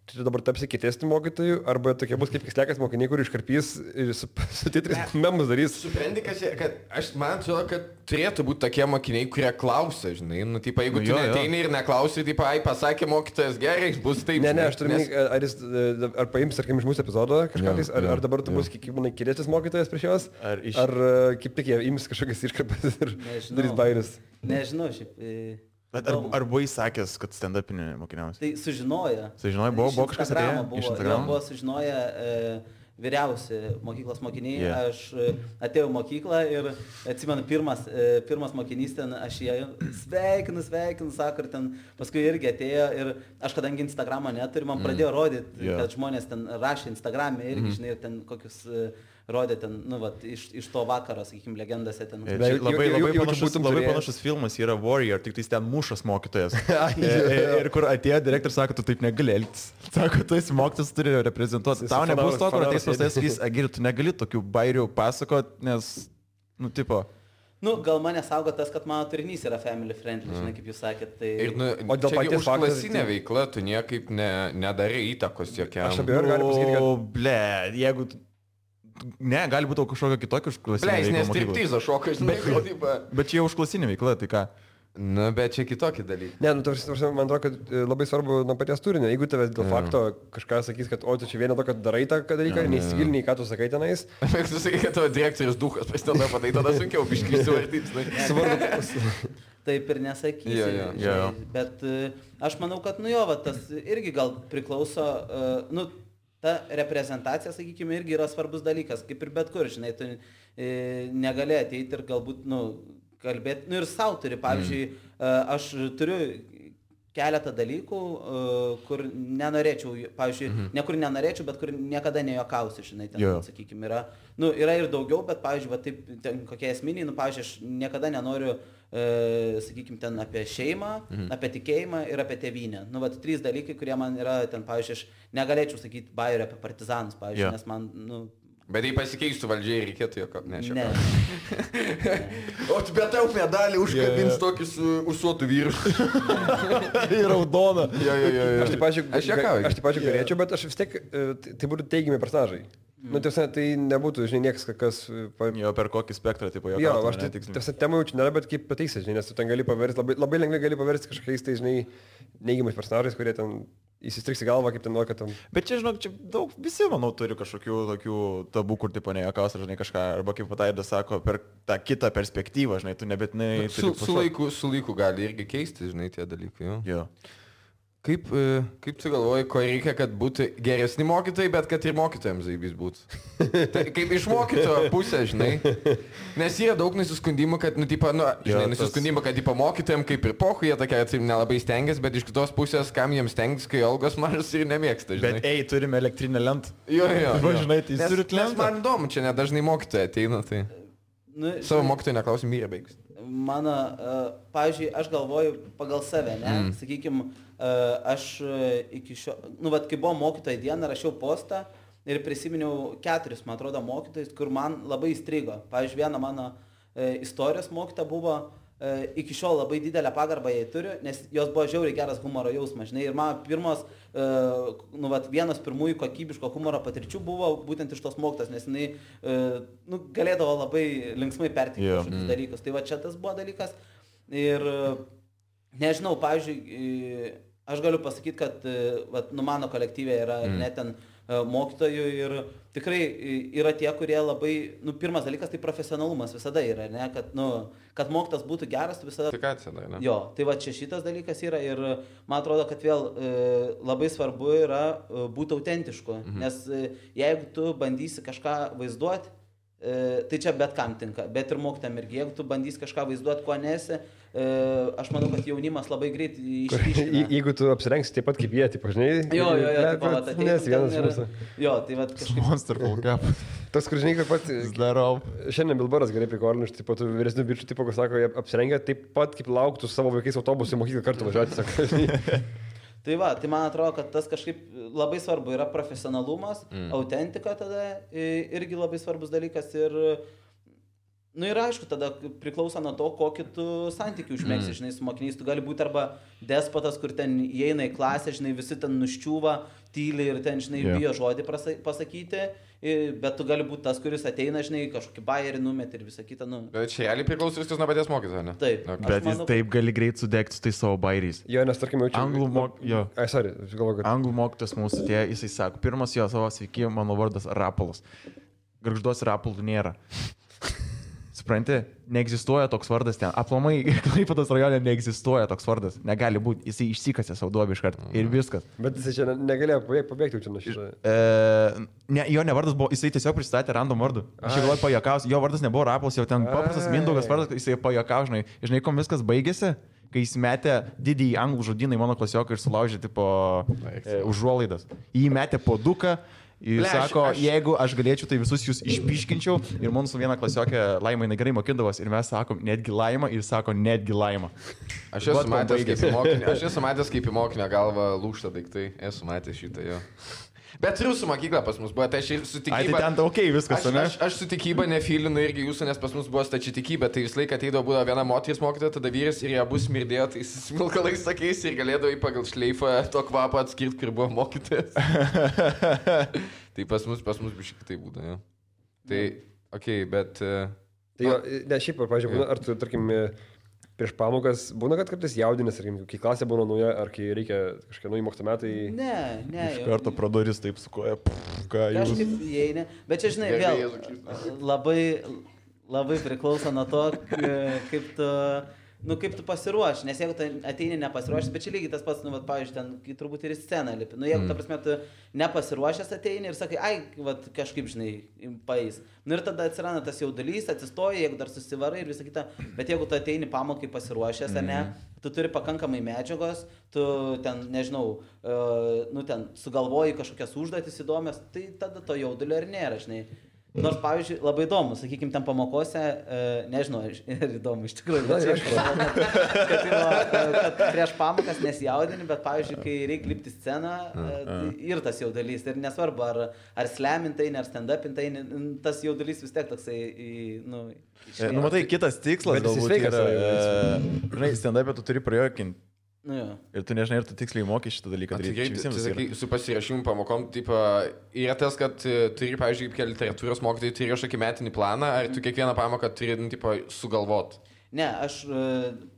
tai dabar tapsi kietesnių mokytojų, arba tokie bus kaip kislekas mokiniai, kur iškarpys ir su titrais memus darys. Supranti, kad aš man atrodo, kad turėtų būti tokie mokiniai, kurie klausia, žinai, jeigu tu neteini ir neklausi, pasakė mokytojas gerai, bus taip. Ne, aš turiu, ar paims, tarkim, iš mūsų epizodo kažkais, ar dabar tu bus, kaip manai, kietesnis mokytojas prieš juos, ar kaip tik jie ims kažkokias iškarpas ir darys bairius. Nežinau, šiaip. Bet ar buvai sakęs, kad stand-upinė mokiniausi? Tai sužinoja. Sužinoja, buvo kažkas atėjo iš Instagramo? Buvo sužinoja vyriausi mokyklos mokiniai. Aš atėjau į mokyklą ir atsimenu, pirmas mokinys ten, aš jį sveikinu, sako, ir ten paskui irgi atėjo ir aš kadangi Instagramo neturiu, man pradėjo rodyti, kad žmonės ten rašė Instagram'e irgi, žinai, ir ten kokius rodė ten, iš to vakaro, sakykime, legendose ten. Labai panašus filmas yra Warrior, tik tai ten mušas mokytojas. Ir kur atėjo direktorius, sako, tu taip negali elgtis. Sako, tu esi mokytojas, turi reprezentuoti. Tau nebus to, kur ateis pas tai sakys, Agiri, tu negali tokių bairių pasakot, nes, tipo... Gal mane saugo tas, kad mano turinys yra family friendly, žinai, kaip jūs sakėt. Tai... O dėl paties užklasinė veikla, tu niekaip nedarai įtakos jokiam. Aš abejoju, galiu pasakyti, kad... Ble, jeigu... Ne, gali būti kažkokia kitokia užklasinė veikla. Nes striptizo šokas, žinai, bet čia jau užklasinė veikla, tai ką? Bet čia kitokie dalykai. Ne, man atrodo, kad labai svarbu nuo paties turinio. Jeigu tavęs dėl fakto kažką sakys, kad o tu čia vieną to, kad darai tą dalyką, neįsigiliniai, ką tu sakai tenais. Bet tu sakai, kad tavo direktorius duhas pasideda patai, tada sunkiau biškai įsivardyti. Taip ir nesakysi. Bet aš manau, kad tas irgi gal priklauso... Ta reprezentacija, sakykime, irgi yra svarbus dalykas, kaip ir bet kur, žinai, tu negali ateiti ir galbūt, kalbėti, ir savo turi, pavyzdžiui, aš turiu keletą dalykų, kur nenorėčiau, pavyzdžiui, nekur nenorėčiau, bet kur niekada nejuokausiu, žinai, ten, sakykime, yra, yra ir daugiau, bet, pavyzdžiui, taip, ten kokie esminiai, pavyzdžiui, aš niekada nenoriu, sakykime, ten apie šeimą, apie tikėjimą ir apie tėvynę. 3 dalykai, kurie man yra, ten, pavyzdžiui, aš negalėčiau sakyti bairių apie partizanus, pavyzdžiui, nes man, Bet jei pasikeistų valdžiai, reikėtų jokio nešio. Ne. O tu bet tau medalį užkabins tokį su usuotų vyru. Ir raudoną. Aš taip pačiu galėčiau, bet aš vis tiek, tai būtų teigiami personažai. Nu, tiesa, tai nebūtų, žinai, niekas, kas... Jo, per kokį spektrą, tipo, jo, aš tiesa, temų jaučiu nėra, bet kaip pateiksi, žinai, nes tu ten gali paversti, labai lengvai gali paversti kažkokiais, tai, žinai, neigiamais personažais, kurie ten įsistriks į galvą, kaip ten nori, kad tam... Bet čia, žinok, čia daug, visi, manau, turi kažkokių tokių tabų, kur, tipo, nejuokaus, žinai, kažką, arba kaip Pataidas sako, per tą kitą perspektyvą, žinai, tu nebetinai... Su laiku gali irgi keisti, žinai, tie dalykai, jo. Kaip tu galvoji, ko reikia, kad būtų geresni mokytojai, bet kad ir mokytojams zaibys būtų? Tai kaip iš mokytojo pusės, žinai. Nes yra daug nusiskundimų, kad, nusiskundimų, kad mokytojams kaip ir pohu, jie tokia nelabai stengiasi, bet iš kitos pusės, kam jiems stengiasi, kai algos mažas ir nemėgsta, žinai. Bet turime elektrinę lentą. Jo. Žinai, tai jūs turite lentą. Nes man įdomu, čia nedažnai mokytojai ateina, tai... Savo mokytojai neklausim, jie baigs. Mano, pavyzdžiui, aš galvoju pagal save, ne? Sakykime, aš iki šio, kai buvo mokytojai diena, rašiau postą ir prisiminiau 4, man atrodo, mokytojus, kur man labai įstrigo. Pavyzdžiui, viena mano istorijos mokyta buvo, iki šiol labai didelę pagarbą jai turiu, nes jos buvo žiauriai geras humoro jausmas, žinai, ir man pirmos, vienas pirmųjų kokybiško humoro patirčių buvo būtent iš tos mokytos, nes jinai, galėdavo labai linksmai perteikti kažkokius dalykus. Tai va čia tas buvo dalykas ir, nežinau, pavyzdžiui, aš galiu pasakyti, kad mano kolektyvė yra net ten mokytojų ir tikrai yra tie, kurie labai, pirmas dalykas tai profesionalumas visada yra, ne, kad mokytas būtų geras, tu visada... Ne? Jo, tai va čia šitas dalykas yra ir man atrodo, kad vėl labai svarbu yra būti autentišku, nes jeigu tu bandysi kažką vaizduoti, tai čia bet kam tinka, bet ir mokytam irgi, jeigu tu bandysi kažką vaizduoti, ko nesi, aš manau, kad jaunimas labai greit išryškina. Jeigu tu apsirengsi taip pat kaip jie, taip, žinai, jo, nes vienas mūsų. Jo, tai va kažkaip... Monster full cap. Tas, kur žinai, kaip pat... Zdarov. Šiandien Bilbaras gerai prikorniš, taip pat vyresnių bičių, taip, kas sako, jie apsirengia taip pat, kaip lauktų savo vaikais autobusų mokyklą kartu važiuoti, sako. Tai va, tai man atrodo, kad tas kažkaip labai svarbu yra profesionalumas, autentika tada irgi labai svarbus dalykas ir, ir aišku, tada priklauso nuo to, kokį tu santykių užmėgsi, žinai, su mokiniais. Tu gali būti arba despotas, kur ten įeina į klasę, žinai, visi ten nuščiūva, tyli ir ten, žinai, bijo žodį pasakyti, bet tu gali būti tas, kuris ateina, žinai, kažkokį bajerį numet ir visą kitą, Bet čia realiai priklauso viskas nuo paties mokytojo, ne? Taip. Bet jis taip gali greit sudegti su tai savo bairiais. Jo, nes tarkim jaučiu... Anglų mokytojas mūsų tie, jisai sako, pirmas jo savo sveiki, mano vardas Rapolas. Gargžduos Rapolų nėra. Supranti, neegzistuoja toks vardas ten. Aplamai, Klaipėdos rajone neegzistuoja toks vardas. Negali būti. Jisai išsikasė savo duobį iš karto. Ir viskas. Bet jisai čia negalėjo pabėgti čia nuo šito. Jo nevardas buvo, jisai tiesiog pristatė random vardu. Aš galvoju pajuokausiu. Jo vardas nebuvo Rapolas, jau ten paprastas Mindaugas vardas, jisai pajuokavo, žinai. Žinai, kom viskas baigėsi, kai jis metė didįjį anglų žodyną į mano klasioką ir sulaužė tipo užuolaidas. Jį metė po duką. Jis sako, jeigu aš galėčiau, tai visus jūs išpiškinčiau ir mūsų viena klasiokė Laima, jinai gerai mokindavos ir mes sakom netgi Laima ir sako netgi Laima. Aš esu matęs kaip į mokinio galvą lūžta daiktai, esu matęs šitą jo. Bet rusų mokykla pas mus buvo, tai aš ir su tikyba... Tai ten okay, viskas, ne? Aš su tikyba nefilinu irgi jūsų, nes pas mus buvo stači tikybė, tai visą laiką ateidavo būdavo viena moteris mokytoja, tada vyras ir jie abu smirdėjo, tai smilkalais sakys ir galėdavo į pagal šleifą to kvapą atskirti, kur buvo mokytojas. Tai pas mus biškai tai būdavo, jo. Tai, okei, bet... Tai jo, ne, šiaip, pavyzdžiui, ar tu, tarkim, prieš pamokas būna, kad kartais jaudinės, kai klasė būna nauja, ar kai reikia kažkokie nauji mokslo metai? Ne. Iš karto pradoris taip sukoja, ką jūs... Kažkaip įeini, bet čia, žinai, vėl labai priklauso nuo to, kaip tu pasiruoši, nes jeigu tu ateini nepasiruošęs, bet čia lygiai tas pats, pavyzdžiui, ten, kai turbūt ir į sceną lipi, jeigu, ta prasme, tu nepasiruošęs ateini ir sakai, kažkaip, žinai, paeis. Ir tada atsiranda tas jaudulys, atsistoji, jeigu dar susivarai ir visą kitą, bet jeigu tu ateini pamokai pasiruošęs, ar ne, tu turi pakankamai medžiagos, tu ten, nežinau, ten sugalvoji kažkokias užduotis įdomias, tai tada to jaudulio ir nėra, žinai. Nors, pavyzdžiui, labai įdomu, sakykime, ten pamokose, nežinau, ir įdomu iš tikrųjų, kad prieš pamokas nesijaudini, bet, pavyzdžiui, kai reikia lipti sceną, ir tas jaudulys, ir nesvarbu, ar slemintai, ar stand-upintai, tas jaudulys vis tiek toksai, matai, kitas tikslas galbūt yra, žinai, stand-upę tu turi prajuokinti Nu, jo. Ir tu nežinai, ir tu tiksliai mokai šitą dalyką daryti. Su pasirašymu pamokom, tipo, yra tas, kad turi, pavyzdžiui, kaip literatūros mokytojai, turi kažkokį metinį planą, ar tu kiekvieną pamoką turi, tipo, sugalvot? Ne, aš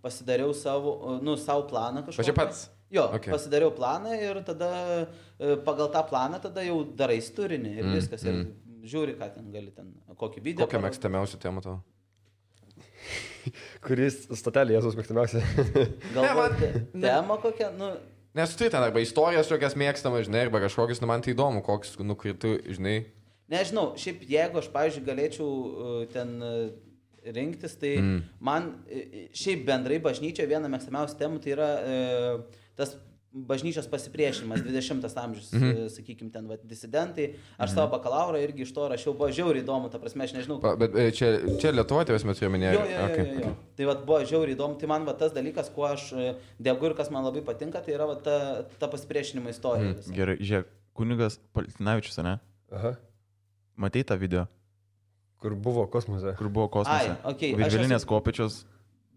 pasidariau savo planą kažkokį. Pačiu pats? Jo, okay. Pasidariau planą ir tada pagal tą planą tada jau darai turinį ir viskas. Ir žiūri, ką ten gali ten, kokį video. Kokią mėgstamiausią temą tavo? Kuris statelė Jėzus mėgstamiausia? Galbūt tema kokia, nu... Nes tu ten arba istorijas tokias mėgstamas, žinai, arba kažkokius, nu man tai įdomu, koks, nu, kai tu, žinai... Nežinau, šiaip jeigu aš, pavyzdžiui, galėčiau ten rinktis, tai man šiaip bendrai bažnyčia viena mėgstamiausia temų tai yra tas bažnyčios pasipriešinimas, 20 amžius, sakykime, ten, disidentai. Aš savo bakalaurą irgi iš to rašiau, buvo žiauriai įdomu, ta prasme, aš nežinau. Bet čia Lietuvoje tavęs metu jau minėjau. Jo. Tai buvo žiauriai įdomu, tai man tas dalykas, kuo aš degu ir kas man labai patinka, tai yra ta pasipriešinimo istorija. Gerai, žiūrėk, kunigas Paltinavičius, ne? Aha. Matei tą video? Kur buvo kosmose. Ai, okay. Virvelinės kopečios.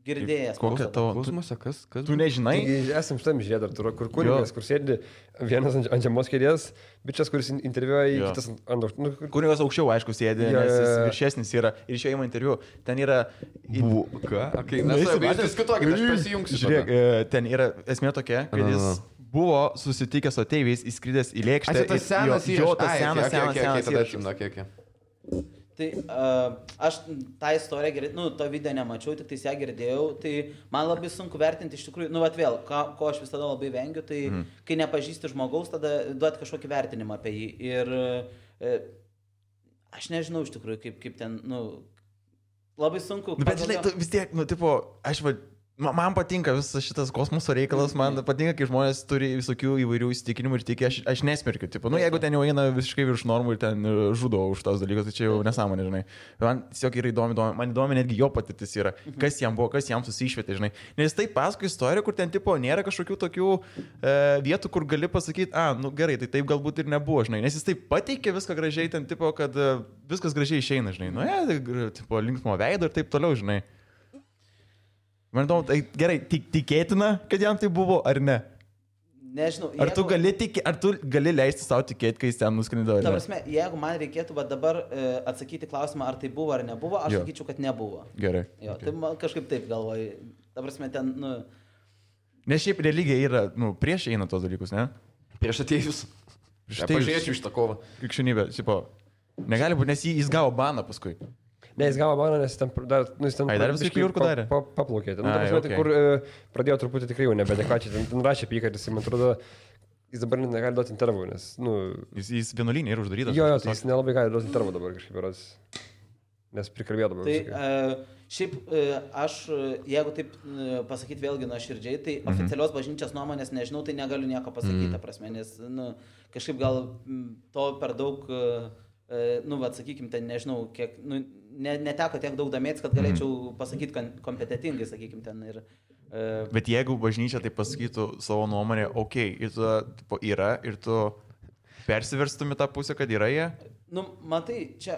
Girdėjęs. Kokia tavo? Kosmose, kas? Tu nežinai? Esam šitam žiedar, kur kunigas, kur sėdi vienas ant žemos kėdės, bičias, kuris interviuoja, kitas ant... Kunigas aukščiau, aišku, sėdi, nes jis viršesnis yra. Ir iš jo įma interviu. Ten yra... Ką? Mes diskutuokime, aš pasijungsiu. Žiūrėk, ten yra esmė tokia, kad jis buvo susitikęs su ateiviais, įskridęs į lėkštę. Tas senas įrašas. senas. Tai aš tą istoriją girdėjau, to video nemačiau, tik ją girdėjau, tai man labai sunku vertinti iš tikrųjų, vėl, ko aš visada labai vengiu, tai kai nepažįsti žmogaus, tada duoti kažkokį vertinimą apie jį. Ir aš nežinau iš tikrųjų, kaip ten, labai sunku. Bet žinai, vis tiek, man patinka visas šitas kosmoso reikalas, man patinka, kai žmonės turi visokių įvairių įsitikinimų ir tiki, aš nesmerkiu, jeigu ten jau eina visiškai virš normų ir ten žudo už tos dalykus, tai čia jau nesąmonė, žinai. Man tiesiog yra įdomi, man įdomi netgi jo patirtis yra, kas jam buvo, kas jam susišvietė, žinai. Nes tai paskui istorija, kur ten nėra kažkokių tokių vietų, kur gali pasakyti, gerai, tai taip galbūt ir nebuvo, žinai. Nes jis taip pateikė viską gražiai, ten kad viskas gražiai išeina, žinai. Linksmo veido ir taip toliau, žinai. Man įdomu, tai gerai, tikėtina, kad jam tai buvo, ar ne? Nežinau. Ar tu gali leisti savo tikėti, kai jis ten nuskrido? Ta prasme, jeigu man reikėtų dabar atsakyti klausimą, ar tai buvo ar nebuvo, aš sakyčiau, kad nebuvo. Gerai. Jo, tai man kažkaip taip galvoju. Ta prasme, ten, Nes šiaip religija yra, prieš eina tos dalykus, ne? Prieš atėjus. Pažiūrėčiau iš tą kovą. Krikščionybė, negali būti, nes jis gavo baną paskui. Ne, jis gavo baną, nes jis ten dar viskai kliurkų darė? Paplaukė. Kur pradėjo truputį tikrai jau nebedekačiai. Ten rašė pyką, ir jis, man atrodo, jis dabar negali duoti intervų, nes, Jis vienuolynė yra uždarytas. Jo, tai jis nelabai gali duoti intervų dabar kažkaip yra, nes prikalbėjo dabar. Tai šiaip aš, jeigu taip pasakyti vėlgi nuoširdžiai, tai oficialios bažnyčios nuomonės nežinau, tai negaliu nieko pasakyti, prasme, nes, kažkaip gal to per daug... sakykime, ten nežinau, kiek, neteko tiek daug domėtis, kad galėčiau pasakyti kompetitingai, sakykime, ten ir... Bet jeigu bažnyčia tai pasakytų savo nuomonę, ir tu yra, ir tu persiverstum į tą pusę, kad yra jie? Matai, čia...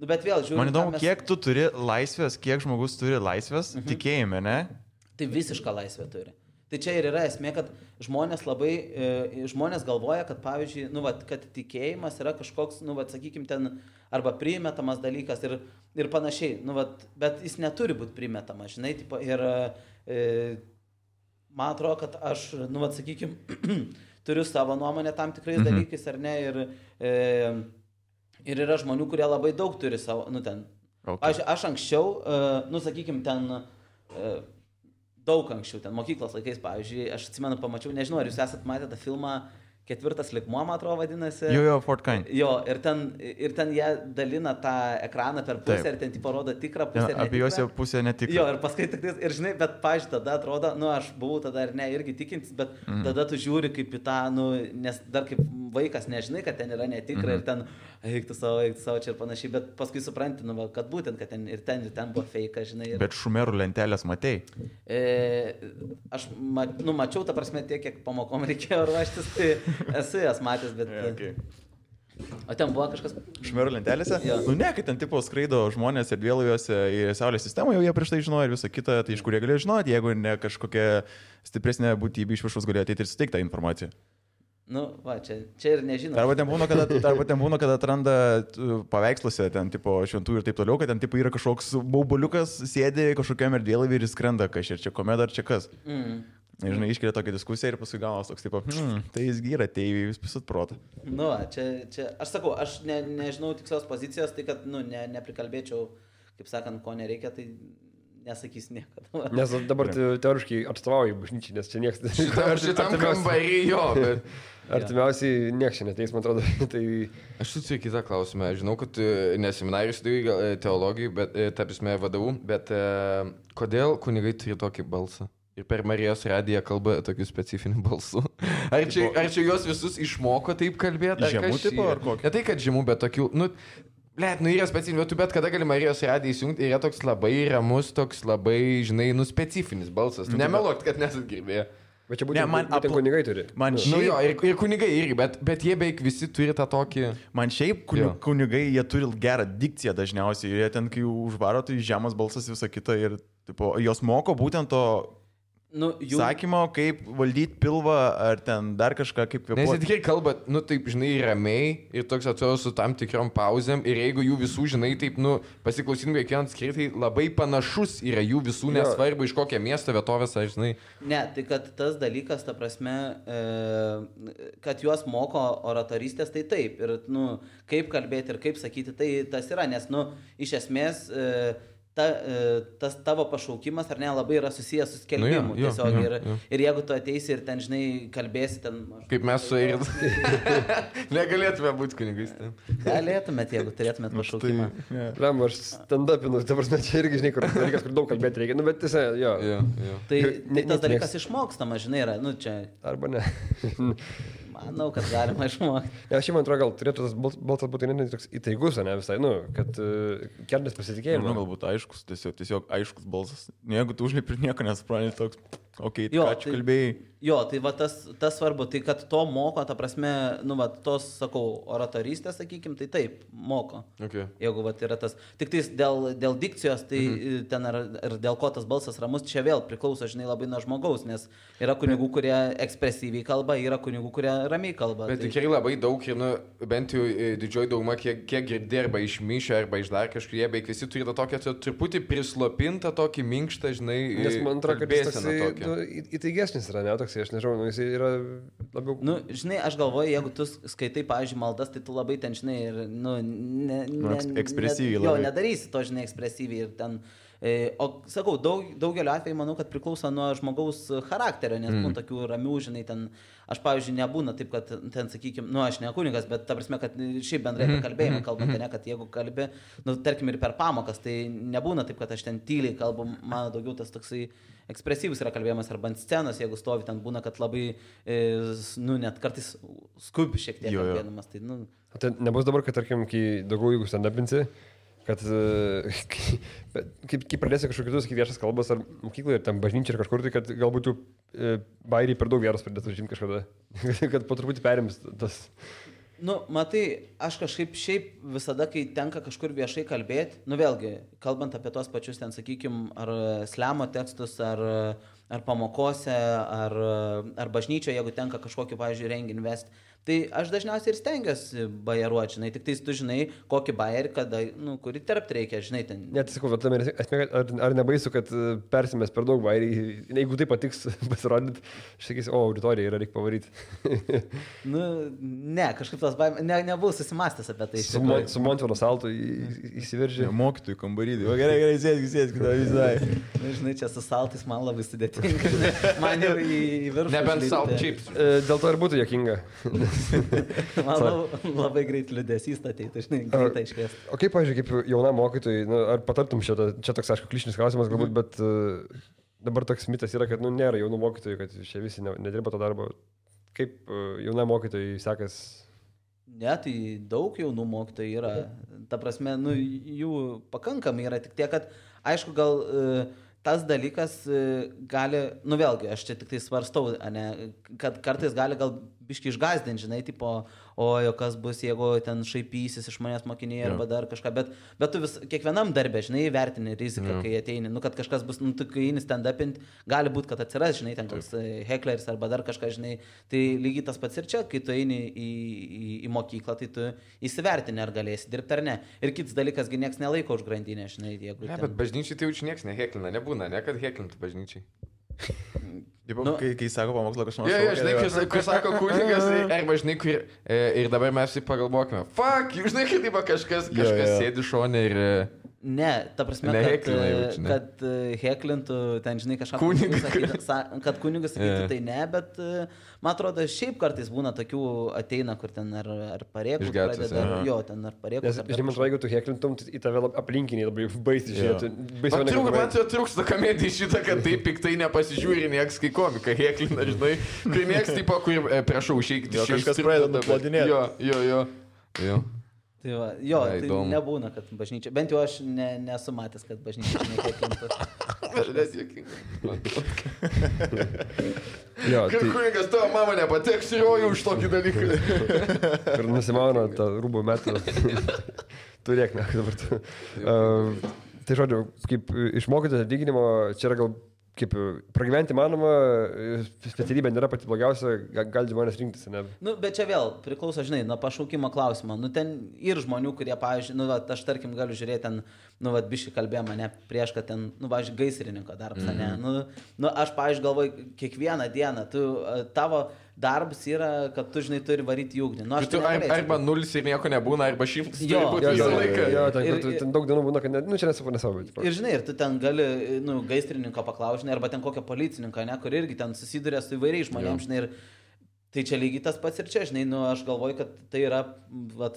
Bet vėl, žiūrėjau... Man įdomu, kiek tu turi laisvės, kiek žmogus turi laisvės, tikėjime, ne? Tai visišką laisvę turi. Tai čia ir yra esmė, kad žmonės galvoja, kad pavyzdžiui, kad tikėjimas yra kažkoks, sakykime, ten arba primetamas dalykas ir panašiai, bet jis neturi būti primetamas, žinai, ir man atrodo, kad aš, sakykime, turiu savo nuomonę tam tikrais dalykais, ar ne, ir yra žmonių, kurie labai daug turi savo, aš anksčiau, sakykime, ten... daug anksčiau, ten mokyklos laikais, pavyzdžiui, aš atsimenu, pamačiau, nežinau, ar jūs esat matę tą filmą Ketvirtas lygmuo, man atrodo, vadinasi. Jo, Fort Kind. Jo, ir ten jie dalina tą ekraną per pusę. Taip. Ir ten tipo rodo tikrą pusę. Ja, apie juos jau pusę netikrą. Jo, ir paskui tik ir žinai, bet, pavyzdžiui, tada atrodo, aš buvau tada ir ne, irgi tikintis, bet tada tu žiūri kaip į tą, nes dar kaip vaikas nežinai, kad ten yra netikra ir ten eiktų savo čia ir panašiai, bet paskui supranti, kad būtent, kad ten buvo fake, žinai. Ir... Bet šumerų lentelės matei? Aš mačiau, ta prasme, tiek, kiek pamokom reikėjo ruoštis, tai esu jas matęs, bet... Okay. O ten buvo kažkas... Šmero lentelėse? Ja. Nu ne, kai ten tipo skraido žmonės erdvėlaiviuose į Saulės sistemą, jau jie prieš tai žinojo ir visą kitą, tai iš kur jie galėjo žinoti, jeigu ne kažkokia stipresnė būtybė iš viršaus galėjo ateiti ir suteikti tą informaciją. Nu, va, čia ir nežinau. Arba ten būna, kad atranda paveiksluose, ten tipo šventų ir taip toliau, kad ten tipo yra kažkoks bauboliukas, sėdi kažkokiam erdvėlaivį ir skrenda kažkaip, čia komeda ar čia kas. Žinai, iškelia tokią diskusiją ir paskui gaunas toks, tipo, tai jis gyra, tai jūs pisut protą. Nu, čia, aš sakau, aš nežinau tikslios pozicijos, tai kad, nu, neprikalbėčiau, kaip sakant, ko nereikia, tai nesakys niekada. Nes dabar teoriškai atstovauji bažnyčiai, nes čia niekas... Šitam kambarį jo, bet... Artimiausiai nieks čia neteis, man atrodo. Tai... Aš suturiu kitą klausimą. Žinau, kad neseminarijus studijai teologijai, bet, tarpsime, vadovų, bet kodėl kunigai turi tokį balsą? Ir per Marijos radiją kalba tokiu specifiniu balsu. Ar čia juos visus išmoko taip kalbėti? Žemų tipo ar kokį? Ne tai, kad žemų, bet tokių, yra specifinių, bet kada gali Marijos radiją įsijungti, yra toks labai ramus, toks labai, žinai, specifinis balsas. Nemeluok, kad nesat girdėję. Bet čia būtent kunigai turi. Man šiaip... Jo, ir kunigai irgi, bet jie beveik visi turi tą tokį... Man šiaip kunigai, jie turi gerą dikciją dažniausiai. Jie ten, kai užvaro, tai žemas balsas visą kitą ir tipo, jos moko būtent to... sakymo, kaip valdyti pilvą ar ten dar kažką kaip kvėpuoti. Nes jie tikrai kalba, taip, žinai, ramiai ir toks atrodo su tam tikrom pauzėm ir jeigu jų visų, žinai, taip, pasiklausytum kiekvieną skirtį, tai labai panašus yra jų visų, nesvarbu iš kokio miesto vietovės, aš žinai. Ne, tai kad tas dalykas, ta prasme, kad juos moko oratorystės, tai taip. Ir, kaip kalbėti ir kaip sakyti, tai tas yra, nes, iš esmės... tas tavo pašaukimas ar ne labai yra susijęs su skelbimu tiesiog ir jeigu tu ateisi ir ten, žinai, kalbėsi ten... Kaip mes su Eiris. Negalėtume būti kunigais. Galėtumėt, jeigu turėtumėt pašaukimą. Lem, aš stand-upinu, dabar čia irgi, žinai, kur daug kalbėti reikia, bet tiesiog, jo. Tai tas dalykas išmokstama, žinai, yra, čia... Arba ne. Manau, kad galima išmokti. Ja, aš man atrodo, gal turėtų tas balsas būti ne toks įtaigus, ne visai, kad kelnes pasitikėjimą. Galbūt aiškus, tiesiog aiškus balsas. Jeigu tu užlipi ir nieko nesupranti, toks, okei, ką čia kalbėjai. Jo, tai va tas svarbu, tai kad to moko, ta prasme, tos, sakau, oratorystės, sakykim, tai taip, moko. Okay. Jeigu va yra tas, tik tais dėl dikcijos, tai ten ir dėl ko tas balsas ramus, čia vėl priklauso, žinai, labai nuo žmogaus, nes yra kunigų, kurie ekspresyviai kalba, yra kunigų, kurie ramiai kalba. Bet tikrai labai daug ir, bent jau didžioji dauguma, kiek girdė arba iš mišio, arba iš dar kažkur, jie beveik visi turi tą tokią truputį prislopintą, tokį minkštą, žinai, nes man atrodo, kad jis įtaigesnis yra, ne, toks, aš nežinau, jis yra labiau... Žinai, aš galvoju, jeigu tu skaitai, pavyzdžiui, maldas, tai tu labai ten, žinai, ir, ekspresyviai labai. Jo, nedarysi to, žinai, ekspresyviai ir ten... O sakau, daugeliu atveju manau, kad priklauso nuo žmogaus charakterio, nes būna tokių ramių, žinai, ten, aš pavyzdžiui, nebūna taip, kad ten, sakykime, aš ne kunigas, bet ta prasme, kad šiaip bendrai apie kalbėjimą kalbant, ne, kad jeigu kalbi, tarkim ir per pamokas, tai nebūna taip, kad aš ten tyliai kalbu, man daugiau tas toksai ekspresyvus yra kalbėjimas arba ant scenos, jeigu stovi ten būna, kad labai, net kartais skubi šiek tiek kalbėdamas. Tai nebus dabar, kad, tarkim, kai daugiau jeigu stand-upinsi, kad kaip pradėsi kažkokius sakyti viešas kalbas ar mokykloje, ar ten bažnyčia ar kažkur, tai kad galbūt jų bairiai per daug vietos pradėtų žinti kažkada, kad po truputį perims tas... Matai, aš kažkaip šiaip visada, kai tenka kažkur viešai kalbėti, vėlgi, kalbant apie tos pačius ten, sakykim, ar slemo tekstus, ar pamokose, ar bažnyčioje, jeigu tenka kažkokį, pavyzdžiui, renginį vesti, tai aš dažniausiai ir stengiuosi bajeruoti, žinai, tik tais tu žinai, kokį bajerį, kada, kurį terpt reikia, žinai, ten. Net sakau, ar nebaisu, kad persimės per daug bajerį, jeigu tai patiks pasirodyti, aš sakysiu, auditorija yra, reikia pavaryti. Ne, kažkaip tas baimė, nebuvau susimastęs apie tai. Su Montvaro saltu įsiveržė. Mokytojų kambarį, o gerai, sėsk, kada visai. Žinai, čia su saltais man labai sudėtinga, man jau į viršų. Nebent salt chips. Dėl to ir būtų juokinga. Man labai greit liūdėsys ateitų, žinai, greitai iškviesti. O kaip, pavyzdžiui, kaip jaunam mokytojui, ar patartum čia toks, aišku, klišinis klausimas galbūt, bet dabar toks mitas yra, kad nėra jaunų mokytojų, kad čia visi nedirba to darbo. Kaip jaunam mokytojui sekas? Ne, tai daug jaunų mokytojų yra. Ta prasme, jų pakankamai yra, tik tiek, kad, aišku, gal... tas dalykas gali, vėlgi, aš čia tik tai svarstau, ne, kad kartais gali gal biški išgazdinti, žinai, tipo, o kas bus, jeigu ten šaipysis iš manęs mokiniai arba dar kažką, bet tu kiekvienam darbė, žinai, vertini riziką, kai ateini, kad kažkas bus, kai eini stand-upint, gali būti, kad atsiras, žinai, ten koks heckleris arba dar kažką, žinai, tai lygiai tas pats ir čia, kai tu eini į mokyklą, tai tu įsivertini, ar galėsi dirbti ar ne. Ir kitas dalykas, nieks nelaiko už grandinę, žinai, jeigu... Ne, bet bažnyčiai tai jau nieks neheklina, nebūna, ne, kad heklintų bažnyčiai. Kai sako pamokslą kažkas. Žinai, kai sako kunigas, arba žinai, ir dabar mes jį pagalvokime. Fuck, žinai, kaip kažkas sėdi šone ir... Ne, ta prasme, kad heklintų, ten, žinai, kažką kad kunigas sakytų, tai ne, bet man atrodo, šiaip kartais būna tokių ateina, kur ten ar pareikų pradeda, ten ar pareikų. Žinai, man jeigu tu heklintum, į tave aplinkiniai labai baisiai žiūrėtų. Man čia trūksta komedija šitą, kad taip piktai nepasižiūri nieks, kai komika heklina, žinai, kai nieks taip, kur prašau, išeikti. Kažkas pradeda nuplodinėti. Jo. Tai nebūna, kad bažnyčia, bent jau aš nesu matęs, kad bažnyčia nekėkintų. Aš juokinga. Kad kunigas tavo mama nepateks į rojų už tokį dalyką. Ir nusimauna tą rūbų metą. Turėk, ne, dabar. Tai žodžiu, kaip išmokyti atlyginimo, čia yra gal kaip pragyventi manoma, specialybė nėra pati blogiausia, gali žmonės rinktis, ne? Bet čia vėl priklauso, žinai, nuo pašaukimo klausimo. Ten ir žmonių, kurie, pavyzdžiui, aš tarkim galiu žiūrėti ten, biškai kalbėjom mane prieš, kad ten, pavyzdžiui, gaisrininko darbas, ne? Aš, pavyzdžiui, galvoju, kiekvieną dieną, tavo darbas yra, kad tu, žinai, turi varyti į ugnį. Arba 0 ir nieko nebūna, arba 100 turi būti visą laiką. Ten daug dienų būna, kad čia nesavo. Ir, žinai, ir tu ten gali, gaisrininko paklausti, arba ten kokią policininką, ne, kur irgi ten susiduria su įvairiais žmonėms, žinai, ir tai čia lygiai tas pats ir čia, žinai, aš galvoju, kad tai yra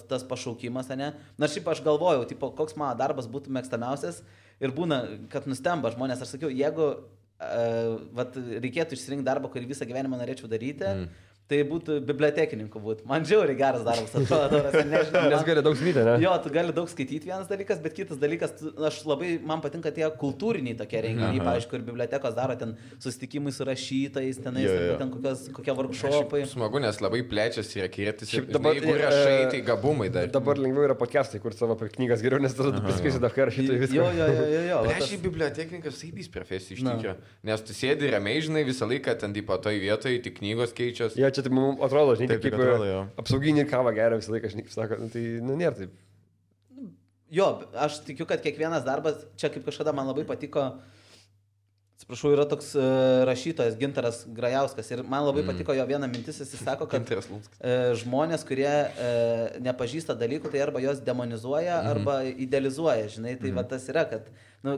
tas pašaukimas, ne. Na, šiaip aš galvojau, tipo, koks mano darbas būtų mėgstamiausias ir būna, kad nustemba žmonės, aš sakiau, jeigu reikėtų išsirinkti darbą, kurį visą gyvenimą norėčiau daryti, tai būtų bibliotekininku būti. Man žiauriai geras darbas, atrodo, nežinau. Nes gali daug skaityti, ne? Jo, tu gali daug skaityti vienas dalykas, bet kitas dalykas, man patinka tie kultūriniai tokie renginiai, pavyzdžiui, kur bibliotekos daro ten susitikimai su rašytojais, ten kokie workshopai. Smagu, nes labai plečiasi ir akiratis. Jeigu rašai, tai gabumai dar. Dabar lengviau yra podcastai, kur savo knygas geriau, nes tada tu pasakysi dar ką rašytojai viską. Jo. Aš į bibliotekininkas saibys profesija iš tikro. Nes tu sėdi ramiai, žinai, visą laiką ten toj vietoje, tik knygos keičias. Tai mums atrodo, žinai, kaip apsauginį kavą geria visą laiką, žinai, sako, tai nėra taip. Jo, aš tikiu, kad kiekvienas darbas, čia kaip kažkada man labai patiko, atsiprašau, yra toks rašytojas Gintaras Grajauskas ir man labai patiko jo viena mintis, jis sako, kad žmonės, kurie nepažįsta dalykų, tai arba jos demonizuoja, arba idealizuoja, žinai, tai va tas yra, kad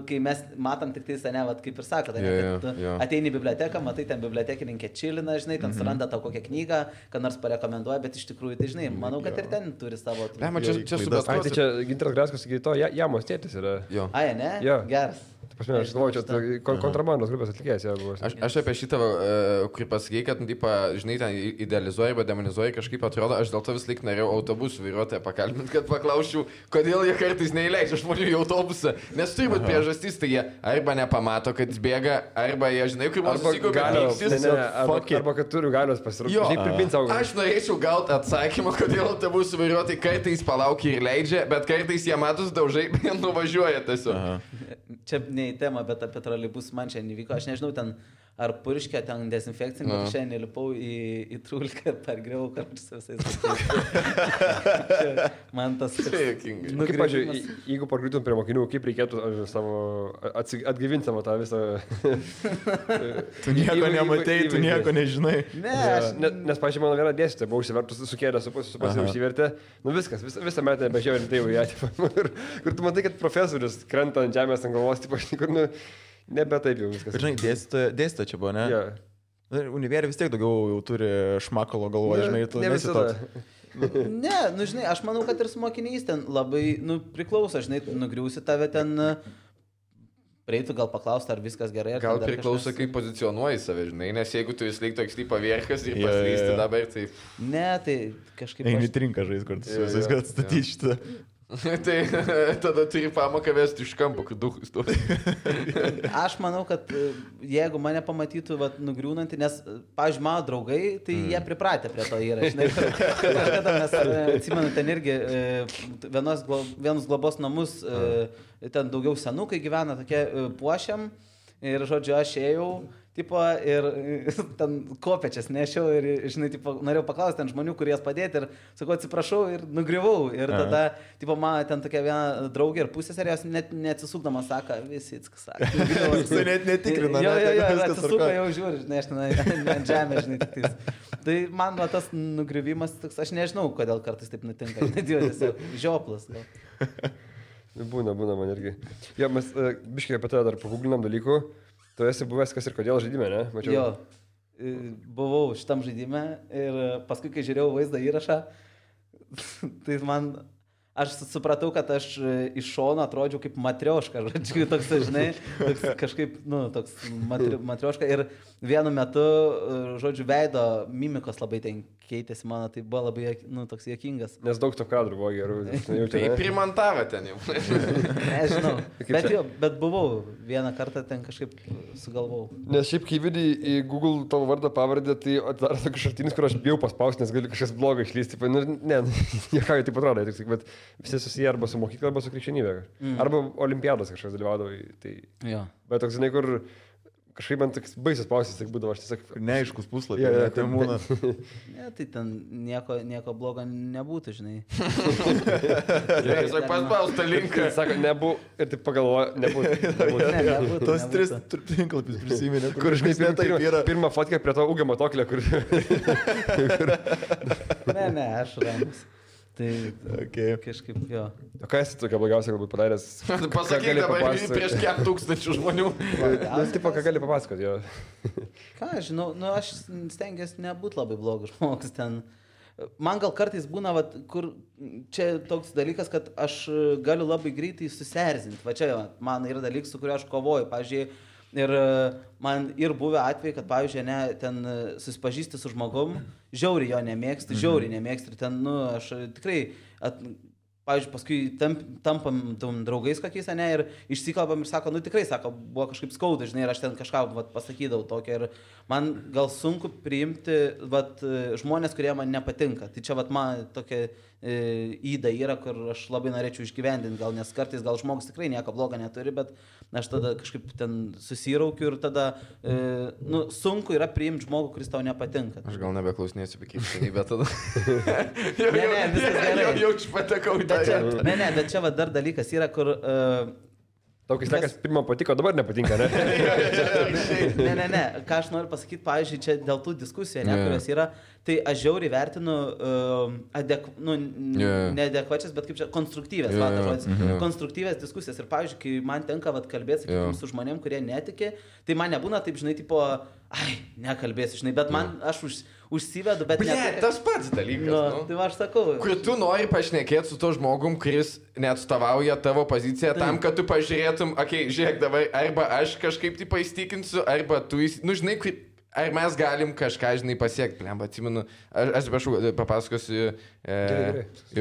kai mes matom tik tai, ne, va, kaip ir sako, kad ateini į biblioteką, matai, ten bibliotekininkė čilina, žinai, ten suranda tau kokią knygą, kad nors parekomenduoja, bet iš tikrųjų, tai žinai, manau, kad ir ten turi savo... Čia Gintaras Grajauskas, sakai, to Jamos tėtis yra. Ai, ne? Geras. Aš galvoju, čia kontrabandos grupės atlikėjas. Aš apie šitą, kur pasakėjai, kad, žinai, ten idealizuoji arba demonizuoji, kažkaip atrodo, aš dėl to vis laik norėjau autobusų vairuotoją pakalbinti, kad paklausčiau, kodėl jie kartais neįleidžia žmonių į autobusą. Nes turi būti priežastys, tai jie arba nepamato, kad jis bėga, arba jie, žinai, kaip man susikūpė. Arba kad turiu galios pasirūpinti. Aš norėčiau gauti atsakymą, kodėl autobusų vairuotojai kartais palaukia ir leidžia, bet kartais jie matus daužai, bet nuvažiuoja tiesiog. Čia ne į temą, bet apie troleibus man čia nevyko. Aš nežinau, ten ar purškė, ten dezinfekcinį, bet šiandien lipau į trulką ir pergriau kartus visais. Man tas... Kaip, pažiūrėjau, jeigu pargriūtum prie mokinių, kaip reikėtų savo atgyvinti savo tą visą... Tu nieko nematei, tu nieko nežinai. Nes, pažiūrėjau, mano viena dėstytoja buvo užsivertus, sukėlė, užsivertė. Nu viskas, visą metą bežiūrėjau ir tai jau ją. Kur tu matai, kad profesorius krenta ant žemės ant galvos, kur, nebe taip jau viskas. Žinai, dėstytoja čia buvo, ne? Yeah. Univerė vis tiek daugiau jau turi šmakalo galvoje, žinai, tu nesi toks. Ne, žinai, aš manau, kad ir su mokiniais ten labai, priklauso, žinai, nugriausi tave ten, prieitų gal paklausti, ar viskas gerai. Gal priklauso, kaip pozicionuoji save, žinai, nes jeigu tu vis laik toks lypa vierkas ir paslysti dabar, tai... Ne, tai kažkaip... Eini trinką žais, kur tu su visais gal statyti šitą. Tai tada turi pamoką vesti iš kampo, kad duhus to. Aš manau, kad jeigu mane pamatytų nugriūnantį, nes, pavyzdžiui, mano draugai, tai jie pripratę prie to yra. Žinai, kažkada mes, atsimenu, ten irgi vienus globos namus, ten daugiau senukai gyvena, tokie puošiam ir, žodžiu, aš ėjau. Tipo, ir ten kopečias nešiau ir, žinai, tipo, norėjau paklausti ten žmonių, kurie jas padėti ir sakau, atsiprašau ir nugriuvau. Ir tada, tipo, man ten tokia viena draugė ir pusėserė, jos net neatsisukdama sako, visi atsisakė. Jis net netikrina. Jo, atsisuka jau žiūri, žinai, aš ten ant žemės, žinai, tik tais. Tai man tas nugriuvimas, aš nežinau, kodėl kartais taip nutinka. Tiesiog žioplas. Būna man irgi. Jo, mes biškai apie tai dar paguglinam dalykų. Tu esi buvęs kas ir kodėl žaidime, ne? Mačiau. Jo, buvau šitam žaidime ir paskui, kai žiūrėjau vaizdą įrašą, tai aš supratau, kad aš iš šono atrodžiau kaip matrioška, žodžiu, toks, žinai, kažkaip, toks matrioška ir vienu metu, žodžiu, veido mimikos labai ten keitėsi mano, tai buvo labai, toks juokingas. Nes daug to kadrų buvo gerų. Tai primantavo ten jau. Nežinau, bet buvau vieną kartą ten kažkaip sugalvau. Nes šiaip, kai vidai į Google tavo vardą pavardę, tai atidaro tokius šaltinius, kur aš bijau paspausti, nes gali kažkas blogai išlysti. Ne, niekai taip atrodo, bet visi susiję arba su mokykla, arba su krikščionybė. Arba olimpiados kažkas dalyvaudavo. Tai... Bet toks, žinai, kur kažkaip man toks baisas pausys, tai būdavo, aš tiesiog... Neaiškus puslapį, tai būna. Ne, tai ten nieko blogo nebūtų, žinai. Tiesiog paspaustą linką. Sako, nebūtų, ir taip pagalvoja, nebūtų. Tos 3 tinklapius prisiminė, kur kažkaip taip yra. Pirmą fotkę prie to ūgio matoklio, kur... Ne, aš ramus. Tai kažkaip jo. O ką esi tokia blogiausia galbūt padaręs? Pasakyk dabar prieš kiek tūkstančių žmonių. Tipo, ką gali papasakoti, jo. Ką aš žinau, aš stengiuosi nebūti labai blogas žmogus ten. Man gal kartais būna, kur čia toks dalykas, kad aš galiu labai greitai susierzinti. Va čia man yra dalykas, su kuriuo aš kovoju. Pavyzdžiui, ir man ir buvę atvejai, kad, pavyzdžiui, ten susipažįsti su žmogum, žiauriai jo nemėgsti, ir ten, aš tikrai, pavyzdžiui, paskui tampam draugais kokiais, ir išsikalbam ir sako, tikrai, sako, buvo kažkaip skauda, žinai, ir aš ten kažką pasakydavau tokią ir man gal sunku priimti žmonės, kurie man nepatinka. Tai čia man tokia įda yra, kur aš labai norėčiau išgyvendinti, gal nes kartais gal žmogus tikrai nieko blogo neturi, bet aš tada kažkaip ten susiraukiu ir tada sunku yra priimti žmogų, kuris tau nepatinka. Aš gal nebeklausinėsiu apie krikščionybę tada. Ne, viskas gerai. Jau patekau į tą. Ne, bet čia dar dalykas yra, kur... Tau, kai sakas, pirmą patiko, dabar nepatinka, ne? Ne. Ką aš noriu pasakyti, pavyzdžiui, čia dėl tų diskusijų, kurios yra, tai aš žiauriai vertinu neadekvačias, bet kaip čia, konstruktyvės, konstruktyvės diskusijas. Ir, pavyzdžiui, kai man tenka kalbėti, sakykime, su žmonėm, kurie netiki, tai man nebūna taip, žinai, tipo, nekalbėsiu, žinai, bet man, aš užsivedu, bet ne. Tas pats dalykas. Tai aš sakau. Kur tu nori pašnekėti su to žmogum, kuris neatstovauja tavo poziciją tam, kad tu pažiūrėtum, žiūrėk dabar, arba aš kažkaip tai paįstikinsiu, arba tu, žinai, ar mes galim kažką, žinai, pasiekti. Plemba, atsimenu, aš prašau, papasakosiu,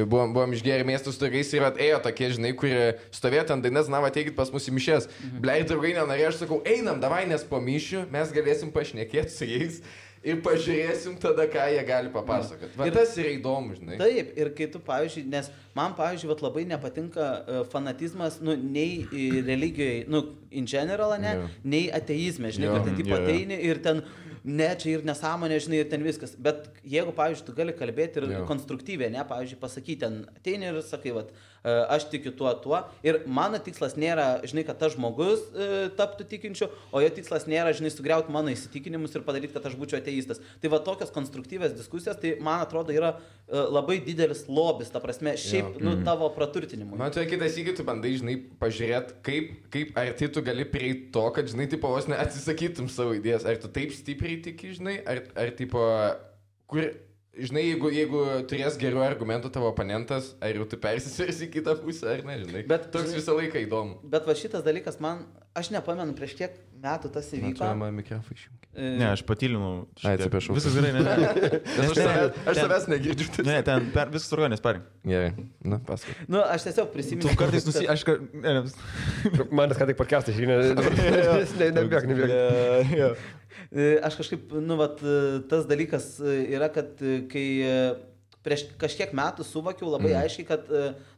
buvom išgėrę miestų su draugais ir ėjo tokie, žinai, kurie stovėjo ant dainas, ateikit pas mus į mišes. Blei, draugai nenorėjo, aš sakau, einam, davai, nes po mišių mes galėsim pašnekėti su jais. Ir pažiūrėsim tada, ką jie gali papasakoti. Ir tas yra įdomu, žinai. Taip, ir kai tu, pavyzdžiui, nes man, pavyzdžiui, labai nepatinka fanatizmas, nei religijoje, in general, nei ateizme, žinai, kad ten tipo ateini ir ten, čia ir nesąmonė, žinai, ir ten viskas. Bet jeigu, pavyzdžiui, tu gali kalbėti ir konstruktyviai, pavyzdžiui, pasakyti, ten ateini ir sakai, aš tikiu tuo. Ir mano tikslas nėra, žinai, kad tas žmogus taptų tikinčiu, o jo tikslas nėra, žinai, sugriauti mano įsitikinimus ir padaryti, kad aš būčiau ateistas. Tai tokios konstruktyvės diskusijos, tai man atrodo yra labai didelis lobis, ta prasme, šiaip, tavo praturtinimui. Man tai kitas įgį, tu bandai, žinai, pažiūrėti, kaip ar tai tu gali prieiti to, kad, žinai, tipo, vos neatsisakytum savo idėjas. Ar tu taip stipriai tiki, žinai, ar tipo, kur... Žinai, jeigu turės gerų argumentų tavo oponentas, ar jau tu persisirsi į kitą pusę, ar ne, žinai. Bet toks visą laiką įdomu. Bet šitas dalykas man aš nepamenu, prieš kiek metų tas įvyko. Ne, aš patylinau. Atsiprašau. Viskas gerai, ne. Aš savęs negirdžiu. Ne, ten viskas organinis, parink. Gerai, paskui. Aš tiesiog prisimenu. Tu kartais Manas ką tik podcast'ą žiūrėjau. Nebėg. Aš kažkaip, tas dalykas yra, kad kai prieš kažkiek metų suvokiau labai aiškiai, kad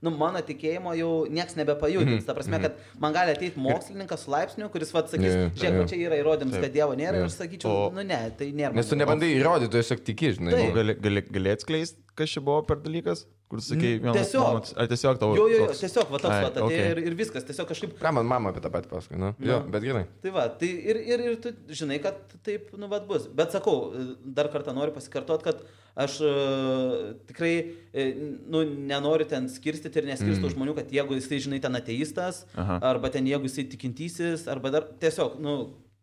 mano tikėjimo jau nieks nebepajudins. Ta prasme, kad man gali ateiti mokslininkas su laipsniu, kuris sakys, žiūrėk, čia yra įrodymas, kad Dievo nėra, ir aš sakyčiau, ne, tai nėra. Nes tu nebandai įrodyti, tu tiesiog tiki, žinai. Gali atskleisti, kas čia buvo per dalykas? Kur sakai, tiesiog tavo... Jo, tiesiog, va toks, ir viskas, tiesiog kažkaip... Ką man mama apie tą patį pasakė, Jo, bet gerai. Tai va, tai ir tu žinai, kad taip, bus. Bet sakau, dar kartą noriu pasikartoti, kad aš tikrai, nenoriu ten skirstyti ir neskirstu žmonių, kad jeigu jisai, žinai, ten ateistas, arba ten jeigu jisai tikintysis, arba dar tiesiog,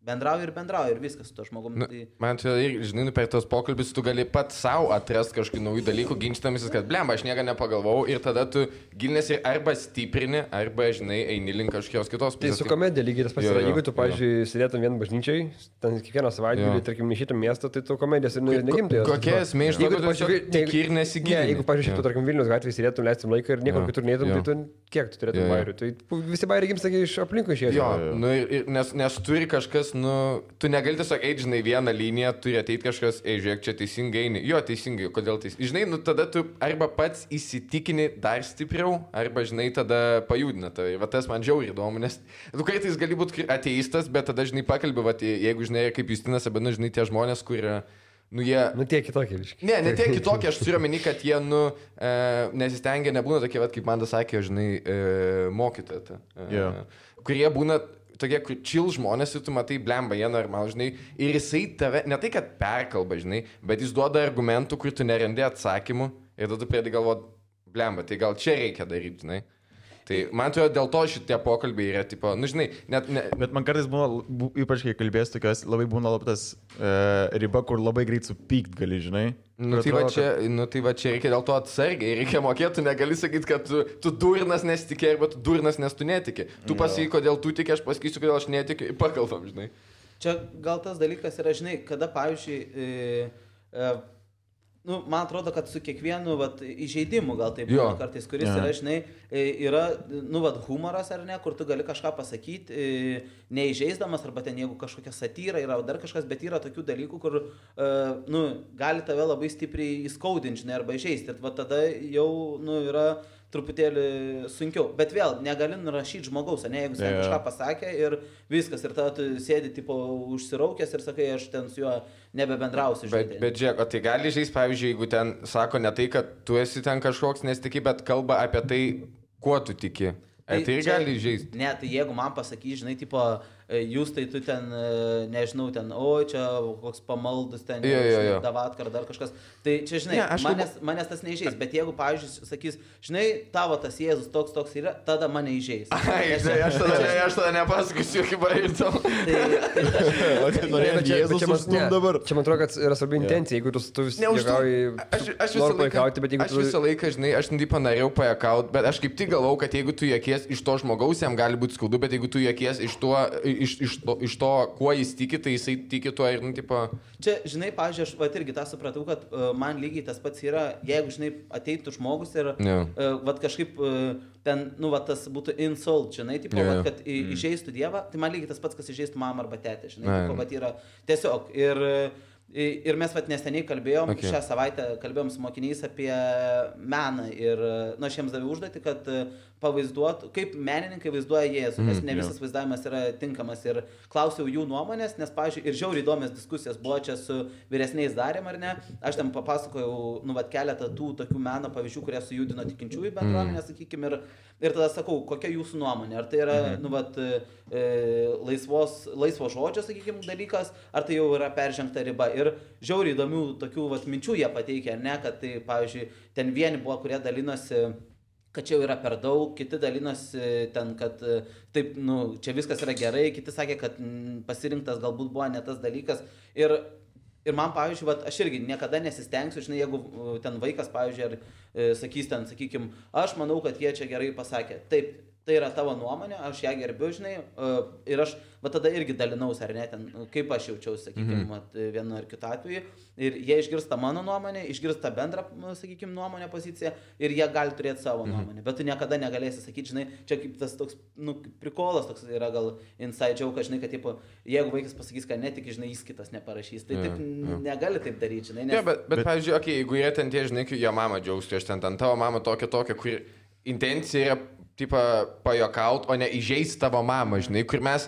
bendrauju ir viskas su to žmogum. Man čia, žinai, per tos pokalbis tu gali pat savo atrasti kažkokių naujų dalykų, ginčytamisis, kad blemba, aš nieko nepagalvojau ir tada tu gilinėsi arba stiprini, arba, žinai, eini link kažkokios kitos pusės. Tai su komedija lygiai tas pats yra. Jeigu tu, pavyzdžiui, sėdėtum vien bažnyčiai, ten kiekvieną savaitgalį, tarkim, nešytum miestą, tai tu komedijas ir negimtai. Kokia esmė, jeigu tu tiki ir nesigilini. Jeigu, pavyzdžiui, tu, tarkim, Vilnius gatvėje sėdėtum, leistum laiką ir niekur kitur neitum, tai tu kiek tu turėtum bairių. Tai visi bairiai gimsta iš aplinkų išėjęs. Nes turi kažkas, tu negali tiesiog eiti, žinai, vieną liniją, turi ateiti kažkas, žiūrėk, čia teisingai eini. Jo, teisingai, kodėl teisingai. Žinai, tada tu arba pats įsitikini dar stipriau, arba, žinai, tada pajudina. Tai va tas man žiauriai įdomu, nes tu kartais gali būti ateistas, bet tada, žinai, pakalbė, va, jeigu, žinai, kaip Justinas Abenu, žinai, tie žmonės, kurie... jie... tiek kitokie, visiškai. Ne tiek kitokie, aš turiu omeny, kad jie, nesistengia, nebūna tokie, va, kaip man das sakė, žinai, mokytoja. Kurie būna tokie chill žmonės ir tu matai, blemba, jie normal, žinai, ir jisai tave, ne tai, kad perkalba, žinai, bet jis duoda argumentų, kur tu nerandi atsakymų ir tada tu pradedi galvoti, blemba, tai gal čia reikia daryti, žinai. Tai man atrodo, dėl to šitie pokalbiai yra, tipo, žinai, Bet man kartais būna, ypač kai kalbės tokios, labai būna tas riba, kur labai greit supykt gali, žinai. Tai va čia reikia dėl to atsargiai, reikia mokėti, tu negali sakyti, kad tu durnas nesitikė, arba tu durnas nes tu netiki. Tu pasakai, kodėl tu tiki, aš pasakysiu, kodėl aš netikiu, pakalbam, žinai. Čia gal tas dalykas yra, žinai, kada, pavyzdžiui, man atrodo, kad su kiekvienu įžeidimu gal taip būna kartais, kuris yra, žinai, yra, humoras ar ne, kur tu gali kažką pasakyti, neįžeisdamas, arba ten jeigu kažkokia satyra yra, dar kažkas, bet yra tokių dalykų, kur, gali tave labai stipriai įskaudinti, žinai, arba įžeisti. Ir tada jau, yra truputėlį sunkiau. Bet vėl, negali nurašyti žmogaus, ne, jeigu jis kažką pasakė ir viskas, ir tada tu sėdi, tipo, užsiraukęs ir sakai, aš ten su juo nebebendrausiu. Bet žiūrėk, o tai gali žaisti, pavyzdžiui, jeigu ten sako ne tai, kad tu esi ten kažkoks nesitiki, bet kalba apie tai, kuo tu tiki. Tai gali žaisti. Ne, tai jeigu man pasakys, žinai, tipo, jūs tai tu ten, nežinau, ten, čia koks pamaldus ten, davatkar ar dar kažkas. Tai čia, žinai, manęs tas neįžeis, bet jeigu, pavyzdžiui, sakys, žinai, tavo tas Jėzus toks yra, tada mane įžeis. Aš tada nepasakysiu, kaip bairtau. Čia man atrodo, kad yra svarbi intencija, jeigu tu vis juokauji, nori pajuokauti, bet jeigu tu... Aš visą laiką, žinai, aš norėjau pajuokauti, bet aš kaip tik galvau, kad jeigu tu juokies iš to žmogaus, jam gali būti skaudu, bet jeigu tu juokies iš to, kuo jis tiki, tai jisai tiki tuo ir, tipo... Čia, žinai, pavyzdžiui, aš irgi tą supratau, kad man lygiai tas pats yra, jeigu, žinai, ateitų žmogus ir kažkaip ten, tas būtų insult, žinai, tipo, kad įžeistų Dievą, tai man lygiai tas pats, kas įžeistų mamą arba tetę, žinai, tipo, yra tiesiog. Ir mes neseniai kalbėjom, šią savaitę kalbėjom su mokiniais apie meną ir, aš jiems daviau užduotį, kad pavaizduotų, kaip menininkai vaizduoja Jėzų, nes ne visas vaizdavimas yra tinkamas ir klausiau jų nuomonės, nes, pavyzdžiui, ir žiauriai įdomios diskusijos buvo čia su vyresniais darėm, ar ne, aš ten papasakojau, keletą tų tokių meno pavyzdžių, kurie sujudino tikinčiųjų bendruomenę, sakykime, ir tada sakau, kokia jūsų nuomonė, ar tai yra, laisvo žodžio, sakykime, dalykas, ar tai jau yra peržengta riba. Ir žiauriai įdomių tokių minčių jie pateikė, ne, kad tai, pavyzdžiui, ten vieni buvo, kurie dalinosi, kad čia jau yra per daug, kiti dalinosi ten, kad taip, čia viskas yra gerai, kiti sakė, kad pasirinktas galbūt buvo ne tas dalykas. Ir man, pavyzdžiui, aš irgi niekada nesistengsiu, žinai, jeigu ten vaikas, pavyzdžiui, ar sakys ten, sakykime, aš manau, kad jie čia gerai pasakė. Taip, tai yra tavo nuomonė, aš ją gerbiu, žinai, ir aš, va tada irgi dalinausi, ar ne, ten, kaip aš jaučiausi, sakykime, vienu ar kitu atveju, ir jie išgirsta mano nuomonę, išgirsta bendrą, sakykime, nuomonę poziciją, ir jie gali turėti savo nuomonę, bet tu niekada negalėsi sakyti, žinai, čia kaip tas toks, prikolas toks yra gal inside joke, žinai, kad, tipo, jeigu vaikas pasakys, kad netiki, žinai, jis kitas neparašys, tai taip negali taip daryti, žinai. Nes... Ja, bet pavyzdžiui, jeigu jie ten tie, žinai, jo mama džiaugstų, aš ten tavo mama tokia, kur intencija yra, tipo, pajokaut, o ne įžeisti tavo mamą, žinai, kur mes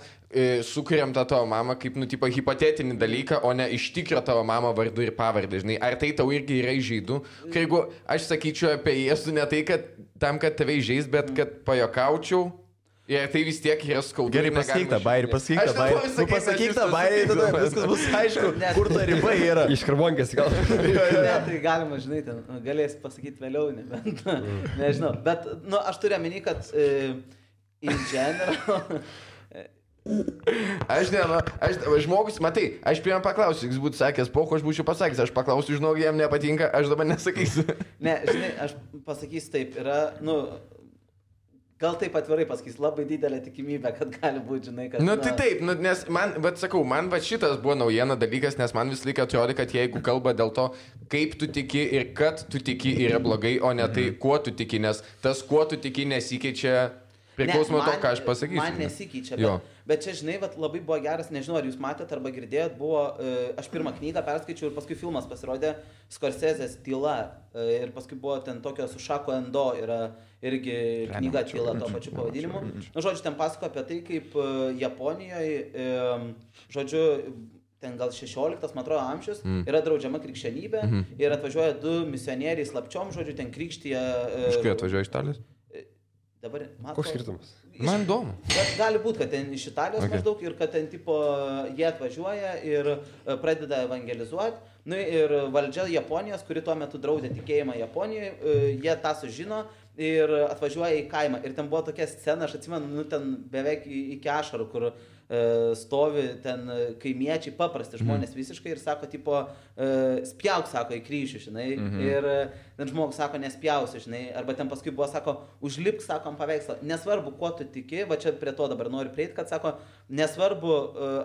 sukuriam tą tavo mamą kaip, tipo, hipotetinį dalyką, o ne iš tikro tavo mamą vardu ir pavardę, žinai. Ar tai tau irgi yra įžeidu? Jeigu aš sakyčiau apie Jėzų ne tai, kad tam, kad tave įžeis, bet kad pajokaučiau, ir tai vis tiek yra skaudu. Gerai, pasakyk tą bairį, pasakyk tą bairį, tada viskas bus aišku, kur ta riba yra. Iš karbonkės gal. Ne, tai galima, žinai, ten galėsi pasakyti vėliau, nebent, nežinau. Bet, aš turiu omeny, kad in general... Žmogus, matai, aš pirmą paklausiu, jis būtų sakęs, aš būčiau pasakęs, aš paklausiu, žinau, jam nepatinka, aš dabar nesakysiu. Ne, žinai, aš pasakysiu taip, yra, gal taip atvirai pasakys, labai didelė tikimybė, kad gali būti, žinai, kad... Tai taip, nes man, sakau, man šitas buvo naujiena dalykas, nes man vis laiką atrodo, kad jeigu kalba dėl to, kaip tu tiki ir kad tu tiki yra blogai, o ne tai, kuo tu tiki, nes tas, kuo tu tiki, nesikeičia priklausomai to, ką aš pasakysiu. Man nesikeičia, bet čia, žinai, labai buvo geras, nežinau, ar jūs matėte arba girdėjot, buvo, aš pirmą knygą perskaičiau ir paskui filmas pasirodė Scorsese's Tyla ir paskui buvo ten tokio su Šako Endo, yra irgi knyga Tyla to pačiu pavadinimu. Žodžiu, ten pasako apie tai, kaip Japonijoje, žodžiu, ten gal 16, man atrodo, amžius, yra draudžiama krikščionybė ir atvažiuoja 2 misionieriai slapčiom, žodžiu, ten krikštyje... Iš kai atvažiuoja iš Italijos? Dabar, koks skirtumas? Man įdomu. Bet gali būti, kad ten iš Italijos maždaug ir kad ten tipo jie atvažiuoja ir pradeda evangelizuoti. Ir valdžia Japonijos, kuri tuo metu draudė tikėjimą Japonijoje, jie tą sužino ir atvažiuoja į kaimą. Ir ten buvo tokia scena, aš atsimenu, ten beveik iki ašarų, kur stovi ten kaimiečiai, paprasti žmonės visiškai ir sako, tipo, spjauk, sako, į kryžių, žinai, ir ten žmogus sako, nespjausi, žinai, arba ten paskui buvo, sako, užlipk, sako, ant paveikslą, nesvarbu, kuo tu tiki, va čia prie to dabar noriu prieiti, kad sako, nesvarbu,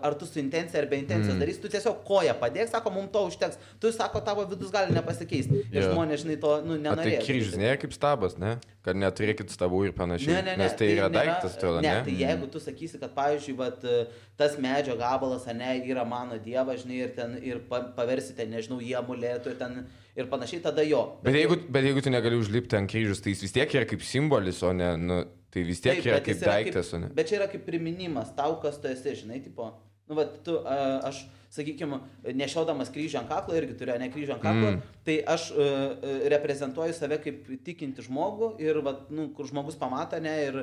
ar tu su intencija ar be intencijos darysi, tu tiesiog koją padėk, sako, mums to užteks, tu, sako, tavo vidus gali nepasikeisti, ir žmonės, žinai, to, nenorėjo. Tai kryžius nėra kaip stabas, ne? Kad neturėkit stabų ir panašiai, nes tai yra daiktas, atrodo, ne? Ne, tai jeigu tu sakysi, kad, pavyzdžiui, vat, tas medžio gabalas, ne, yra mano dievas, žinai, ir ten ir paversite, nežinau, jį amuletų ir panašiai, tada jo. Bet jeigu tu negali užlipti ant kryžius, tai jis vis tiek yra kaip simbolis, o ne, tai vis tiek yra kaip daiktas, o ne. Bet čia yra kaip priminimas tau, kas tu esi, žinai, tipo, aš, sakykime, nešiodamas kryžių ant kaklo, irgi turiu ne kryžių ant kaklo, tai aš reprezentuoju save kaip tikinti žmogų ir, kur žmogus pamato, ne, ir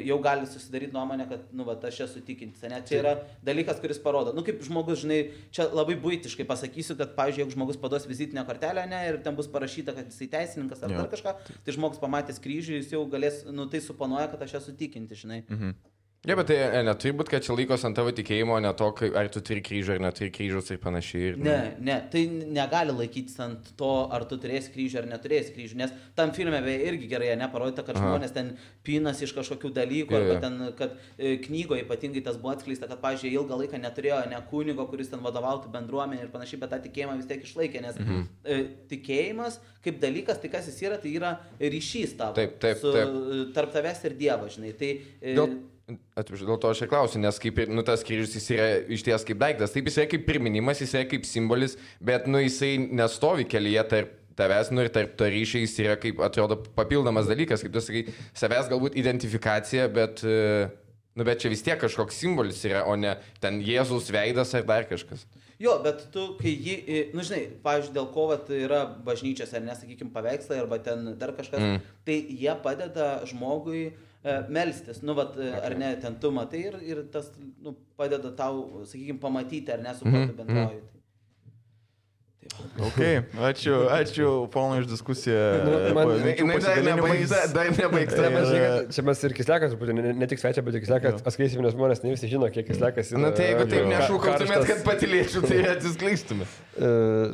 jau gali susidaryti nuomonę, kad, aš esu tikintis, ne, čia yra dalykas, kuris parodo, kaip žmogus, žinai, čia labai buitiškai pasakysiu, kad, pavyzdžiui, jeigu žmogus paduos vizitinę kortelę, ne, ir ten bus parašyta, kad jisai teisininkas ar dar kažką, tai žmogus pamatęs kryžių, jis jau galės, tai suponuoja, kad aš esu tikintis, žinai. Ja, bet tai neturi būti, kad čia laikos ant tavo tikėjimo, ne to, ar tu turi kryžių, ar neturi kryžius ir panašiai. Ne, tai negali laikytis ant to, ar tu turėsi kryžių, ar neturėsi kryžių, nes tam filme irgi gerai neparodyta, kad žmonės ten pinas iš kažkokių dalykų, arba ten, kad knygoje ypatingai tas buvo atskleista, kad, pavyzdžiui, ilgą laiką neturėjo ne kunigo, kuris ten vadovautų bendruomenė ir panašiai, bet tą tikėjimą vis tiek išlaikė, nes tikėjimas kaip dalykas, tai kas jis yra, tai yra ryšys tavo tarp tavęs ir Dievo, žinai. Dėl to aš ir klausiu, nes kaip ir, tas kryžius jis yra išties kaip daiktas, taip jis yra kaip priminimas, jis yra kaip simbolis, bet, jisai nestovi kelyje tarp tavęs, ir tarp to ryšiai jis yra kaip, atrodo, papildomas dalykas, kaip tu sakai, savęs galbūt identifikacija, bet čia vis tiek kažkoks simbolis yra, o ne ten Jėzaus veidas ar dar kažkas. Jo, bet tu, kai jį, žinai, pavyzdžiui, dėl ko yra bažnyčios, ar nesakykime, paveikslai, arba ten dar kažkas, tai jie padeda žmogui melstis, ar ne, ten tu matai ir tas padeda tau, sakykime, pamatyti, ar ne, su kuo tu bendrauji. Ok, ačiū ponui už diskusiją. Dar nebaigta. Čia mes ir Kislekas, ne tik svečia, bet ir Kislekas atskleisim, nes žmonės ne visi žino, kiek Kislekas yra. Tai jeigu taip nešūkautumėt, kad patylėčiau, tai atsiskleistume.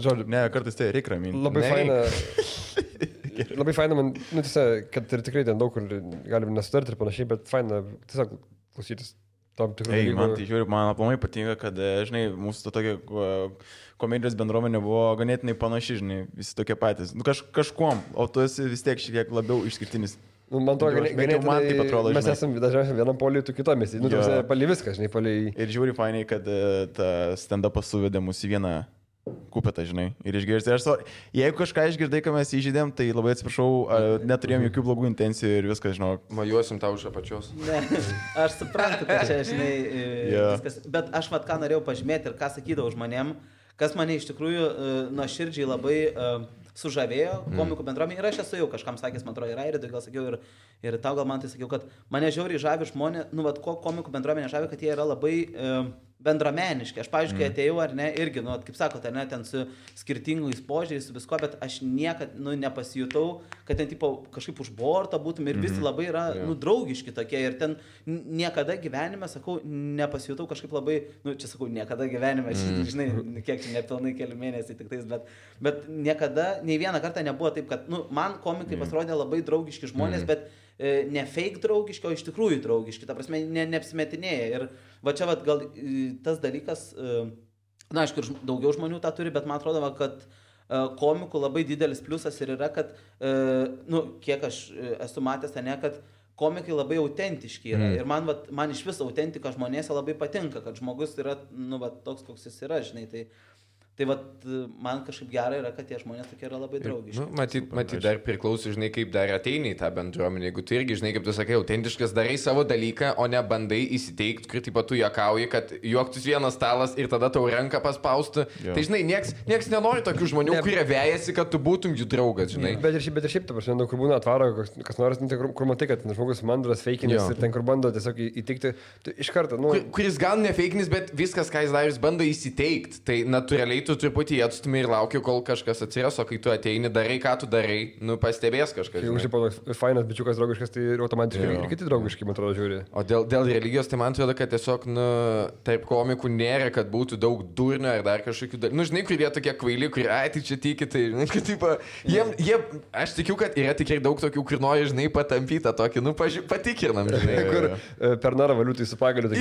Žodžiu. Ne, kartais tai reikia raminti. Labai faina. Labai faina man, tiesiog, kad ir tikrai ten daug kur galim nesutarti ir panašiai, bet faina tiesiog klausytis tam tikrų dalykų. Man tai žiūri, man aplamai patinka, kad, žinai, mūsų tokia komedijos bendruomenė buvo ganėtinai panaši, žinai, visi tokie patys. Nu, kažkuom, o tu esi vis tiek šiek tiek labiau išskirtinis. Man to ganėtinai, mes esame dažniausiai vienam poliui, tu kitomis. Nu, pali viską, žinai, pali. Ir žiūri fainiai, kad ta stand-upas suvedė mus į vieną kupetą, žinai, ir išgirsti. Jeigu kažką išgirdai, ką mes įžydėm, tai labai atsiprašau, neturėjom jokių blogų intencijų ir viskas, žinau. Majuosim tau iš apačios. Ne, aš suprantu, kad čia, žinai, viskas. Bet aš vat ką norėjau pažymėti ir ką sakydavau žmonėm, kas mane iš tikrųjų nuoširdžiai labai sužavėjo komikų bendruomenė. Ir aš esu jau kažkam sakęs, man atrodo, ir Airidui gal sakiau, ir tau gal man tai sakiau, kad mane žiauriai žavi žmonės, nu, vat ko komikų bendruomenė žavi, kad jie yra labai bendrameniški. Aš, pavyzdžiui, kai atėjau, ar ne, irgi, nu, kaip sakote, ne, ten su skirtingais požiūriais, su visko, bet aš niekad, nu, nepasijutau, kad ten, tipo, kažkaip už borto būtum ir visi labai yra, nu, draugiški tokie ir ten niekada gyvenime, sakau, nepasijutau kažkaip labai, nu, čia sakau, niekada gyvenime, žinai, kiek čia nepilnai keli mėnesiai tik tais, bet niekada, nei vieną kartą nebuvo taip, kad, nu, man komikai pasirodė labai draugiški žmonės, bet ne fake draugiški, o iš tikrųjų draugiški, ta prasme, neapsimetinėja. Ir va čia va gal tas dalykas, na, aišku, ir daugiau žmonių tą turi, bet man atrodo, va, kad komikų labai didelis pliusas ir yra, kad, nu, kiek aš esu matęs, ne, kad komikai labai autentiški yra. Ir man iš vis autentika žmonėse labai patinka, kad žmogus yra, nu, va, toks, koks jis yra, žinai, tai vat, man kažkaip gerai yra, kad tie žmonės tokie yra labai draugiški. Nu, matyt, dar priklauso, žinai, kaip dar ateini į tą bendruomenę. Jeigu tu irgi, žinai, kaip tu sakai, autentiškas, darai savo dalyką, o ne bandai įsiteikti, kur taip pat tu juokauji, kad juoktus vienas stalas ir tada tau ranką paspaustų. Tai, žinai, nieks nenori tokių žmonių, kurie vejasi, kad tu būtum jų draugas, žinai. Bet ir šiaip, ta prasme, kur būna atvaro, kas nors, kur matai, kad žmogus mandras feikinis ir ten, kur bando tiesiog įtikti, iš karto, nu... Kuris gal ne feikinis, bet viskas, ką jis darys, bando įsiteikti. Tai natūraliai tu truputį atstumi ir lauki, kol kažkas atsiras, o kai tu ateini, darai, ką tu darai, nu, pastebės kažkas. Jeigu šiaip fainas bičiukas draugiškas, tai automatiškai ir kiti draugiški, man atrodo, žiūri. O dėl religijos, tai man atrodo, kad tiesiog, nu, taip komikų nėra, kad būtų daug durnio ar dar kažkokių dalykų. Nu, žinai, kur jie tokie kvaili, kur, ai, tai čia tiki, tai, nu, kad, tipo, aš tikiu, kad yra tikrai daug tokių, kur nori, žinai, patampytą tokį, nu, patikrinam, žinai. Kur per narą valiutai su pagaliu,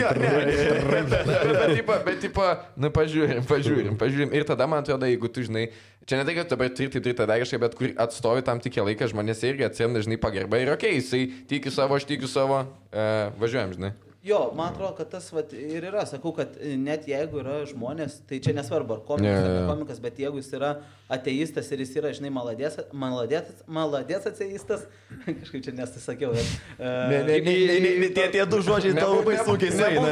bet, tipo, nu, pažiūrim. Ir tada, man atrodo, jeigu tu, žinai, čia ne tai, kad dabar turi tą daryškai, bet kur atstovi tam tikrą laiką, žmonės irgi atsiranda, žinai, pagarba ir okei, jisai tiki savo, aš tikiu savo, važiuojam, žinai. Jo, man atrodo, kad tas vat, ir yra, sakau, kad net jeigu yra žmonės, tai čia nesvarbu, ar komikas, ar ne komikas, bet jeigu jis yra ateistas ir jis yra, žinai, maladės ateistas, kažkaip čia nesakiau, bet... Tie du žodžiai tau labai sunkiai sueina,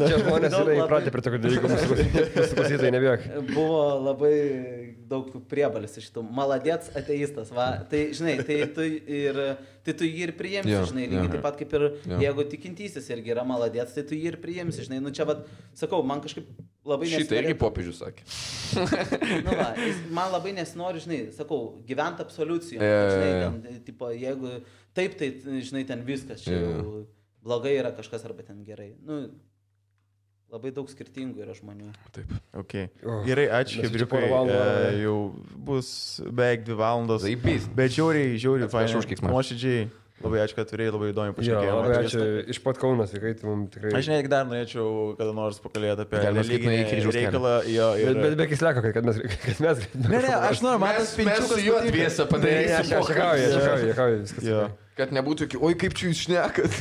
Čia žmonės yra įpratę prie tokio dalykų, mūsų klausytojai, nebijok. Buvo labai daug priebalis iš šitų. Maladės ateistas, va. Tai, žinai, tai tu jį ir priimsi, žinai, lygiai taip pat kaip ir jeigu tikintysis irgi yra maladės, tai tu jį ir priimsi, žinai. Nu čia, va, sakau, man kažkaip labai nesinori... Šitą irgi popiežius sakė. Nu, va, man labai nesinori, žinai, sakau, gyventi absoliucijom. Žinai, ten, tipo, jeigu taip, tai, žinai, ten viskas, čia jau blogai yra kažkas arba ten gerai. Nu, labai daug skirtingų yra žmonių. Taip. Okay. Gerai, ačiū, Hebriukai. Jau bus beveik 2 valandos. Bet žiauriai, fainai. Nuoširdžiai. Labai ačiū, kad turėjai, labai įdomi pašnekėjimą. Labai ačiū. Iš pat Kaunas, kai tu mums tikrai... Aš netgi dar norėčiau kada nors pakalbėti apie religinį reikalą. Bet be kisleko, kad mes... Ne, aš noriu, mes su juo dviesą padarysim. Juokauju, viskas. Kad nebūtų, oi kaip čia jūs šnekat.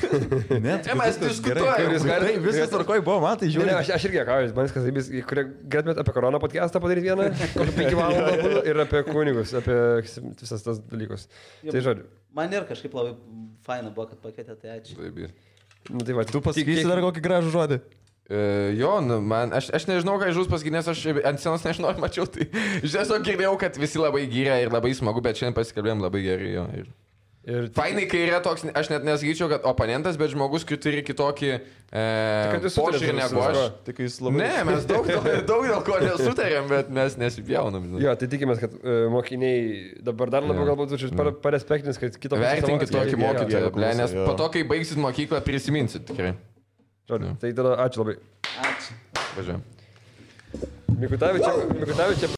Ne, mes diskutuojame. Viskas tvarkoj buvo, man tai žiūri. Ne, aš irgi juokauju, man viskas taip, kurie galėtumėt apie koroną podcastą padaryti vieną, kokį 5 valandą būtų, ir apie kunigus, apie visas tas dalykus. Tai žodžiu. Man ir kažkaip labai faina buvo, kad pakvietė, tai ačiū. Nu, tai va, tu pasakysi dar kokį gražų žodį. Jo, nu, man, aš nežinau, ką žus pasakyti, nes aš ant scenos nežinau, mačiau, tai aš tiesiog girdėjau, kad visi labai gyrė ir labai smagu, bet šiandien pasikalbėjom labai gerai, jo. Ir fainai, kai yra toks, aš net nesakyčiau, kad oponentas, bet žmogus, kai turi kitokį požiūrį negu aš. Ne, mes daug dėl ko nesutarėm, bet mes nesipjaunam. Jo, tai tikimės, kad mokiniai dabar dar labiau galbūt parespektinis, kad kitą vertinkit tokį mokytoją, nes po to, kai baigsit mokyklą, prisiminsit tikrai. Žodžiu, tai tada ačiū labai. Ačiū. Važiuojam. Mikutavičiai